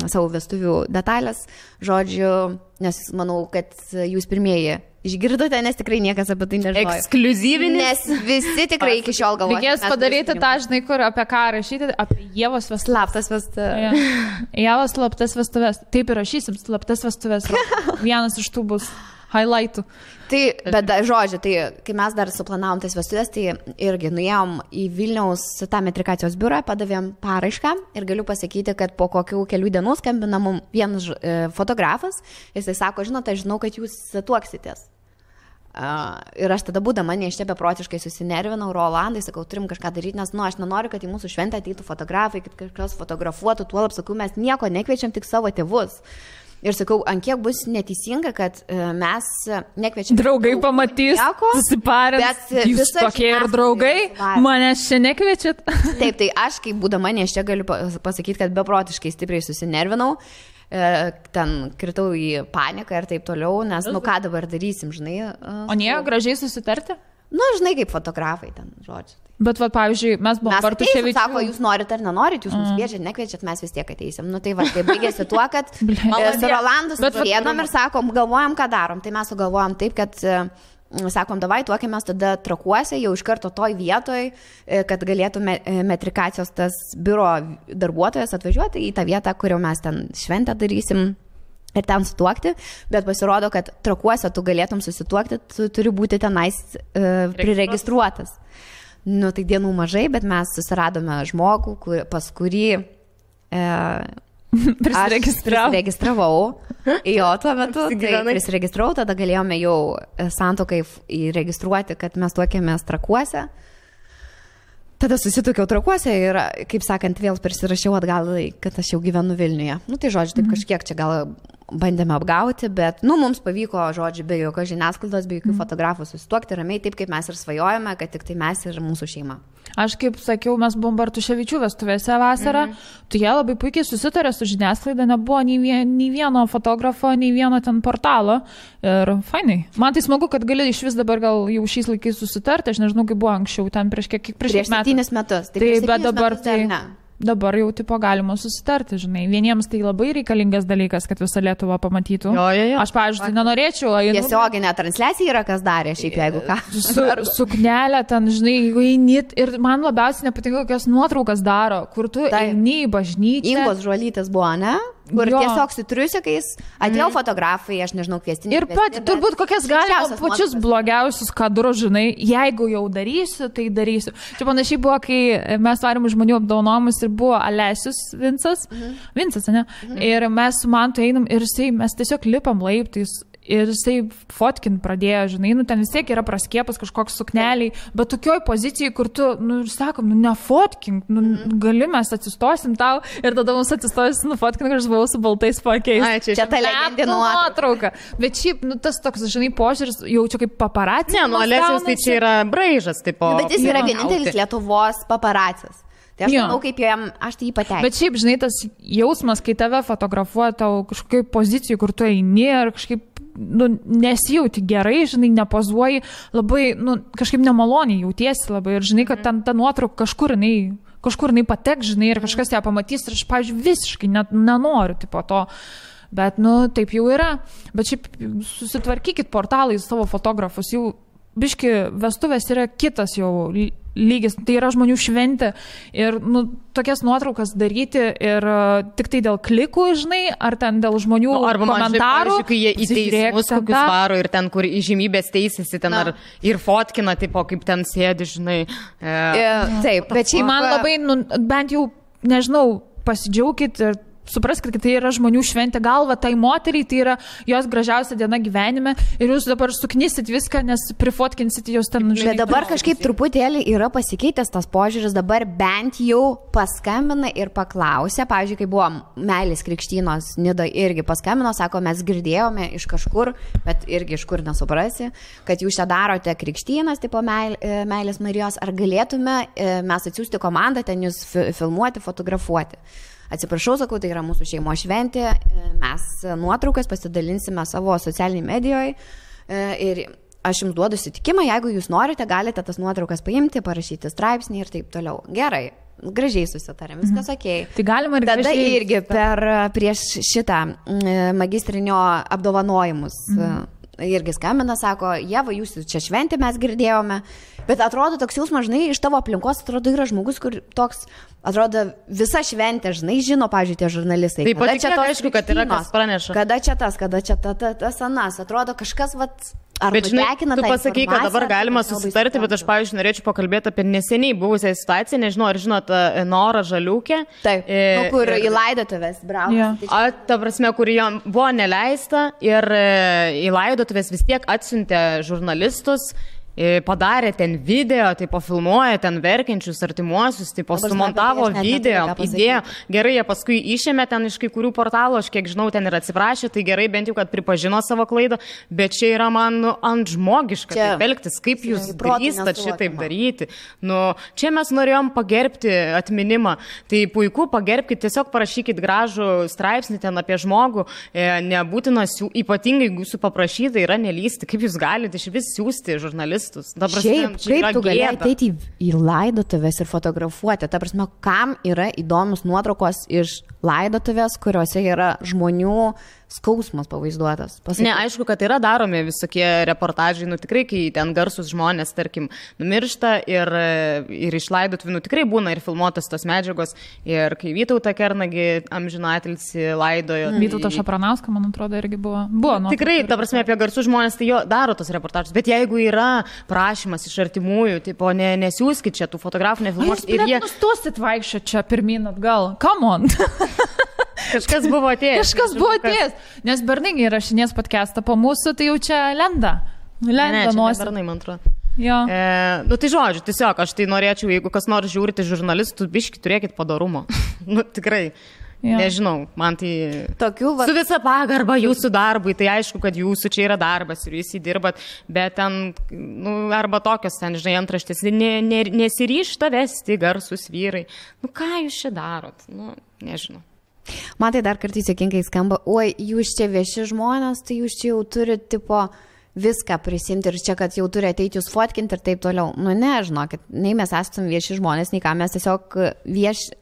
C: savo vestuvių detalės, žodžiu, nes manau, kad jūs pirmieji išgirdote, nes tikrai niekas apie tai nežinojo.
B: Ekskliuzyvinis.
C: Nes visi tikrai iki šiol galvoja.
A: Reikės padaryti tą, žinai, kur apie ką rašyti, apie Ievos vestuvės.
C: Slaptas vestuvės.
A: Ievos slaptas vestuvės. Taip ir rašysim, slaptas vestuvės. Vienas iš tų bus highlightų.
C: Tai, bet žodžiu, tai kai mes dar suplanavom tas vestuvės, tai irgi nuėjom į Vilniaus tą metrikacijos biurą, padavėm paraišką ir galiu pasakyti, kad po kokių kelių dienų skambina mums vienas fotografas, jisai sako, žinote, žinau, kad jūs tuoksitės. Ir aš tada būdama neščia beprotiškai susinervinau, Rolandai, sakau, turim kažką daryti, nes, aš nenoriu, kad į mūsų šventę ateitų fotografai, kad kažkas fotografuotų, tuolab, sakau, mes nieko nekviečiam, tik savo tėvus. Ir sakau, ant kiek bus neteisinga, kad mes nekviečiam...
A: Draugai pamatys, susiparės, jūs tokie ir draugai, manęs čia nekviečiat.
C: Taip, tai aš, kaip būdama neščia, galiu pasakyti, kad beprotiškai stipriai susinervinau, ten kritau į paniką ir taip toliau, nes, ką dabar darysim, žinai.
A: O nie, gražiai susitarti?
C: Žinai, kaip fotografai ten, žodžiu.
A: Bet, pavyzdžiui, mes buvom
C: Bartuševičių. Sako, jūs norite ar nenorit, jūs mums kviečiat, nekviečiat, mes vis tiek ateisim. Tai baigėsi tuo, kad su Rolandu susėdom ir sakom, galvojam, ką darom. Tai mes sugalvojam taip, kad sakom, davai, tuokėmės tada Trakuose, jau iš karto toj vietoj, kad galėtų metrikacijos tas biuro darbuotojas atvažiuoti į tą vietą, kur jau mes ten šventę darysim. Ir ten sutuokti, bet pasirodo, kad Trakuose tu galėtum susituokti, tu turi būti tenais priregistruotas. Tai dienų mažai, bet mes susiradome žmogų, pas kurį prisiregistravau. Jo, tuo metu prisiregistravau, tada galėjome jau santuokai įregistruoti, kad mes tuokėmės Trakuose. Tada susituokiau Trakuose ir, kaip sakant, vėl persirašiau atgal, kad aš jau gyvenu Vilniuje. Tai žodžiu, taip kažkiek čia gal bandėme apgauti, bet, mums pavyko, žodžiu, be jokios žiniasklaidos, be jokių fotografų susituokti ramiai, taip kaip mes ir svajojame, kad tik tai mes ir mūsų šeima.
A: Aš kaip sakiau, mes buvom Bartuševičių vestuvėse vasarą, tu jie labai puikiai susitarė su žiniasklaida, nebuvo nei vieno fotografo, nei vieno ten portalo ir fainai. Man tai smagu, kad gali iš vis dabar gal jau šiais laikais susitarti, aš nežinau, kaip buvo anksčiau, ten prieš
C: 7 metus.
A: Taip, bet dabar tai... Dabar jau tipo galima susitarti, žinai. Vieniems tai labai reikalingas dalykas, kad visą Lietuvą pamatytų.
B: Jo.
A: Aš, pavyzdžiui, nenorėčiau.
C: Tiesioginė transliacija yra, kas darė šiaip, jeigu ką.
A: Suknelę ten, žinai, jeigu eini. Ir man labiausiai nepatinka, kokias nuotraukas daro, kur tu eini į bažnyčią.
C: Ingos Žuolytės buvo, ne? Kur tiesiog su triusikais atėjo fotografai, aš nežinau, kviestiniai.
A: Ir pat, turbūt kokias galima pačius blogiausius kadrus, žinai, jeigu jau darysiu, tai darysiu. Čia panašiai buvo, kai mes varėm žmonių apdaunojimus ir buvo Alesius Vincas, ne? Ir mes su Mantu einam ir mes tiesiog lipam laiptais. Ir jisai fotkin pradėjo, žinai, ten vis tiek yra praskėpas kažkoks sukneliai, bet tokioj pozicijai, kur tu, sakom, nefotkink, gali mes atsistosim tau ir tada mums atsistosim, nufotkink, aš buvau su baltais pakeis.
C: Čia ta legendinė nuotrauka.
A: Bet šiaip, tas toks, žinai, požiūris jaučiu kaip paparacis.
B: Ne, Alesius tai čia yra braižas, tipo.
C: Bet jis yra vienintelis Lietuvos paparacis. Tai aš manau, kaip jam, aš tai jį pateikau.
A: Bet šiaip, žinai, tas jausmas, kai tave fotografuoja tau kažkokiai pozicijai, kur tu eini ir kažkaip nesijauti gerai, žinai, nepozuoji, labai, kažkaip nemaloniai jautiesi labai ir žinai, kad ten ta nuotrauka kažkur jinai patek, žinai, ir kažkas ją pamatys ir aš, pavyzdžiui, visiškai nenoriu tipo to. Bet, taip jau yra. Bet šiaip susitvarkykit portalai savo fotografus, jau biški vestuvės yra kitas jau lygis, tai yra žmonių šventė ir tokias nuotraukas daryti ir tik tai dėl klikų, žinai, ar ten dėl žmonių komentarų.
B: Kai jie į teismus kokius varo ir ten, kur įžymybės teisėsi, ten ar ir fotkina, tipo, kaip ten sėdi, žinai.
C: Taip, bet šiaip
A: man labai, bent jau, nežinau, pasidžiaugkit ir supraskit, kad tai yra žmonių šventė, galva tai moteriai, tai yra jos gražiausia diena gyvenime ir jūs dabar suknysit viską, nes prifotkinsit jos ten.
C: Bet dabar kažkaip truputėlį yra pasikeitęs tas požiūris, dabar bent jau paskambina ir paklausė, pavyzdžiui, kai buvo Meilės krikštynos Nida irgi paskambino, sako, mes girdėjome iš kažkur, bet irgi iš kur nesuprasi, kad jūs čia darote krikštynas, tipo Meilės Marijos, ar galėtume mes atsiųsti komandą ten jūs filmuoti, fotografuoti. Atsiprašau, sakau, tai yra mūsų šeimo šventė, mes nuotraukas pasidalinsime savo socialiniai medijoje ir aš jums duodu sutikimą, jeigu jūs norite, galite tas nuotraukas paimti, parašyti straipsnį ir taip toliau. Gerai, gražiai susitarėm, viskas okei.
A: Tai galima ir
C: tada irgi prieš šitą magistrinio apdovanojimus irgi skambina, sako, Jeva, jūs čia šventė mes girdėjome, bet atrodo toks jausmas, žinai, iš tavo aplinkos atrodo yra žmogus, kur toks, atrodo, visa šventė, žinai, žino, pavyzdžiui, tie žurnalistai.
B: Taip, pat čia aišku, kad yra kas praneša.
C: Kada čia tas anas, atrodo kažkas,
B: bet žinai, tu pasakai, kad dabar galima susitarti, bet aš, pavyzdžiui, norėčiau pakalbėti apie neseniai buvusią situaciją, nežinau, ar žinot, Norą Žaliūkę.
C: Taip, kur į laidotuvės bravo.
B: Ta prasme, kur jam buvo neleista ir į laidotuvės vis tiek atsiuntė žurnalistus, padarė ten video, tai pofilmuoja ten verkiančius artimuosius, tai sumontavo video, įdėjo. Gerai, jie paskui išėmė ten iš kai kurių portalų, aš kiek žinau, ten ir atsiprašė, tai gerai bent jau, kad pripažino savo klaidą, bet čia yra man ant žmogiška taip elgtis, kaip jūs drįstat šitaip daryti. Čia mes norėjom pagerbti atminimą, tai puiku, pagerbkite, tiesiog parašykit gražų straipsnį ten apie žmogų, nebūtina, ypatingai jūsų paprašyta yra nelysti, kaip jūs galite iš vis siūsti žurnalistus.
C: Šiaip, kaip tu gali ateiti į laidotuvės ir fotografuoti? Ta prasme, kam yra įdomus nuotraukos iš laidotuvės, kuriuose yra žmonių skausmas pavaizduotas?
B: Ne, aišku, kad yra daromi visokie reportažai, tikrai, kai ten garsus žmonės, tarkim, numiršta ir iš laidotuvių, tikrai būna ir filmuotos tos medžiagos, ir kai Vytautą Kernagį amžinatilsį laidojo.
A: Vytautą Šapranauską, man atrodo, irgi buvo.
B: Tikrai, ta prasme, apie garsus žmonės, tai jo daro tos reportažus, bet jeigu yra prašymas iš artimųjų, tipo, nesiųskit čia tų fotografų, nefilmuokit.
A: Ir jie nustosit vaikščioti čia pirmyn atgal. Come on.
B: Kažkas buvo atėjęs. Nes Bernai rašinės podcastą po mūsų, tai jau čia lenda. Ne, čia Bernai, man atrodo. Tai žodžiu, tiesiog aš tai norėčiau, jeigu kas nors žiūrite žurnalistų, biški turėkit padarumo. Tikrai. Nežinau, man tai... Su visa pagarba jūsų darbui, tai aišku, kad jūsų čia yra darbas ir jūs įdirbat, bet ten, arba tokios ten, žinai, antraštės, nesiryžta vesti garsus vyrai. Ką jūs čia darot? Nežinau.
C: Man tai dar kartais juokingai skamba, oi, jūs čia vieši žmonės, tai jūs čia jau turite, tipo, viską prisimti ir čia, kad jau turi ateiti jūs fotkinti ir taip toliau. Ne, žinokit, nei mes esame vieši žmonės, nei ką, mes tiesiog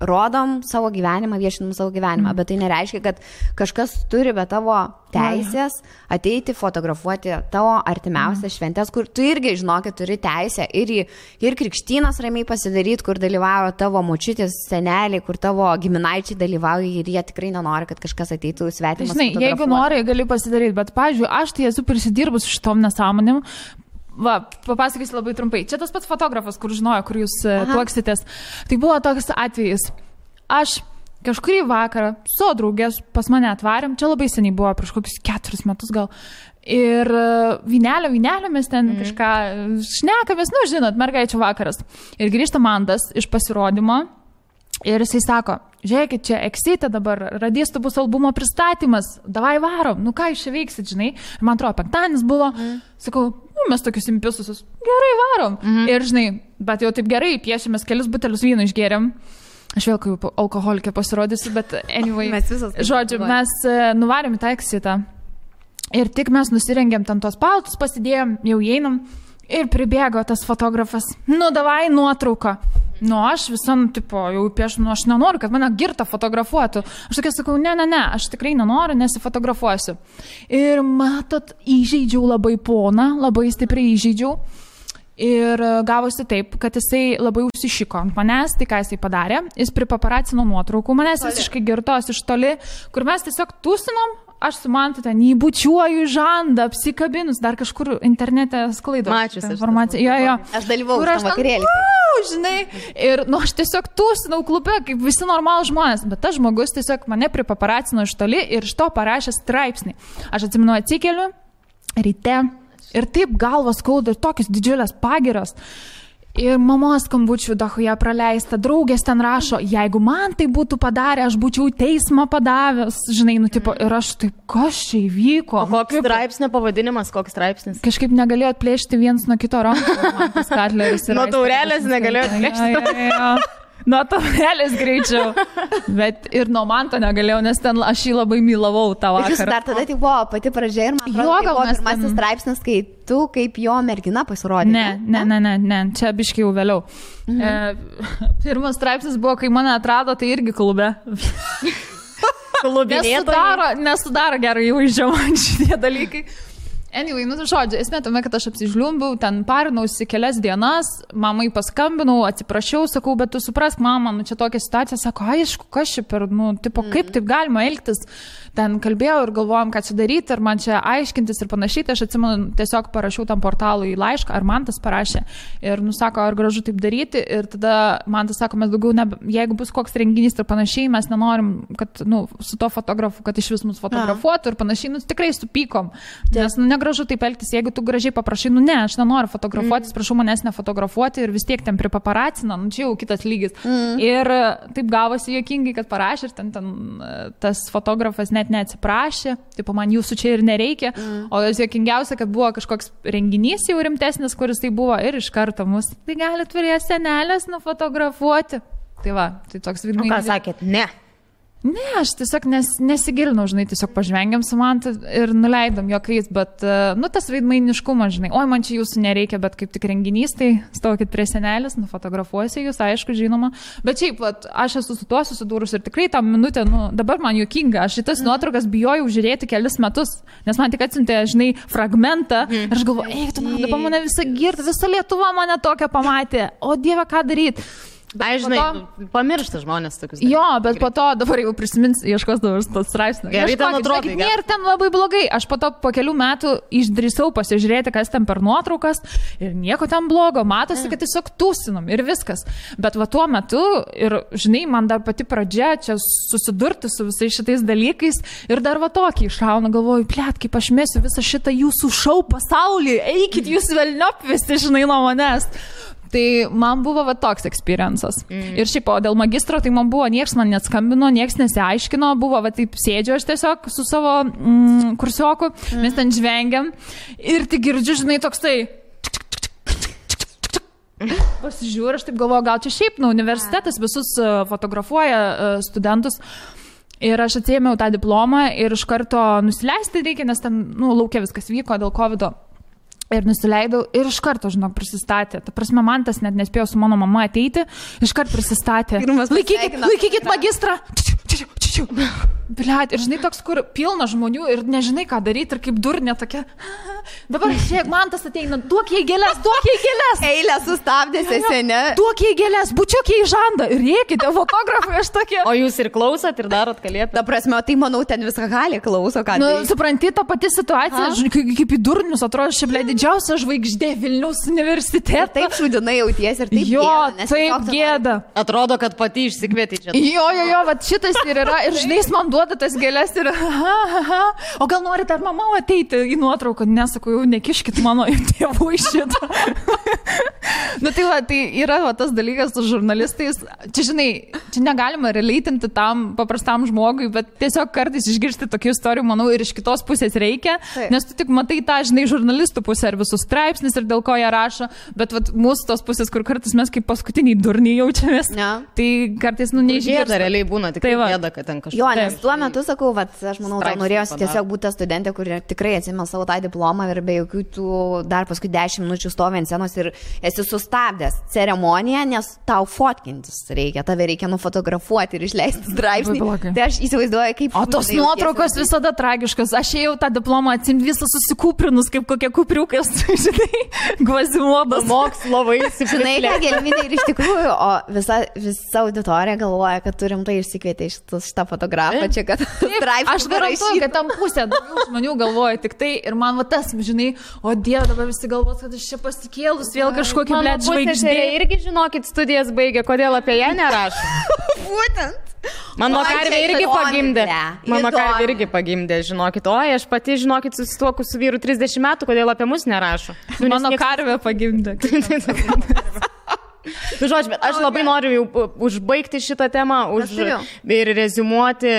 C: rodom savo gyvenimą, viešinam savo gyvenimą, bet tai nereiškia, kad kažkas turi be tavo teisės ateiti fotografuoti tavo artimiausias šventės, kur tu irgi, žinokit, turi teisę ir krikštynas ramiai pasidaryti, kur dalyvauja tavo močiutės, seneliai, kur tavo giminaičiai dalyvauja ir jie tikrai nenori, kad kažkas ateitų svetimas.
A: Žinai, jeigu nori, gali pasidaryti, bet, pavyzdžiui, aš tai esu prisidirbus šitom nesąmonėm. Va, papasakysiu labai trumpai. Čia tas pats fotografas, kur žinojo, kur jūs tuoksitės. Tai buvo toks atvejis. Aš kažkurį vakarą su draugės pas mane atvarėm, čia labai seniai buvo, prieš kokius 4 metus gal. Ir vynelio mes ten kažką šnekamės, žinot, mergaičių vakaras. Ir grįžta Mantas iš pasirodymo ir jisai sako, žiūrėkit, čia Eksite dabar, radistų bus albumo pristatymas, davai varom, ką jūs čia veiksit, žinai. Ir man atrodo, penktadienis buvo, sakau, mes tokius impisusus, gerai varom. Ir žinai, bet jau taip gerai, piešėmės kelis butelius vyno išgėrėm. Aš vėl kaip alkoholikė pasirodysiu, bet anyway, žodžiu, mes nuvarėm į tą Eksitą ir tik mes nusirengėm ten tos paltus, pasidėjom, jau einam ir pribėgo tas fotografas, davai nuotrauką. Aš visam, jau piešu, aš nenoriu, kad mane girta fotografuotų. Aš tokia sakau, ne, aš tikrai nenoriu, nesifotografuosiu. Ir matot, įžeidžiau labai poną, labai stipriai įžeidžiau. Ir gavosi taip, kad jisai labai užsišiko ant manęs, tai ką jisai padarė, jis pripaparacino nuotraukų, manęs visiškai girtos iš toli, kur mes tiesiog tūsinom, aš su Mantu ten įbučiuoju žandą, apsikabinus, dar kažkur internete sklaido.
B: Mačius
A: informaciją. Jo.
C: Aš dalyvau tam vakarėlį.
A: Žinai, ir aš tiesiog tūsinau klube, kaip visi normalūs žmonės, bet tas žmogus tiesiog mane pripaparacino iš toli ir iš to parašė straipsnį. Aš atsimenu, atsikeliu ryte. Ir taip galvas skauda ir tokios didžiulės pagiros. Ir mamos skambučių dahuja praleista, draugės ten rašo, jeigu man tai būtų padarę, aš būčiau teismą padavęs, žinai, ir aš taip, kas čia įvyko?
B: Koks straipsnio pavadinimas, koks straipsnis?
A: Kažkaip negalėjo atplėšti viens nuo kito rankų.
B: Nuo taurelės negalėjo atplėšti.
A: Nuo taurelės greičiau, bet ir nuo Manto negalėjau, nes ten aš jį labai mylavau tą vakarą.
C: Jūs dar tada tai buvo pati pradžia ir man atrodo, tai buvo pirmasis straipsnis, kai tu kaip jo mergina pasirodė.
A: Ne, čia biškai jau vėliau. Pirmas straipsnis buvo, kai mane atrado, tai irgi klube. Nesudaro gerai įvaizdžio man šitie dalykai. Anyway, žodžiu, esmė tame, kad aš apsižliumbiau, ten parinausi kelias dienas, mamai paskambinau, atsiprašiau, sakau, bet tu suprask, mama, čia tokia situacija, sako, aišku, kas čia per, kaip taip galima elgtis, ten kalbėjau ir galvojom, ką čia daryti, ir man čia aiškintis ir panašiai, tai aš atsimenu, tiesiog parašiau tam portalui laišką, ar man tas parašė, ir sako, ar gražu taip daryti, ir tada man tas sako, mes daugiau, jeigu bus koks renginys ir panašiai, mes nenorim, kad, su to fotografu, kad iš vis mus fotografuotų ir panašiai, tikrai supykom, nes, gražu taip elgtis, jeigu tu gražiai paprašai, ne, aš nenoriu fotografuotis, prašau manęs nefotografuoti ir vis tiek ten pripaparacina, čia jau kitas lygis. Ir taip gavosi juokingai, kad parašė ir ten tas fotografas net neatsiprašė, taip man jūsų čia ir nereikia, o juokingiausia, kad buvo kažkoks renginys jau rimtesnis, kuris tai buvo ir iš karto mus, tai gali turėti senelės nufotografuoti. Tai va, tai toks
B: vidmainis. Ką sakėt, ne?
A: Ne, aš tiesiog nesigilinau, žinai, tiesiog pažvengiam su Mantu ir nuleidom juokais, bet, tas veidmainiškumas, žinai, oi, man čia jūsų nereikia, bet kaip tik renginys, tai stokit prie senelės, nufotografuosi jūs, aišku, žinoma, bet šiaip, aš esu su tuo susidūrus ir tikrai tą minutę, dabar man juokinga, aš šitas nuotraukas bijojau žiūrėti kelis metus, nes man tik atsiuntė, žinai, fragmentą ir aš galvoju, eik, tu dabar mane visą girtą, visa Lietuva mane tokią pamatė, o Dieve, ką daryti?
B: Ai, žinai, pamiršta žmonės tokius dalykus.
A: Jo, bet po to dabar jau prisimins, ieškos dabar tos straipsnio.
B: Gerai, ten atrodo.
A: Nėra ten labai blogai. Aš po to po kelių metų išdrįsau pasižiūrėti, kas ten per nuotraukas ir nieko ten blogo. Matosi, kad tiesiog tūsinam ir viskas. Bet va tuo metu ir, žinai, man dar pati pradžia čia susidurti su visais šitais dalykais ir dar va tokį iššauna, galvoju, plėt, kaip aš mesiu visą šitą jūsų šou pasaulį, eikit jūs velniop visi, žinai, nuo manęs. Tai man buvo va toks experiences. Ir šiaip, o dėl magistro, tai man buvo, nieks man neskambino, nieks nesiaiškino, buvo va taip sėdžiu aš tiesiog su savo kursioku, mes ten žvengiam ir tik girdžiu, žinai, toks tai... Pasižiūrė, aš taip galvoju, gal čia šiaip, universitetas visus fotografuoja studentus. Ir aš atsiėmiau tą diplomą ir iš karto nusileisti reikia, nes ten, laukia viskas vyko dėl COVID-o. Ir nusileidau ir iš karto, žinok, prisistatė. Ta prasme, man tas net nespėjo su mano mama ateiti, iš karto prisistatė. Laikykit magistrą. Bliat, ir žinai, toks, kur pilna žmonių ir nežinai, ką daryti, ir kaip durnė tokia. Dabar, žiūrėk, man tas ateina, duok jai gėlės.
C: Eilę sustabdė sesenė.
A: Duok jai gėlės, bučiuk jai žandą. Ir rėkite, fotografai, aš tokie.
B: O jūs ir klausot ir darot kalėpę?
C: Ta prasme, tai manau, ten viską gali klauso, ką.
A: Supranti, ta pati situacija, kaip į durnius, atrodo, šiaip didžiausia žvaigždė Vilniaus universitete.
C: Taip šūdinai jauties ir taip
A: gėda. Taip gėda.
B: Atrodo, kad pati išsikvietė čia.
A: Jo, va šitas ir yra. Ir žinai, man duoda tas gėlės ir o gal norite ar mama ateiti į nuotrauką? Nesakau, jau nekiškit mano tėvų iš šito. Tai yra tas dalykas su žurnalistais. Čia, žinai, čia negalima releitinti tam paprastam žmogui, bet tiesiog kartais išgirsti tokių istorijų, manau, ir iš kitos pusės reikia, nes tu tik matai tą, žinai, žurnalistų pusę ir visus straipsnis ir dėl ko jie rašo, bet mūsų tos pusės, kur kartais mes kaip paskutiniai durniai jaučiamės, tai kartais, neišgirsta.
B: Gėda realiai būna, tik gėda, kad ten kažkas.
C: Jo, nes tuo metu sakau, aš manau, tau norėjosi tiesiog būti ta studentė, kuri tikrai atsimė savo tą diplomą ir be jokių tų dar paskui 10 minučių stovi ant scenos ir esi sustabdęs ceremoniją, nes tau fotkintis reikia, tave reikia nufotografuoti ir išleisti straipsnį. Tai aš įsivaizduoju, kaip...
A: O tos nuotraukos visada tragiškos. Aš ėjau tą diplomą atsimti visą susikūprinus, kaip kokie kupriukas, žinai, Gvazimodas.
B: Mokslo vaisių.
C: Žinai, ką gelminė ir iš tikrųjų, o visa auditorija galvoja, kad turim tai išsikvietę iš šitą fotografą, čia kad straipsnį.
A: Aš garantuoju, kad tam pusė daugiau žmonių galvoja tik tai ir man va tas, žinai, o Dieve, dabar visi galvos, kad aš čia pasikėlus vėl kažkokį blėt žvaigždė.
B: Irgi žinokit, studijas baigė, kodėl apie ją nerašo.
C: Būtent.
B: Mano karvė irgi pagimdė. Mano karvė irgi pagimdė, žinokit. Oi, aš pati, žinokit, susituoku su vyru 30 metų, kodėl apie mus nerašo.
A: Mano karvė pagimdė.
B: Žodžiu, bet aš labai noriu jau užbaigti šitą temą ir reziumuoti.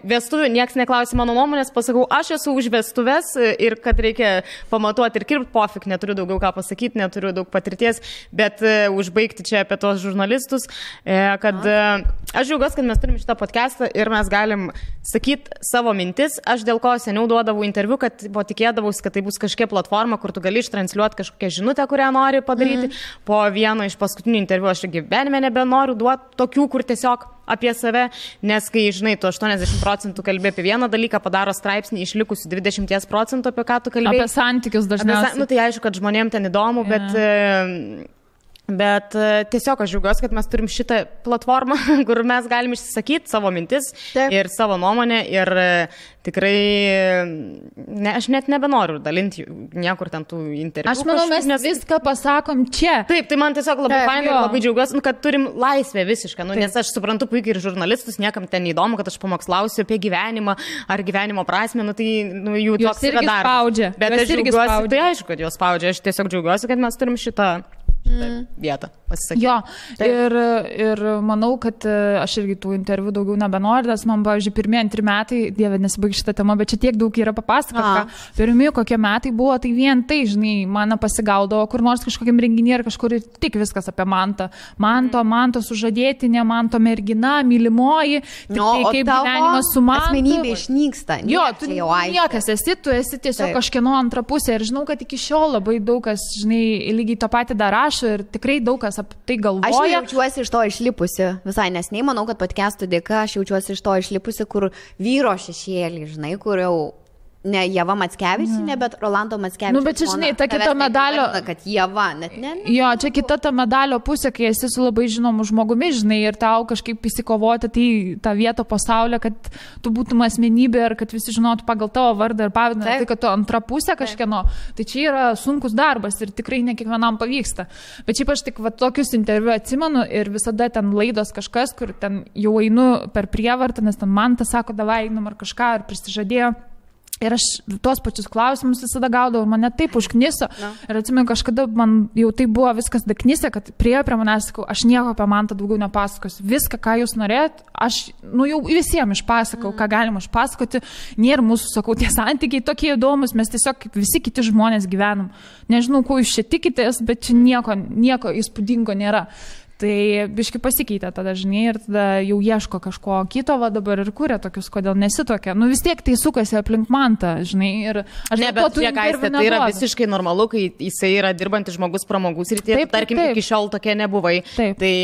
B: Vestuvių, nieks neklausė mano nuomonės, pasakau, aš esu už vestuves ir kad reikia pamatuoti ir kirpti, pofik, neturiu daugiau ką pasakyti, neturiu daug patirties, bet užbaigti čia apie tos žurnalistus, kad aš džiaugiuosi, kad mes turim šitą podcastą ir mes galim sakyti savo mintis. Aš dėl ko seniau duodavau interviu, kad tikėdavausi, kad tai bus kažkokia platforma, kur tu gali ištransliuoti kažkokią žinutę, kurią nori padaryti. Po vieno iš paskutinių interviu aš gyvenime nebenoriu duoti tokių, kur tiesiog apie save, nes kai, žinai, tu 80% kalbė apie vieną dalyką, padaro straipsnį išlikusi 20%, apie ką tu kalbėjai.
A: Apie santykius dažniausiai.
B: Tai aišku, kad žmonėm ten įdomu, bet tiesiog aš džiaugiuosi, kad mes turim šitą platformą, kur mes galim išsisakyti savo mintis ir savo nuomonę ir tikrai, aš net nebenoriu dalinti niekur ten tų interviu.
A: Aš manau, mes viską pasakom čia.
B: Taip, tai man tiesiog labai fainai ir labai džiaugiuosi, kad turim laisvę visišką, nes aš suprantu puikiai ir žurnalistus, niekam ten įdomu, kad aš pamokslausiu apie gyvenimą ar gyvenimo prasmę, tai jų toks yra darbas. Bet aš džiaugiuosi, tai aišku, kad jos spaudžia, aš tiesiog džiaugiuosi, kad mes turim šitą vietą pasisakyti.
A: Jo, ir manau, kad aš irgi tų interviu daugiau nebenoriu, nes man, pavyzdžiui, pirmieji 2 metai, Dieve, nesibaig šitą temą, bet čia tiek daug yra papasakota. Pirmieji kokie metai buvo, tai vien tai, žinai, mane pasigaudavo kur nors kažkokiam renginį ar kažkur ir tik viskas apie Mantą. Manto sužadėtinė, Manto mergina, mylimoji, kaip gyvenimas su Mantu.
C: Asmenybė išnyksta.
A: Jo, tu niekas esi, tu esi tiesiog kažkieno antra pusė ir žinau, kad iki šiol labai daug kas, žinai, lygiai tą patį dar rašo ir tikrai daug kas apie tai galvoja.
C: Aš jaučiuosi iš to išlipusi, visai nesnei, manau, kad podcastų dėka aš jaučiuosi iš to išlipusi, kur vyro šešėlį, žinai, kur jau ne Ieva Mackevičienė, bet Rolando Mackevičienė.
A: Bet čia, žinai, ta kita medalio...
C: Kad Ieva, net ne.
A: Jo, čia kita ta medalio pusė, kai esi su labai žinomu žmogumi, žinai, ir tau kažkaip įsikovoti tą vietą pasaulyje, kad tu būtum asmenybė ir kad visi žinotų pagal tavo vardą ir pavydą, tai kad tu antra pusė kažkieno. Tai čia yra sunkus darbas ir tikrai ne kiekvienam pavyksta. Bet šiaip aš tik tokius interviu atsimenu ir visada ten laidos kažkas, kur ten jau einu per prievartą, nes ten man tas sako, davai einam ar kažką, ar prisižadėjo. Ir aš tuos pačius klausimus visada gaudavau ir mane taip užkniso. Ir atsimenu, kažkada man jau tai buvo viskas daknysė, kad priėjo prie manęs, sakau, aš nieko apie Mantą daugiau nepasakosiu. Viską, ką jūs norėjot, aš jau visiems išpasakau, ką galima išpasakoti. Nėra mūsų, sakau, tie santykiai tokie įdomus, mes tiesiog kaip visi kiti žmonės gyvenam. Nežinau, ko jūs čia tikitės, bet čia nieko įspūdingo nėra. Tai biški pasikeitė tada, žinai, ir tada jau ieško kažko kito, va dabar ir kūrė tokius, kodėl nesitokia. Nu vis tiek tai sukasi aplink Mantą, žinai, ir aš
B: ne, bet tai yra visiškai normalu, kai jisai yra dirbantis žmogus pramogų srityje, tarkim, iki šiol tokie nebuvai. Taip. Tai,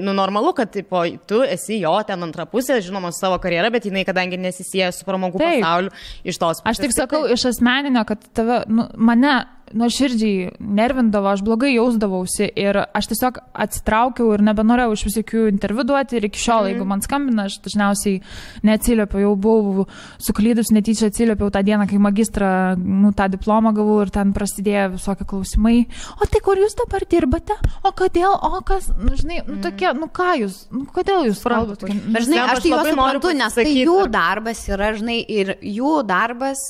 B: nu, normalu, kad tipo, tu esi jo ten antra pusė, žinoma, savo karjerą, bet jinai, kadangi nesisieja su pramogų pasauliu, iš tos pusės.
A: Aš tik sakau iš asmeninio, kad tave, nu, mane nuoširdžiai nervindavo, aš blogai jausdavausi ir aš tiesiog atsitraukiau ir nebenorėjau iš visokių interviu duoti ir iki šiol, jeigu man skambina, aš dažniausiai neatsiliepiau, jau buvau suklydus, netyčia atsiliepiau tą dieną, kai magistrą, nu, tą diplomą gavau ir ten prasidėjo visokie klausimai. O tai kur jūs dabar dirbate? O kodėl? O kas? Nu, žinai, nu, tokie, nu, ką jūs? Nu, kodėl jūs kalbate?
C: Bet, žinai, aš tai juos suprantu, nes tai jų darbas yra, žinai, ir jų darbas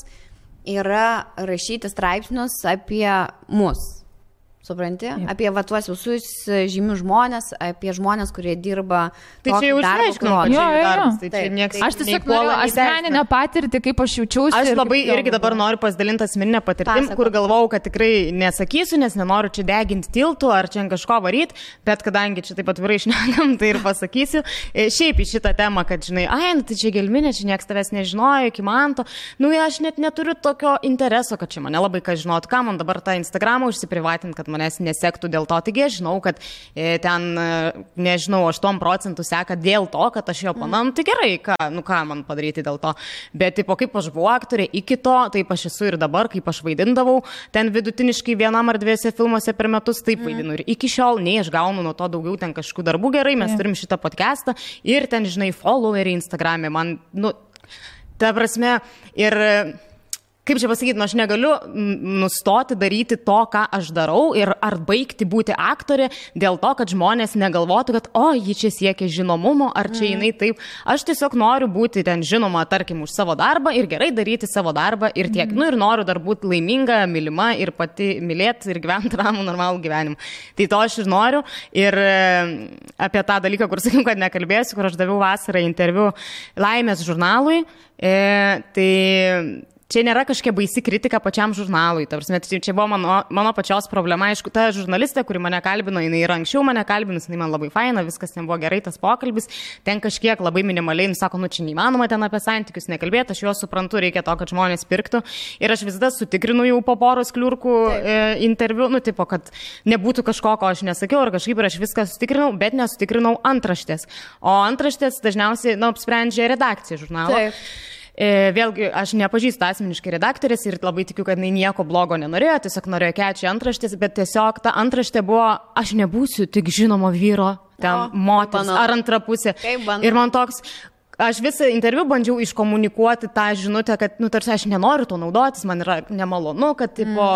C: yra rašyti straipsnius apie mus. Supranti? Jep. Apie va tuos visus žymius žmonės, apie žmonės, kurie dirba.
B: Tai čia jau išaiškinau, kad čia jų darbas. Tai čia nieks,
A: aš tiesiog noriu asmeninę patirtį, kaip aš jaučiausi.
B: Aš labai irgi dabar noriu pasidalinti asmeninę patirtim, kur galvau, kad tikrai nesakysiu, nes nenoriu čia deginti tiltų ar čia kažko varyti, bet kadangi čia taip atvirai šnekam, tai ir pasakysiu. Šiaip į šitą temą, kad žinai, nu tai čia gelminė, čia nieks tavęs nežinojo, iki Manto. Nu, aš net neturiu tokio intereso, kad čia mane labai kas žinotų, ką man dabar tą Instagramą užsiprivatinti, kad manęs nesektų dėl to. Taigi aš žinau, kad ten, nežinau, 8% seka dėl to, kad aš jo panam, tai gerai, ką man padaryti dėl to. Bet tipo, kaip aš buvau aktorė iki to, taip aš esu ir dabar, kaip aš vaidindavau, ten vidutiniškai 1 ar 2 filmuose per metus taip vaidinu. Ir iki šiol, nei aš gaunu nuo to daugiau ten kažkokių darbų, gerai, mes turim šitą podcastą ir ten, žinai, followeriai Instagram'e. Man, nu, ta prasme, ir kaip čia pasakyti, aš negaliu nustoti daryti to, ką aš darau ir ar baigti būti aktorė dėl to, kad žmonės negalvotų, kad ji čia siekia žinomumo, ar čia jinai taip. Aš tiesiog noriu būti ten žinoma, tarkim, už savo darbą ir gerai daryti savo darbą ir tiek. Nu ir noriu dar būti laiminga, mylima ir pati mylėti ir gyventi ramų, normalų gyvenimą. Tai to aš ir noriu. Ir apie tą dalyką, kur sakiau, kad nekalbėsiu, kur aš daviau vasarą interviu Laimės žurnalui, tai čia nėra kažkokia baisi kritika pačiam žurnalui. Čia buvo mano pačios problema. Aišku, ta žurnalistė, kuri mane kalbino, jinai ir anksčiau mane kalbinus, jinai man labai faina, viskas nebuvo gerai, tas pokalbis. Ten kažkiek labai minimaliai, sako, nu čia neįmanoma ten apie santykius nekalbėti, aš juos suprantu, reikia to, kad žmonės pirktų. Ir aš visada sutikrinu jau po poros kliurkų interviu, nu tipo, kad nebūtų kažko, ko aš nesakiau, ar kažkaip ir aš viską sutikrinau, bet nesutikrinau antraštės. O antraštės dažniausiai, apsprendžia redakcija žurnalo. Taip. Vėlgi, aš nepažįstu asmeniškai redaktorės ir labai tikiu, kad jinai nieko blogo nenorėjo, tiesiog norėjo kečią antraštės, bet tiesiog ta antraštė buvo, aš nebūsiu tik žinomo vyro, ten moters ar antra pusė. Ir man toks, aš visą interviu bandžiau iškomunikuoti tą žinutę, kad, tarsi aš nenoriu to naudotis, man yra nemalonu, kad, tipo,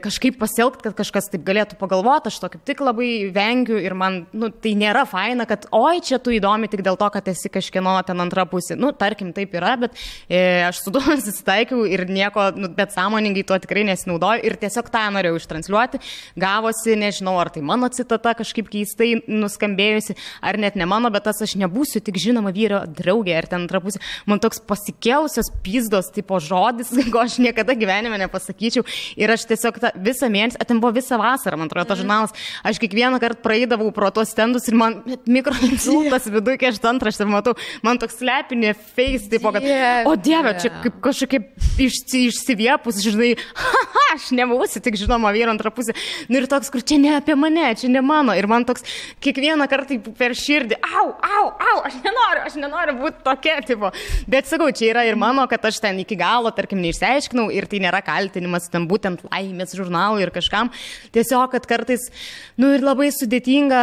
B: kažkaip pasielgti, kad kažkas taip galėtų pagalvoti, aš to kaip tik labai vengiu ir man, tai nėra faina, kad, čia tu įdomi tik dėl to, kad esi kažkieno ten antra pusė. Tarkim, taip yra, bet aš su tuo susitaikiau ir nieko, bet sąmoningai tuo tikrai nesinaudoju ir tiesiog tą norėjau ištransliuoti. Gavosi, nežinau, ar tai mano citata kažkaip keistai nuskambėjusi, ar net ne mano, bet tas aš nebūsiu tik žinoma vyro draugė ar ten antra pusė. Man toks pasikėlusios pizdos tipo žodis, ko aš niekada gyvenime nepasakyčiau. Ir aš tiesiog visą mėnesį, ten buvo visą vasarą, man atrodo, tas žurnalas, aš kiekvieną kartą praeidavau pro tuos stendus ir man mikroinsultas viduje, kai aš antraštę matau, man toks slepinė face, tipo, kad, o dieve, čia kaip kažkokia išsiviepus, žinai, aš nebūsiu tik žinoma vyro antra pusė. Nu ir toks, kur čia ne apie mane, čia ne mano. Ir man toks kiekvieną kartą per širdį, aš nenoriu būti tokia, tipo. Bet sakau, čia yra ir mano, kad aš ten iki galo, tarkim, neišsiaiškinau ir tai nėra kaltinimas ten būtent Laimės žurnalui ir kažkam. Tiesiog, kad kartais, ir labai sudėtinga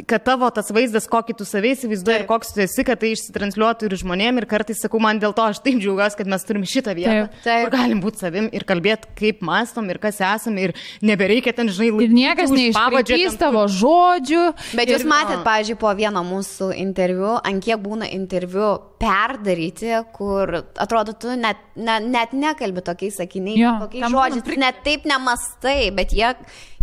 B: kad tavo tas vaizdas, kokį tu savai įsivaizduoji ir koks tu esi, kad tai išsitransliuotų ir žmonėm. Ir kartais sakau, man dėl to aš taip džiaugiuosi, kad mes turim šitą vietą, kur galim būti savim ir kalbėti, kaip mąstom ir kas esame. Ir nebereikia ten, žinai,
A: ir niekas neišpapadžiais tavo žodžių.
C: Bet jūs matėt, pavyzdžiui, po vieno mūsų interviu, ant kiek būna interviu perdaryti, kur atrodo, tu net nekalbi tokiais sakiniais, tokiais žodžiais, net taip nemastai, bet jie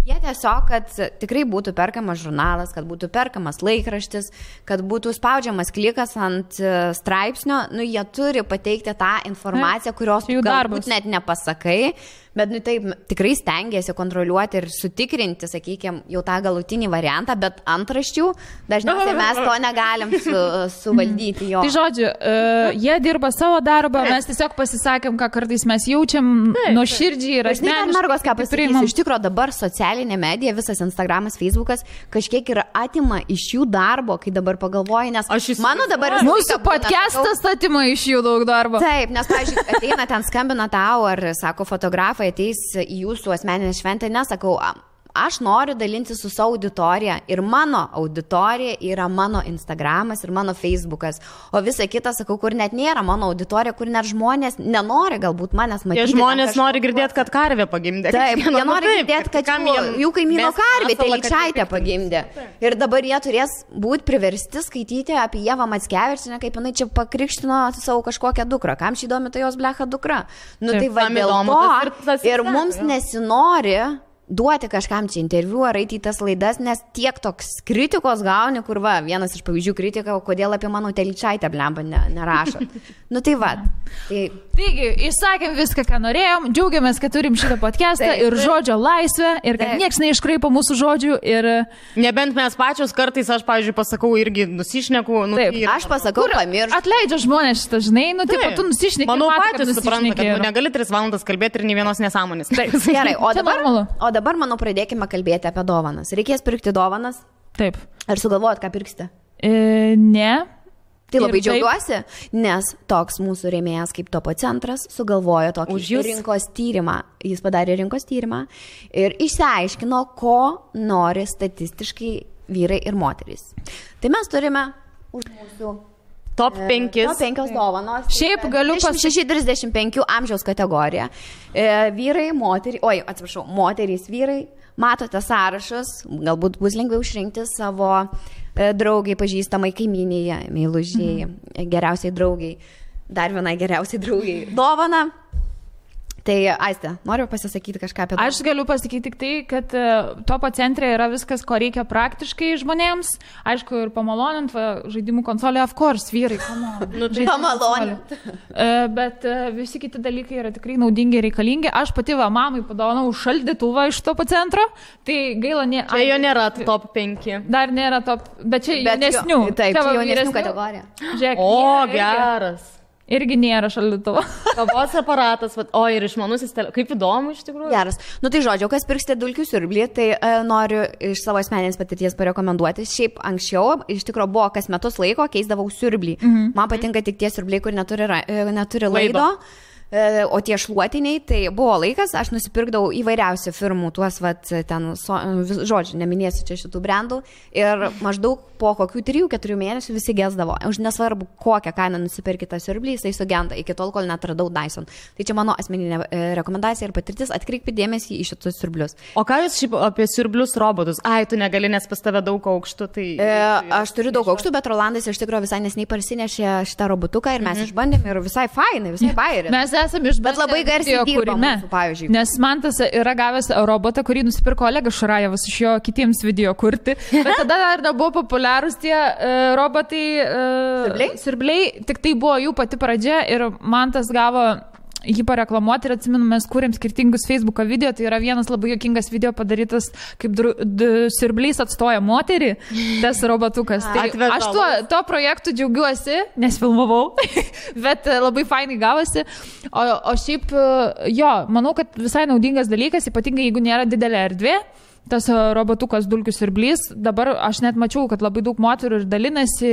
C: tiesiog, kad tikrai būtų perkamas žurnalas, kad būtų perkamas laikraštis, kad būtų spaudžiamas klikas ant straipsnio, jie turi pateikti tą informaciją, kurios galbūt net nepasakai, bet taip tikrai stengiasi kontroliuoti ir sutikrinti, sakykime, jau tą galutinį variantą, bet antraščių dažniausiai mes to negalim suvaldyti jo.
A: Tai žodžiu, jie dirba savo darbą, mes tiesiog pasisakėm, ką kartais mes jaučiam nuoširdžiai ir asmeniškai.
C: Mergos, ką pasakysiu, iš tikrųjų dabar socialinė medija, visas Instagramas, Facebookas kažkiek yra atima iš jų darbo, kai dabar pagalvoju, nes mano dabar...
A: Mūsų podcastas atima iš jų daug darbo.
C: Taip, nes, pavyzdžiui, ateina ten skambina tau ar, sako, fotografai ateis į jūsų asmeninę šventę, nesakau, aš noriu dalinti su savo auditorija ir mano auditorija yra mano Instagramas ir mano Facebookas, o visa kita, sakau, kur net nėra mano auditorija, kur net žmonės nenori galbūt manęs matyti.
B: Jie žmonės nori girdėti, kad karvė pagimdė.
C: Taip, jie nori girdėti, kad jų kaimyno karvė Telyčaitė pagimdė. Ir dabar jie turės būti priversti skaityti apie Ievą Mackevičienę, kaip jinai čia pakrikštino savo kažkokią dukrą. Kam šį įdomi tai jos blecha dukra? Tai va dėl to ir mums nesinori duoti kažkam čia interviu ar eiti į tas laidas, nes tiek toks kritikos gauni, kur va, vienas iš pavyzdžių kritika, kodėl apie mano Telyčaitę blemba nerašo. Tai va.
A: Taigi, išsakėm viską, ką norėjom, džiaugiamės, kad turim šitą podcastą ir žodžio laisvę ir kad nieks neiškraipo mūsų žodžių ir...
B: Nebent mes pačios kartais, aš, pavyzdžiui, pasakau irgi nusišneku.
C: Aš pasakau, pamiršau.
A: Atleidžia žmonės šitą, žinai, tu nusišneki.
B: Manau, patys supranta, kad negali 3 valandas kalbėti ir nei vienos nesąmonės.
C: Gerai, o dabar, manau, pradėkime kalbėti apie dovanas. Reikės pirkti dovanas?
A: Taip.
C: Ar sugalvojat, ką pirksite?
A: Ne.
C: Tai labai džiaugiuosi, nes toks mūsų rėmėjas kaip Topo centras sugalvojo tokį rinkos tyrimą. Jis padarė rinkos tyrimą ir išsiaiškino, ko nori statistiškai vyrai ir moterys. Tai mes turime už mūsų
B: Top 5
C: dovanos.
A: Šiaip galiu pasakyti
C: 35 amžiaus kategoriją. Vyrai, moterys, vyrai. Matote sąrašus, galbūt bus lengviau išrinkti savo draugai, pažįstamai, kaimynėje, meilužiai, geriausiai draugai, dar vienai geriausiai draugai dovana. Tai, Aiste, noriu pasisakyti kažką apie tai.
A: Aš galiu pasakyti tik tai, kad Topo centre yra viskas, ko reikia praktiškai žmonėms. Aišku, ir pamalonint žaidimų konsolė, of course, vyrai,
C: pamalonint.
A: Bet visi kiti dalykai yra tikrai naudingi ir reikalingi. Aš pati mamai padovanau šaldytuvą iš Topo centro, tai gaila
B: Čia jo nėra top 5.
A: Dar nėra top, bet čia jaunesnių.
C: Taip, čia jaunesnių kategorija.
A: Žiūrėk,
B: geras.
A: Irgi nėra šaldytuvo.
B: Kavos aparatas, ir išmanusis telefonas. Kaip įdomu iš tikrųjų.
C: Geras. Tai žodžiu, kas pirksite dulkių siurblį, tai noriu iš savo asmeninės patirties parekomenduoti. Šiaip anksčiau, iš tikrųjų, buvo kas metus laiko, keisdavau siurblį. Man patinka tik tie siurbliai, kur neturi laido. O tie šluotiniai, tai buvo laikas, aš nusipirkdavau įvairiausių firmų, tuos, žodžiu, neminėsiu čia šitų brandų, ir maždaug po kokių 3-4 mėnesių visi gesdavo. Už nesvarbu, kokią kainą nusipirkti tą siurblį, jisai sugenda, iki tol, kol netradau Dyson. Tai čia mano asmeninė rekomendacija ir patirtis, atkreipkite dėmesį į šitus siurblius.
B: O ką jūs šiaip apie siurblius robotus? Tu negali, nes pas tave daug aukštų, tai...
C: Aš turiu daug aukštų, bet Rolandas iš tikrųjų visai nesnei parsinešė šitą robotuką ir mes išbandėm ir visai fainai, visai bairė.
A: Bet
C: labai garsiai dirba mūsų, pavyzdžiui.
A: Nes Mantas yra gavęs robotą, kurį nusipirko Olegas Šurajevas iš jo kitiems video kurti. Bet tada dar nebuvo populiarūs tie robotai siurbliai. Tik tai buvo jų pati pradžia ir Mantas gavo jį pareklamuoti ir atsimenu, mes kūrėm skirtingus Facebooko video, tai yra vienas labai juokingas video padarytas, kaip siurblys atstoja moterį, tas robotukas. Tai aš tuo projektu džiaugiuosi, nes filmavau, bet labai fainai gavosi. O šiaip, manau, kad visai naudingas dalykas, ypatingai jeigu nėra didelė erdvė, tas robotukas dulkių siurblys, dabar aš net mačiau, kad labai daug moterų ir dalinasi,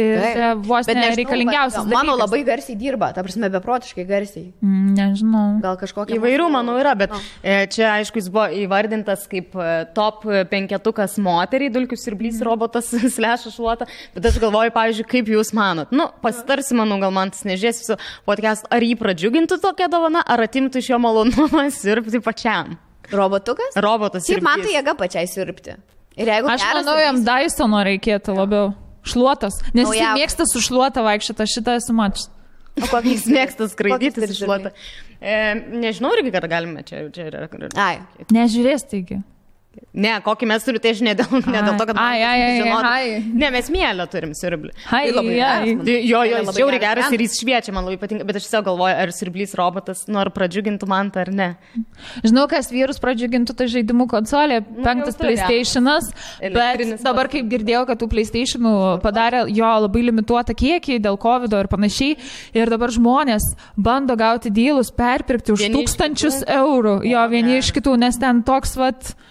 A: vos nereikalingiausias dalykas.
C: Mano labai garsiai dirba, ta prasme, beprotiškai garsiai.
A: Nežinau.
C: Gal kažkokia...
B: Įvairių, manau, yra, bet čia, aišku, jis buvo įvardintas kaip top 5 moteriai, dulkių siurblys robotas /šluota, bet aš galvoju, pavyzdžiui, kaip jūs manot. Nu, pasitarsi, manau, gal man tas nežies su podcast, ar jį pradžiugintų tokia dovana, ar atimtų iš jo malonumą siurbti pačiam.
C: Robotukas?
B: Robotas.
C: Šiaip man tai jėga pačiai siurbti. Ir jeigu
A: aš manau, jam Dysono reikėtų labiau. Šluotas. Nes jis mėgsta su šluota vaikščioti, šitą esu mačius.
B: O kokį jis mėgsta skraidyti su šluota? Nežinau, irgi, kad galime čia yra.
C: Ai.
A: Nežiūrės taigi.
B: Ne, kokį mes turime, tai aš ne dėl to, kad ne, mes mielę turim siurblį. Jo, jis žiauriai geras ir jis šviečia, man labai patinka, bet aš tiesiog galvoju, ar siurblys robotas, ar pradžiugintų man tą ar ne.
A: Žinau, kas vyrus pradžiugintų, tai žaidimų konsolė, 5 PlayStation'as, bet dabar kaip girdėjau, kad tų PlayStation'ų padarė jo labai limituotą kiekį dėl COVID ir panašiai, ir dabar žmonės bando gauti dylus, perpirkti už 1000 eurų, jo, vieni iš kitų, nes ten toks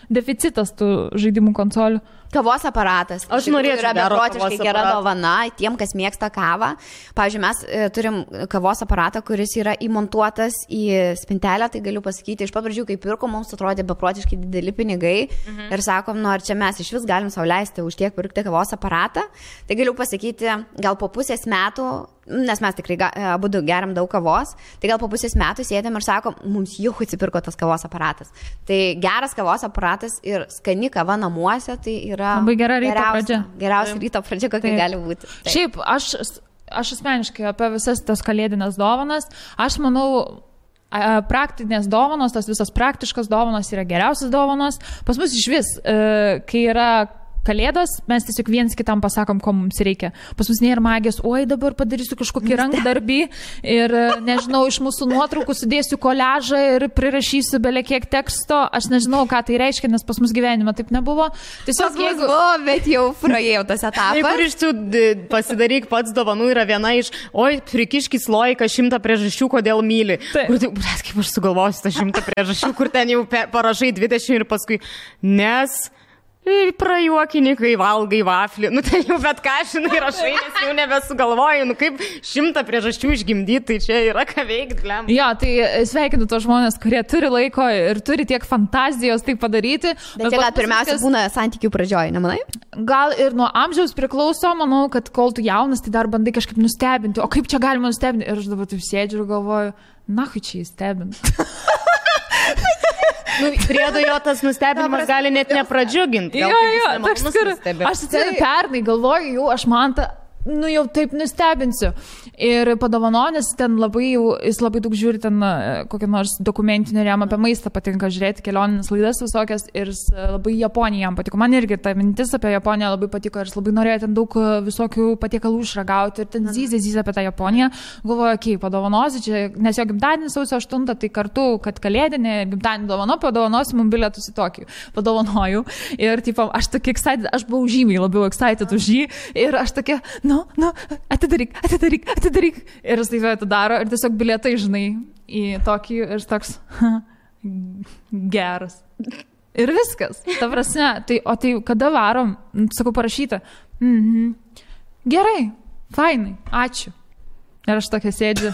A: deficitas tų žaidimų konsolių.
C: Kavos aparatas.
B: Aš norėčiau
C: yra beprotiškai gera dovana tiem, kas mėgsta kavą. Pavyzdžiui, mes turim kavos aparatą, kuris yra įmontuotas į spintelę, tai galiu pasakyti, iš pat pradžių, kai pirko, mums atrodė beprotiškai dideli pinigai ir sakom, ar čia mes iš vis galim sau leisti už tiek pirkti kavos aparatą. Tai galiu pasakyti, gal po pusės metų, nes mes tikrai abu geriam daug kavos, tai gal po pusės metų sėdėm ir sakom, mums jau atsipirko tas kavos aparatas. Tai geras kavos aparatas ir skani kava namuose, tai yra
A: labai gera ryto pradžia.
C: Geriausia ryto pradžia, kokia gali būti.
A: Taip. Šiaip, aš asmeniškai apie visas tas kalėdinės dovanas, aš manau, praktinės dovanos, tas visas praktiškas dovanos yra geriausias dovanos. Pas mus iš vis, kai yra Kalėdos, mes tiesiog viens kitam pasakom, ko mums reikia. Pas mus nėra magijos, oi dabar padarysiu kažkokį rankdarbį ir, nežinau, iš mūsų nuotraukų sudėsiu koliažą ir prirašysiu belekiek teksto. Aš nežinau, ką tai reiškia, nes pas mus gyvenime taip nebuvo. Tiesiog
C: jeigu... bet jau praėjau tas etapas.
B: Jeigu iš tų pasidaryk pats dovanų yra viena iš, oi, prikiškis loiką 100 priežasčių, kodėl myli. Kur tai, kaip aš sugalvosiu tą 100 priežasčių, kur ten jau parašai 20 ir paskui, nes... prajuokini, kai valgai vaflį. Nu, tai jau bet ką, žinai, rašai, nes jau nebesugalvoju. Nu, kaip 100 priežasčių išgimdyti, tai čia yra ką veikti, glem.
A: Jo, tai sveikinu tos žmonės, kurie turi laiko ir turi tiek fantazijos tai padaryti.
C: Bet čia gal pirmiausia būna santykių pradžioje, nemanai?
A: Gal ir nuo amžiaus priklauso, manau, kad kol tu jaunas, tai dar bandai kažkaip nustebinti. O kaip čia galima nustebinti? Ir aš dabar taip sėdžiu ir galvoju, na, kai čia įstebinti.
B: Nu, priedo jo tas nustebinimas gali net nepradžiuginti.
A: Jo, toks kur. Aš atsimenu pernai, galvoju, jau aš man tą, nu jau taip nustebinsiu. Ir padovanonės ten labai jau, jis labai daug žiūri ten kokią nors dokumentinį, jam apie maistą patinka žiūrėti, kelioninės laidas visokias ir labai Japonija jam patiko. Man irgi ta mintis apie Japoniją labai patiko ir jis labai norėjo ten daug visokių patiekalų išragauti ir ten zyzė apie tą Japoniją. Galvoju, okei, padovanosi čia, nes jo gimtadienis sausio 8, tai kartu, kad kalėdinė gimtadienį dovano, padovanosi mums bilietus į Tokijų. Padovanoju ir tipo, aš tokia excited, aš buvau žymiai labiau excited už jį ir aš tokia, nu, atidaryk. Ir jis taip atidaro ir tiesiog bilietai, žinai, į tokį ir toks geras. Ir viskas. Ta prasme, tai kada varom, sakau, parašyta. Gerai, fainai, ačiū. Ir aš tokia sėdžiu.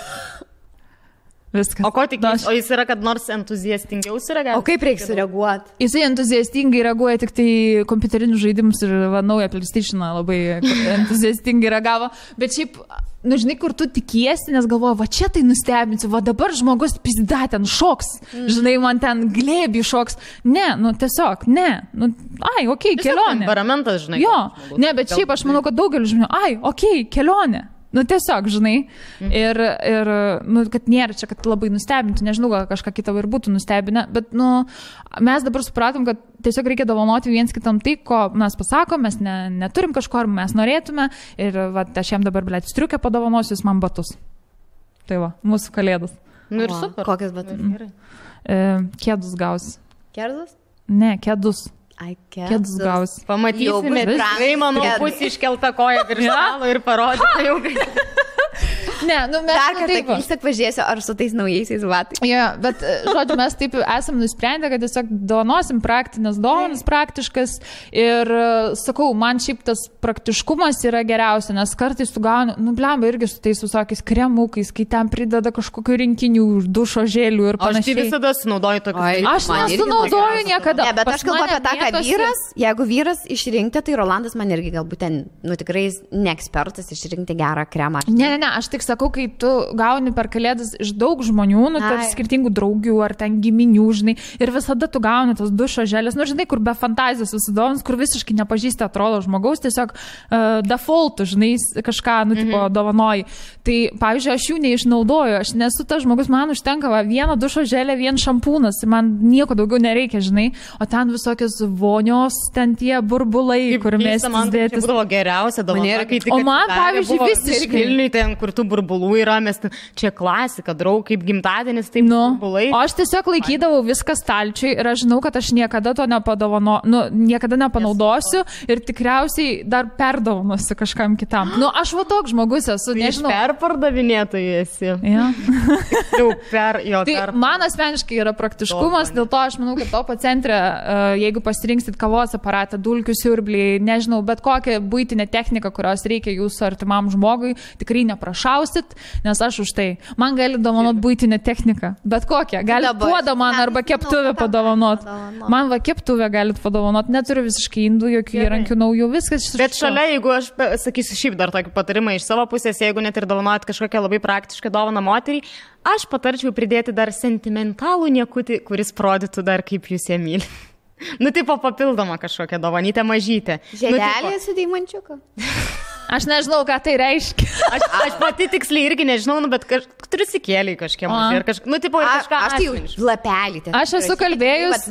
A: Viskas.
B: O ko tikės? O jis yra, kad nors entuziastingiau sureagavo?
C: O kaip reikia sureaguoti?
A: Jisai entuziastingai reaguoja tik tai kompiuterinius žaidimus ir naują PlayStation'ą labai entuziastingai reagavo. Bet šiaip, nu žinai, kur tu tikiesi, nes galvoju, va čia tai nustebinsiu, va dabar žmogus pizda ten šoks, žinai, man ten glėbį šoks. Ne, nu tiesiog, ne. Nu, ai, okei, kelionė.
B: Temperamentas, žinai.
A: Jo, ne, bet šiaip aš manau, kad daugelis žmonių, ai, okei, kelionė. Nu, tiesiog, žinai, ir nu, kad nėra čia, kad labai nustebintų, nežinau, gal kažką kitą ir būtų nustebinę, bet, nu, mes dabar supratom, kad tiesiog reikia dovanoti viens kitam tai, ko mes pasakom, mes neturim kažko, ar mes norėtume, ir, va, aš jam dabar, blėt, striukę padovanosiu, jis man batus. Tai va, mūsų kalėdos.
B: Nu, ir super.
C: Kokias batus?
A: Kėdus gausi.
C: Kėdus?
A: Ne, kėdus.
C: Ai,
A: kėdus gausi.
B: Pamatysime, tikrai, manau, pusė iškelta koja virš stalo ir parodyta jau.
A: Ne, nu mes...
C: Dar kartą vis tiek pažiūrėsiu, ar su tais naujaisiais batais.
A: Jo, bet, žodžiu, mes taip esam nusprendę, kad tiesiog dovanosim praktinės dovanas, praktiškas ir, sakau, man šiaip tas praktiškumas yra geriausia, nes kartais tu gauni, nu, blemba, irgi su tais visokiais kremukais, kai ten prideda kažkokių rinkinių, dušo žėlių ir panašiai.
B: Aš tai visada sunaudoju tokius.
A: Aš nesunaudoju niekada.
C: Ne, bet aš kalbu apie tą, kad vyras, jeigu vyras išrinkti, tai Rolandas man irgi galbūt ten, nu, tikrai neekspertas išrinkti gerą kremą.
A: Ne, aš tik sakau, kai tu gauni per kalėdas iš daug žmonių, nu, tarp skirtingų draugių ar ten giminių, žinai, ir visada tu gauni tos dušo žėlės, nu, žinai, kur be fantazijos susidovins, kur visiškai nepažįsti atrodo žmogaus, tiesiog defaultų, žinai, kažką, nu, tipo, dovanoji. Tai, pavyzdžiui, aš jų neišnaudoju, aš nesu tas žmogus, man užtenka vieno dušo žėlė, vien šampūnas, man nieko daugiau nereikia, žinai, o ten visokios vonios, ten tie burbulai, kur mes dėtis.
B: Tai būdavo geriausia dovana, kai tik
A: o man, pavyzdžiui, visiškai
B: Vilniui ten, kur tų burbulų yra, mes čia klasika, draug, kaip gimtadienis, taip burbulai.
A: O aš tiesiog laikydavau viską stalčiui ir aš žinau, kad aš niekada to niekada nepanaudosiu ir tikriausiai dar perdovanosiu kažkam kitam. Nu, aš va toks žmogus esu, nežinau.
B: Perpardavinėtojai esi.
A: Ja.
B: Tai
A: man asmeniškai yra praktiškumas, dėl to aš manau, kad topo centre, jeigu pasirinksit kavos aparatą, dulkių siurblį, nežinau, bet kokią buitinę techniką, kurios reikia jūsų artimam žmogui, tikrai neprašausit, nes aš už tai. Man gali dovanot buitinę techniką, bet kokią. Galit puodą man arba keptuvę padovanot. Man va keptuvę galit padovanot, neturiu visiškai indų, jokių įrankių naujų, viskas.
B: Bet šalia, jeigu aš sakysiu šiaip dar tokį patarimą iš savo pusės, jeigu net ir dovanot kažkokią labai praktišką dovaną moteriai, aš patarčiau pridėti dar sentimentalų niekutį, kuris rodytų dar kaip jūs ją myli. Nu, tipo papildoma kažkokia dovanytė mažytė.
C: Žiedelė su deimančiuku.
A: Aš nežinau, ką tai reiškia.
B: Aš pati tiksliai irgi nežinau, nu, bet turiu sikėlį kažkiek mažai. Nu, tipo, kažką.
C: Aš tai lapelį.
A: Aš esu kalbėjus.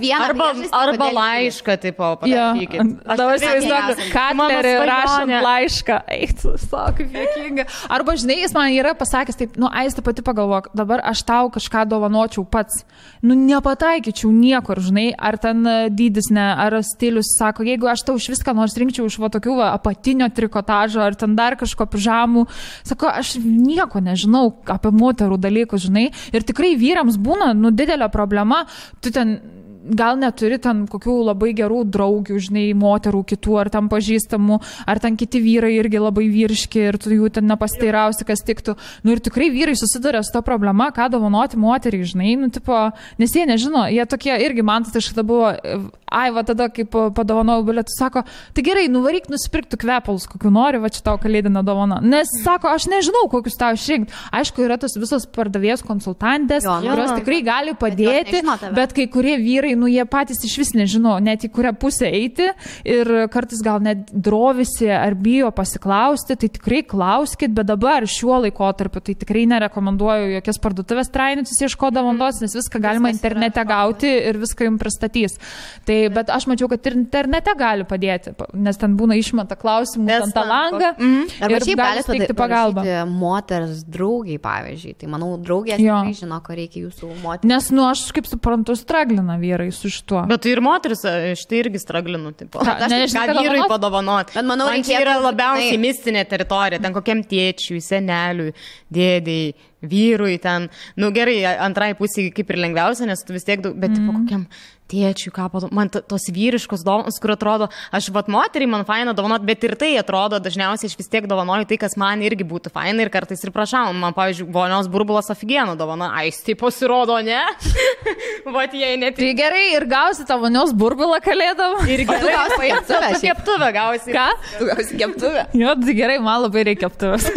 B: Arba laišką, tipo, parašykit.
A: Dabar įsivaizduoju, Katlerį rašant laišką. Eik, sako, kaip juokinga. Arba, žinai, jis man yra pasakęs, taip, nu, Aiste pati pagalvok, dabar aš tau kažką dovanočiau pats. Nu, nepataikyčiau niekur, žinai, ar ten dydis, ne, ar stilius, sako, jeigu aš tau iš viską nors rinkčiau iš va tokių apatinio trikotažo, ar ten dar kažko pižamų, sako, aš nieko nežinau apie moterų dalykus, žinai, ir tikrai vyrams būna, nu, didelė problema, tu ten gal neturi ten kokių labai gerų draugių, žinai, moterų kitų, ar ten pažįstamų, ar ten kiti vyrai irgi labai vyriški ir tu jų ten nepasteirausi, kas tiktų. Nu ir tikrai vyrai susiduria su to problema, ką dovanoti moteriai, žinai, nu tipo, nes jie nežino, jie tokie irgi, man tai šitą buvo, va tada, kaip padovanojau bilietų, sako, tai gerai, nuvaryk nusipirkti kvepalus, kokių nori, va čia tau kalėdinę dovaną. Nes, sako, aš nežinau, kokius tau išrinkti. Aišku, yra tos visos pardavėjos konsultantės, kurios tikrai gali padėti, bet kai kurie vyrai, nu, jie patys iš vis nežino, net į kurią pusę eiti ir kartais gal net drovisi ar bijo pasiklausti, tai tikrai klauskit, bet dabar šiuo laikotarpiu tai tikrai nerekomenduoju jokias parduotuvės trainius ieškodavantos, nes viską galima internete gauti ir viską jums pristatys. Tai, bet aš mačiau, kad ir internete gali padėti, nes ten būna išmeta klausimų ant tą langą ir gali steigti pagalbą.
C: Moters draugiai, pavyzdžiui, tai manau, draugės tikrai žino, ko reikia jūsų moterį.
A: Nes, nu, aš kaip suprantu, straglina vyrai su šituo.
B: Bet ir moteris, štai irgi straglinu, tipo. Ką vyrui padovanot.
C: Bet manau,
B: man čia yra labiausiai mistinė teritorija, ten kokiam tėčiui, seneliui, dėdėjai, vyrui ten, nu gerai, antrai pusė kaip ir lengviausia, nes tu vis tiek daug, bet tipo kokiam tėčiui, ką padovanot, man tos vyriškos dovanos, kur atrodo, aš vat moteriai man faina dovanot, bet ir tai atrodo, dažniausiai aš vis tiek dovanoju tai, kas man irgi būtų faina ir kartais ir prašau, man, pavyzdžiui, vonios burbulas aфиgenų dovana, tai pasirodo, ne? Vat jei net.
A: Tai gerai, ir gausi tą vonios burbulą kalėdom.
B: Ir gerai, tu keptuvę gausi.
A: Ką?
C: Tu gausi keptuvę.
A: Jo, tai gerai, man labai reikia keptuvės.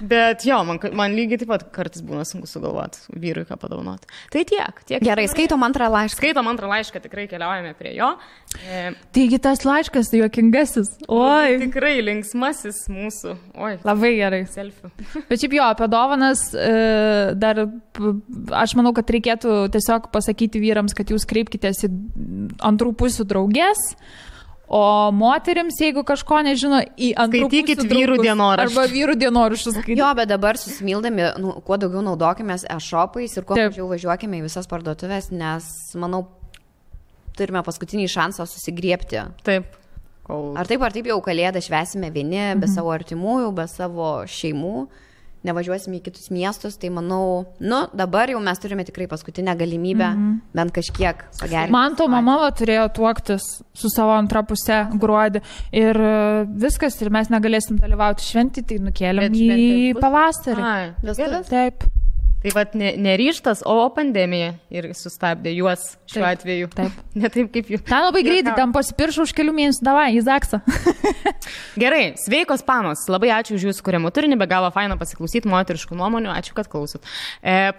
B: Bet jo, man lygiai taip pat kartais būna sunku sugalvoti vyrui, ką padovanoti. Tai tiek.
C: Gerai, skaitom antrą laišką,
B: tikrai keliaujame prie jo.
A: Taigi tas laiškas juokingasis. Oi.
B: Tikrai linksmasis mūsų. Oi.
A: Labai gerai.
B: Selfie.
A: Bet šiaip jo, apie dovanas dar aš manau, kad reikėtų tiesiog pasakyti vyrams, kad jūs kreipkitės į antrų pusių draugės. O moterims, jeigu kažko nežino, į antrų pusių
B: vyrų dienoraščius.
A: Arba vyrų dienoraščius.
C: Jo, bet dabar susimildami, kuo daugiau naudokimės e-shopais ir kuo mažiau važiuokime į visas parduotuvės, nes, manau, turime paskutinį šansą susigriebti.
B: Taip.
C: Ar taip jau kalėdą švęsime vieni, be savo artimųjų, be savo šeimų. nevažiuosim į kitus miestus, tai manau, dabar jau mes turime tikrai paskutinę galimybę bent kažkiek pagerinti.
A: Man to mama turėjo tuoktis su savo antra pusė gruodį ir viskas, ir mes negalėsim dalyvauti šventį, tai nukėlėm į pavasarį. Taip.
B: Tai vat neryštas, o pandemija ir sustabdė juos šiuo atveju.
A: Taip.
B: Ne taip kaip jų.
A: Ten labai greitai, ten pasipiršau už kelių mėnesių, davai, į Zaksą.
B: Gerai, sveikos panos, labai ačiū už jūsų kuriamų turinį, be galo faina pasiklausyti moteriškų nuomonių, ačiū, kad klausot.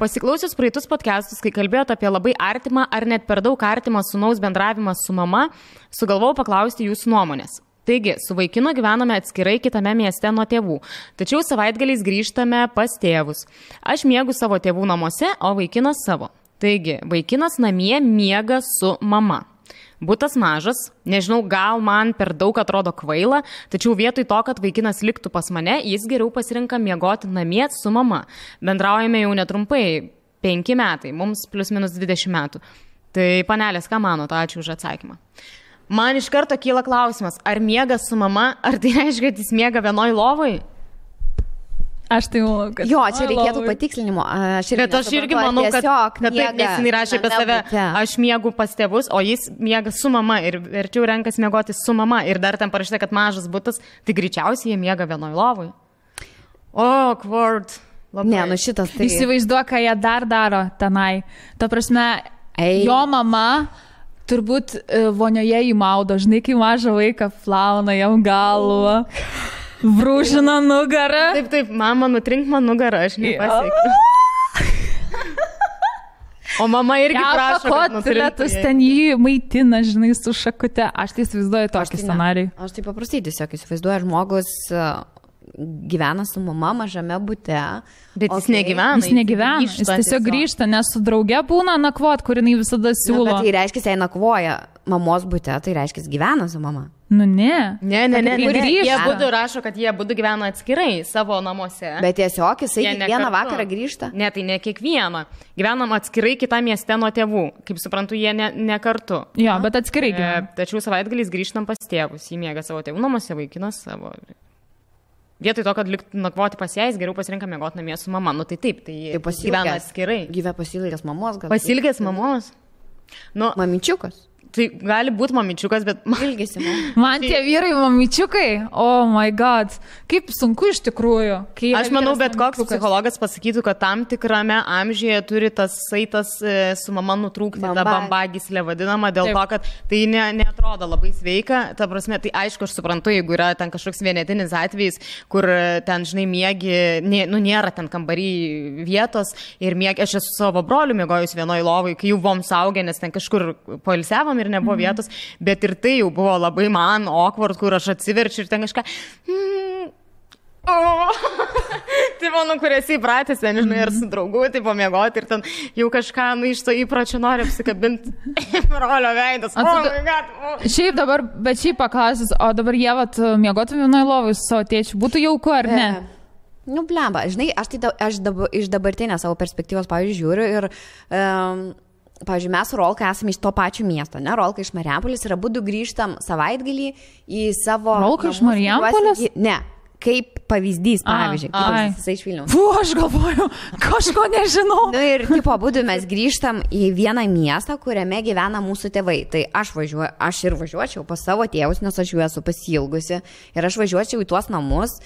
B: Pasiklausius praeitus podcastus, kai kalbėjot apie labai artimą ar net per daug artimą sūnaus bendravimą su mama, sugalvojau paklausti jūsų nuomonės. Taigi, su vaikinu gyvename atskirai kitame mieste nuo tėvų, tačiau savaitgaliais grįžtame pas tėvus. Aš miegu savo tėvų namuose, o vaikinas savo. Taigi, vaikinas namie miega su mama. Butas mažas, nežinau, gal man per daug atrodo kvaila, tačiau vietoj to, kad vaikinas liktų pas mane, jis geriau pasirinka miegoti namie su mama. Bendraujame jau netrumpai, 5 metai, mums plius minus 20 metų. Tai panelės, ką manote? Ačiū už atsakymą. Man iš karto kyla klausimas, ar miega su mama, ar tai reiškia, kad jis miega vienoj lovai?
A: Aš tai manau, kad...
C: Jo, čia reikėtų patikslinimo.
B: Bet aš irgi manau, kad taip nesinai rašė apie save, aš miegu pas tėvus, o jis miega su mama ir verčiau renkas miegoti su mama ir dar ten parašyta, kad mažas butas, tai greičiausiai jie miega vienoj lovai. Awkward.
C: Ne, šitas tai...
A: Įsivaizduoju, ką jie dar daro tenai. Ta prasme, jo mama... Turbūt vonioje įmaudo, žinai, kai mažą vaiką plauna jam galvą, brūžina nugarą.
B: Taip, mama, nutrink man nugarą, aš nepasiekiu. O mama irgi prašo, kad
A: nutrinktų. Ten jį maitina, žinai, su šakute. Aš tai įsivaizduoju tokį scenarijų.
C: Aš tai paprastai tiesiog įsivaizduoju, žmogus gyvena su mama mažame bute.
B: Bet jis negyvena.
A: Jis negyvena, jis tiesiog grįžta, nes su drauge būna nakvot, kur jinai visada siūlo.
C: Bet tai reiškia, jei nakvoja mamos bute, tai reiškia, gyvena su mama.
A: Ne.
B: Jie būdu rašo, kad jie būdu gyvena atskirai savo namuose.
C: Bet tiesiog jisai kiekvieną vakarą grįžta.
B: Ne, tai ne kiekvieną. Gyvenam atskirai kitą mieste nuo tėvų. Kaip suprantu, jie ne kartu.
A: Jo, bet atskirai gyvena.
B: Tačiau savaitgaliais grįžtam pas tėvus. Jį miega savo tėvų namuose, vaikinas savo. Vietoj to, kad liktų nakvoti pas jais, geriau pasirinka miegoti namie su mama. Tai taip, tai gyvena atskirai.
C: Gyvena pasilgęs mamos gal.
B: Pasilgęs mamos?
C: Mamyčiukas.
B: Tai gali būti mamyčiukas, bet...
C: Ilgisi.
A: Man tie vyrai mamyčiukai, oh my god, kaip sunku iš tikrųjų.
B: Aš manau, bet koks psichologas pasakytų, kad tam tikrame amžiuje turi tas saitas su mama nutrūkti, ta bambagyslė vadinama, dėl to, kad tai neatrodo labai sveika. Ta prasme, tai aišku, aš suprantu, jeigu yra ten kažkoks vienetinis atvejis, kur ten, žinai, miegi, nėra ten kambarį vietos ir miegi, aš esu savo broliu miegojus vienoj lovai, kai jau buvom saugę, nes ten kažkur poilsiavom ir nebuvo vietos, bet ir tai jau buvo labai man awkward, kur aš atsiverčiu ir ten kažką... Tai mano, kur esi įpratęs, nežinai, ar su draugu, tai pamiegoti ir ten jau kažką, iš to įpročio nori apsikabinti brolio veidas.
A: Šiaip dabar, bet šiaip paklausys, o dabar jie miegotų vienoj lovai su savo tėčiu, būtų jauku ar ne?
C: Blemba, žinai, aš iš dabartinės savo perspektyvos, pavyzdžiui, žiūriu ir... Pavyzdžiui, mes su Rolka esame iš to pačio miesto, ne? Rolka iš Marijampolės ir abudu grįžtam savaitgalį į savo...
A: Rolka iš Marijampolės?
C: Ne, kaip pavyzdys, pavyzdžiui. Jisai iš Vilniaus.
A: Aš galvoju, kažko nežinau.
C: Ir tipo, abudu mes grįžtam į vieną miestą, kuriame gyvena mūsų tėvai. Tai aš ir važiuočiau pas savo tėvus, nes aš jų esu pasilgusi. Ir aš važiuočiau į tuos namus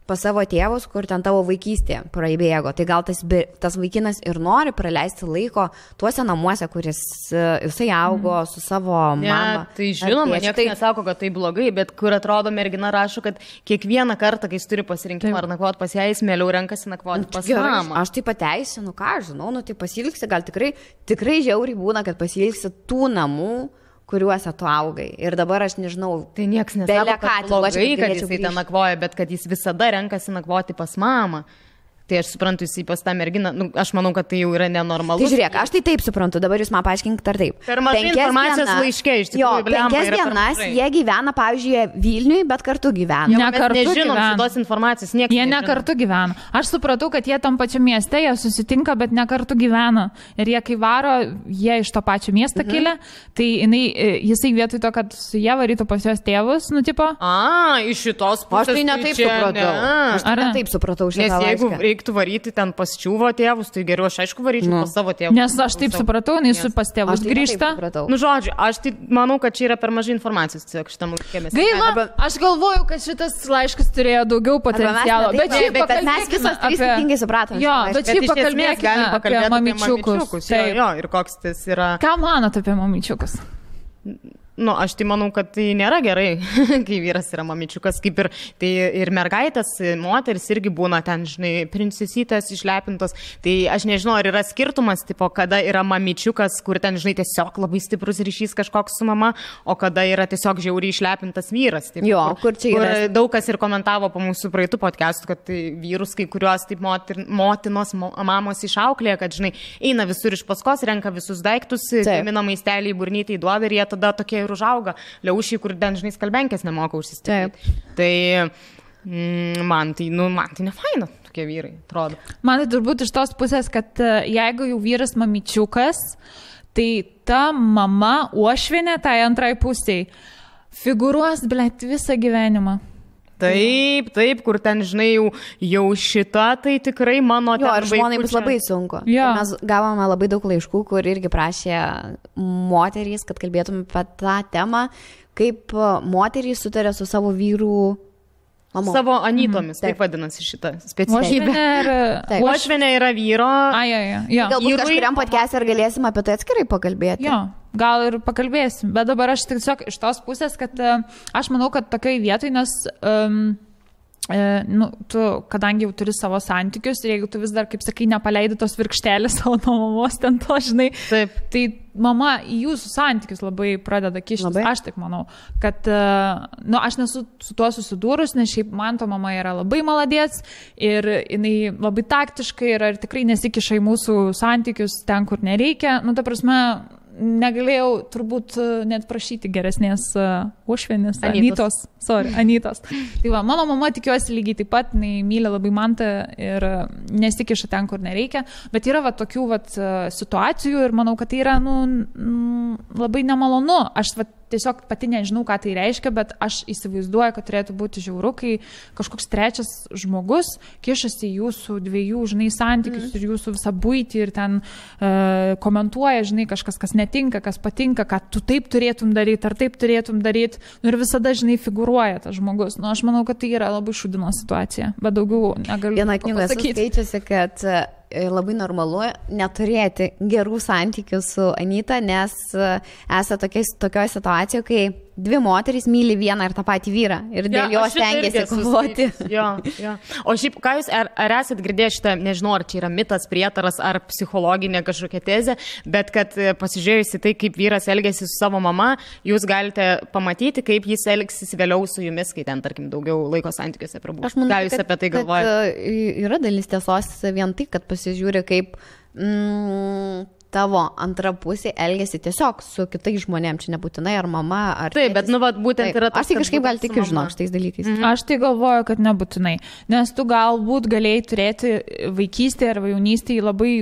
C: pas savo tėvus, kur ten tavo vaikystė praeibėgo. Tai gal tas vaikinas ir nori praleisti laiko tuose namuose, kuris jisai augo su savo mama.
B: Tai žinoma, niekas nesako, kad tai blogai, bet kur atrodo mergina rašo, kad kiekvieną kartą, kai jis turi pasirinkimą ar nakvoti pas ją, jis mieliau renkasi nakvoti pas mamą.
C: Aš tai pateisinu, ką aš žinau, tai pasilgsi, gal tikrai žiauriai būna, kad pasilgsi tų namų, kuriuose tu augai. Ir dabar aš nežinau,
B: tai nieks nesako, kad blogai, kad jisai ten nakvoja, bet kad jis visada renkasi nakvoti pas mamą. Tai aš suprantu, jis pas tą merginą, aš manau, kad tai jau yra nenormalu.
C: Tai žiūrėk, aš tai taip suprantu, dabar jūs man paaiškinkit ar taip.
B: Per mažai informacijos laiške, iš tikrųjų.
C: 5 dienas jie gyvena, pavyzdžiui, Vilniui, bet kartu gyvena.
B: Nežinom šitos informacijos, niekas
A: jie ne kartu gyvena. Aš supratau, kad jie tam pačiam mieste, jie susitinka, bet ne kartu gyvena. Ir jie kai varo, jie iš to pačio miesto kilę, tai jisai vietoj to, kad su jie varytų pas jos tėvus,
B: iš šitos pusės.
C: Aš tai netaip supratau. Aš tai netaip supratau šitą laišką.
B: reiktų varyti ten pas čiūvo tėvus, tai geriau aš aišku varyčiau pas savo tėvus.
A: Nes aš taip supratau, nes su pas tėvus grįžta.
B: Nu, žodžiu, aš tai manau, kad čia yra per mažai informacijos tiesiog šitam laikėmės.
A: Gaila, aš galvoju, kad šitas laiškas turėjo daugiau potencialo. Bet
C: mes visos skirtingai supratome.
A: Jo, bet šiaip pakalbėkime apie mamyčiukus.
B: Jo, ir koks tas yra.
A: Ką manot apie mamyčiukus?
B: Nu, aš tai manau, kad tai nėra gerai, kai vyras yra mamyčiukas, kaip ir, tai ir mergaitės, moteris irgi būna ten, žinai, princesytės išlepintos. Tai aš nežinau, ar yra skirtumas, tipo, kada yra mamyčiukas, kur ten, žinai, tiesiog labai stiprus ryšys kažkoks su mama, o kada yra tiesiog žiauriai išlepintas vyras. Taip,
C: jo, kur čia yra.
B: Kur daug kas ir komentavo po mūsų praeitų podcastų, kad tai vyrus, kai kurios taip motinos, mamos išauklėja, kad, žinai, eina visur iš paskos, renka visus daiktus, gamina maistelį į burnytį, į duobę ir jie tada tokie užauga, liaušiai, kur ten, žinai, skalbenkės nemoka užsistatyti. Tai man tai ne faina, tokie vyrai, atrodo.
A: Man tai turbūt iš tos pusės, kad jeigu jau vyras mamyčiukas, tai ta mama uošvienė tai antrai pusiai figūruos, blėt, visą gyvenimą.
B: Taip, kur ten, žinai, jau šita, tai tikrai mano ten.
C: Jo, ir žmonai bus labai sunku.
A: Ja.
C: Mes gavome labai daug laiškų, kur irgi prašė moterys, kad kalbėtume apie tą temą, kaip moterys sutarė su savo vyrų mamo.
B: Savo anytomis, taip vadinasi šitą specialybę. Uošvienė yra vyro.
C: Galbūt kažkuriam podcast'e ir galėsim apie tai atskirai pakalbėti.
A: Jo. Gal ir pakalbėsim, bet dabar aš tiesiog iš tos pusės, kad aš manau, kad tokiai vietoj, nes tu, kadangi jau turi savo santykius ir jeigu tu vis dar, kaip sakai, nepaleidi tos virkštelės savo nuo mamos, ten to, žinai,
B: taip.
A: Tai mama į jūsų santykius labai pradeda kištis. Aš taip manau, kad aš nesu su tuo susidūrus, nes šiaip man to mama yra labai maladėts ir jinai labai taktiškai yra ir tikrai nesikiša į mūsų santykius ten, kur nereikia. Nu, ta prasme, negalėjau turbūt net prašyti geresnės uošvienės, Anytos. Tai va, mano mama, tikiuosi, lygiai taip pat, jinai myli labai mantą ir nesikiša ten, kur nereikia, bet yra va tokių va situacijų ir manau, kad tai yra labai nemalonu. Aš va tiesiog pati nežinau, ką tai reiškia, bet aš įsivaizduoju, kad turėtų būti žiauru, kai kažkoks trečias žmogus kišasi į jūsų dviejų, žinai, santykius ir jūsų visą buitį ir ten komentuoja, žinai, kažkas, kas netinka, kas patinka, ką tu taip turėtum daryti, ar taip turėtum daryti. Nu, ir visada, žinai, figūruoja tas žmogus. Nu, aš manau, kad tai yra labai šūdino situacija, bet daugiau negaliu
C: pasakyti. Viena knyga skaičiusi, kad labai normalu neturėti gerų santykių su Anyta, nes esate tokioje situacijoje, kai dvi moterys myli vieną ir tą patį vyrą ir dėl jo stengiasi kovoti.
B: Jo. O šiaip, ką jūs, ar esat girdėję šitą, nežinau, ar čia yra mitas, prietaras, ar psichologinė kažkokia tezė, bet kad pasižiūrėjusi tai, kaip vyras elgėsi su savo mama, jūs galite pamatyti, kaip jis elgsis vėliau su jumis, kai ten, tarkim, daugiau laiko santykiuose prabūs.
C: Aš manau,
B: ką jūs apie tai galvojate?
C: Yra dalis tiesos vien tai, kad pasižiūri, kaip tavo antra pusė elgesi tiesiog su kitais žmonėm, čia nebūtinai ar mama, ar...
B: Taip, bet, būtent yra tas...
C: Aš tai kažkaip gal tikiu, žinok, šitais dalykais.
A: Aš tai galvoju, kad nebūtinai, nes tu galbūt galėjai turėti vaikystėje arba jaunystėje labai,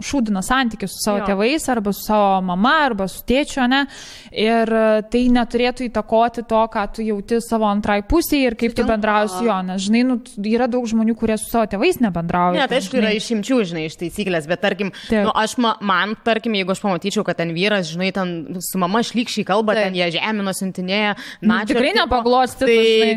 A: šūdiną santykį su savo tėvais, arba su savo mama, arba su tėčiu, ne? Ir tai neturėtų įtakoti to, ką tu jauti savo antrai pusėje ir kaip tu bendrauji su juo, nes, žinai, yra daug žmonių, kurie su savo tėvais nebendrauja.
B: Ne, tai aišku, yra išimčių, žinai, iš taisyklės, bet tarkim, tarkim, jeigu aš pamatyčiau, kad ten vyras, žinai, ten su mama šlykščiai kalba, ten jie žemino, siuntinėja,
A: tikrai nepaglosti.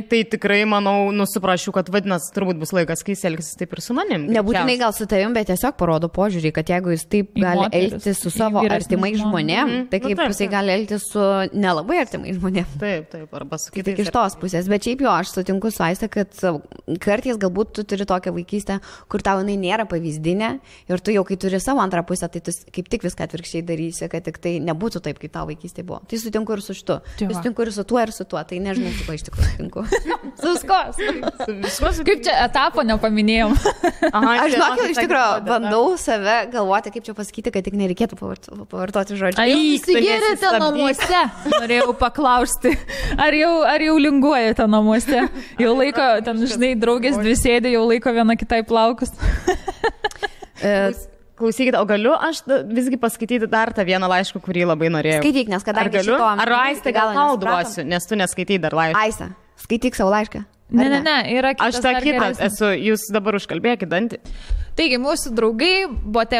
B: Tai tikrai, manau, suprasčiau, kad vadinasi, turbūt bus laikas, kai jis elgsis taip ir su manim.
C: Nebūtinai gal su tavim, bet tiesiog parodo požiūrį, kad jeigu jis taip gali elgtis su savo artimais žmonėm, tai kaip jisai gali elgtis su nelabai artimais žmonėm.
B: Taip, arba su kitais.
C: Tik iš tos pusės, bet šiaip aš sutinku su Aiste, kad kartais galbūt tu turi tokią vaikystę, kur tau jinai nėra pavyzdinė ir tu jau kai turi savo antrą pusę, tai tu kaip tik viską atvirkščiai darysi, kad tik tai nebūtų taip, kaip tavo vaikystė buvo. Tai sutinku ir su šitu. Tai sutinku ir su tuo, tai nežinau, su kuo iš tikrųjų sutinku.
A: Su kaip čia etapo nepaminėjom.
C: Aš žinokit, iš tikrųjų bandau save galvoti, kaip čia pasakyti, kad tik nereikėtų pavartoti žodžių.
A: Ar įsigėrėte namuose? Norėjau paklausti. Ar jau linguojate namuose? Jau laiko, ten, žinai, draugės dvi sėdė, jau laiko viena kitai plaukus.
B: Klausykite, o galiu aš visgi paskaityti dar tą vieną laišką, kurį labai norėjau.
C: Skaityk, nes kadangi
B: šito... Ar Aiste gal tau duosiu, nes tu neskaitai dar laišką.
C: Aiste, skaityk savo laišką.
A: Ne, yra kitas.
B: Aš tą kitą esu, jūs dabar užkalbėkit dantį.
A: Taigi, mūsų draugai, bote,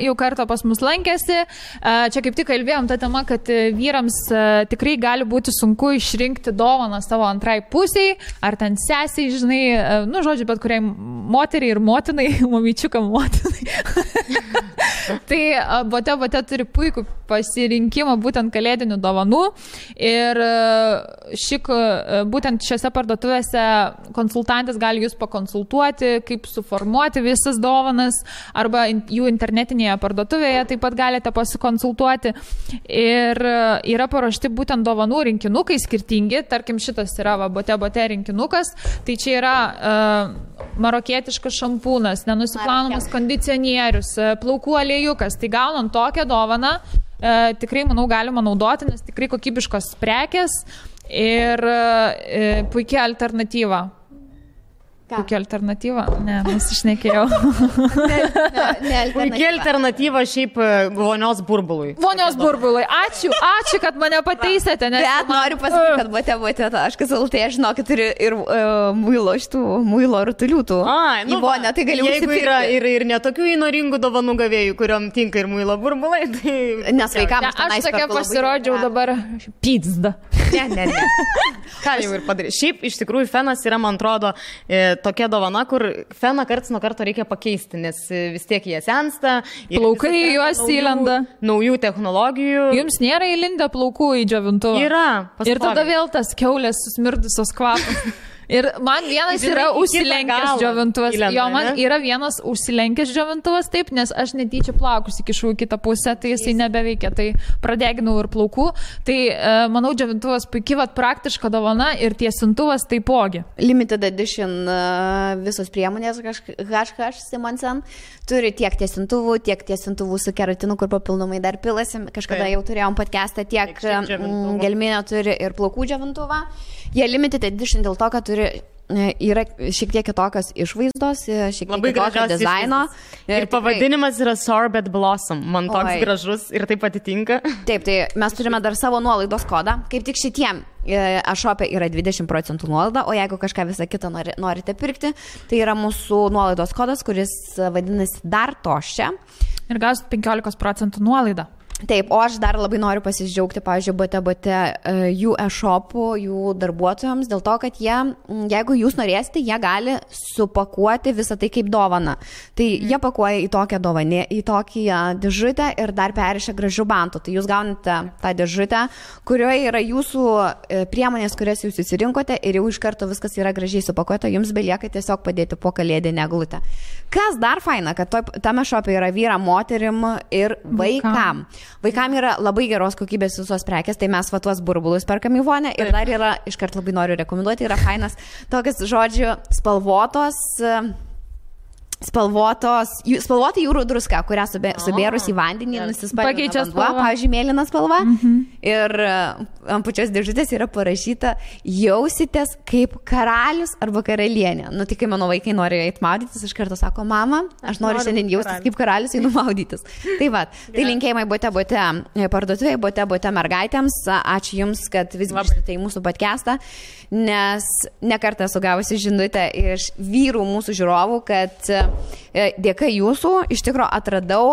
A: jau kartą pas mus lankėsi. Čia kaip tik kalbėjom tą temą, kad vyrams tikrai gali būti sunku išrinkti dovaną savo antrai pusiai, ar ten sesiai, žinai, nu, žodžiu, bet kuriai moteriai ir motinai, mamyčiukam motinai. Tai bote turi puikų pasirinkimą būtent kalėdinių dovanų ir būtent šiose parduotuvėse konsultantas gali jūs pakonsultuoti, kaip suformuoti visas dovanas, arba jų internetinėje parduotuvėje taip pat galite pasikonsultuoti. Ir yra paruošti būtent dovanų rinkinukai skirtingi, tarkim šitas yra bote rinkinukas, tai čia yra marokietiškas šampūnas, nenusiplaunamas kondicionierius, plaukų aliejukas, tai gaunant tokią dovaną, tikrai, manau, galima naudoti, nes tikrai kokybiškos prekės ir puikia alternatyva. Puikia alternatyva? Ne, nusišnekėjau.
B: Puikia alternatyva šiaip vonios burbului.
A: Vonios burbului. Ačiū, kad mane pataisėte.
C: Bet noriu pasakyti, kad bote.lt, aš žinau, kad turi ir muilo rutulių tų. Į vonę, tai galiu užsipirkti.
B: Jeigu yra ir netokių įnoringų dovanų gavėjų, kuriuom tinka ir muilo burbulai, tai...
C: Nes vaikams
A: aš tokia pasirodžiau dabar pizda.
C: Ne.
B: Ką jau ir padarė. Šiaip, iš tikrųjų, fenas yra, man atrodo, tokia dovana, kur feną karts nuo karto reikia pakeisti, nes vis tiek jie sensta.
A: Plaukai juos įlenda.
B: Naujų technologijų.
A: Jums nėra įlindę plaukų į džiovintuvą?
B: Yra.
A: Pastovi. Ir tada vėl tas kiaulės susmirdusios kvapas. Ir man vienas yra užsilenkęs džiovintuvas. Jo, man yra vienas užsilenkęs džiovintuvas, taip, nes aš netyčia plaukus įkišau į kitą pusę, tai jisai nebeveikia, tai pradeginau ir plaukų. Tai manau, džiovintuvas puikiai praktiška dovana ir tiesintuvas taipogi.
C: Limited edition visos priemonės HH Simonsen turi tiek tiesintuvų su keratinu, kur papildomai dar pilasi. Kažkada jau turėjom podcastą, tiek gelminio turi ir plaukų džiovintuvą. Jie limited edition dėl to, kad yra šiek tiek kitokios išvaizdos, šiek tiek kitokio dizaino.
B: Ir pavadinimas yra Sorbet Blossom. Man toks gražus ir taip atitinka.
C: Taip, tai mes turime dar savo nuolaidos kodą. Kaip tik šitiem e-shop'e yra 20% nuolaida, o jeigu kažką visą kitą norite pirkti, tai yra mūsų nuolaidos kodas, kuris vadinasi dar toščia.
A: Ir gausit 15% nuolaidą.
C: Taip, o aš dar labai noriu pasidžiaugti, pavyzdžiui, bote jų e-shopų, jų darbuotojams, dėl to, kad jie, jeigu jūs norėsite, jie gali supakuoti visą tai kaip dovaną. Tai jie pakuoja į tokią dovanę, į tokią dėžutę ir dar perišia gražių bantų. Tai jūs gaunate tą dėžutę, kurioje yra jūsų priemonės, kurias jūs įsirinkote ir jau iš karto viskas yra gražiai supakuota, jums belieka tiesiog padėti po kalėdinę eglutę. Kas dar faina, kad tame shop'e yra vyram, moterim ir vaikam. Vaikam yra labai geros kokybės visos prekės, tai mes tuos burbulus perkam į vonę ir dar yra, iškart labai noriu rekomenduoti, yra fainas tokias, žodžiu, spalvota jūrų druska, kurią subėrus į vandenį nusispalvina vanduo, pavyzdžiui, mėlyna spalva. Ir ant pačios dėžutės yra parašyta jausitės kaip karalius arba karalienė. Nu, tik kai mano vaikai nori eiti maudytis, iš karto sako, mama, aš noriu šiandien jaustis kaip karalius, einu maudytis. Tai va, tai linkėjimai bote parduotuvėje, bote mergaitėms. Ačiū Jums, kad vis grįžtate į mūsų podcastą, nes nekartą esu gavusi žinutę iš vyrų mūsų žiūrovų, kad dėka Jūsų iš tikrųjų atradau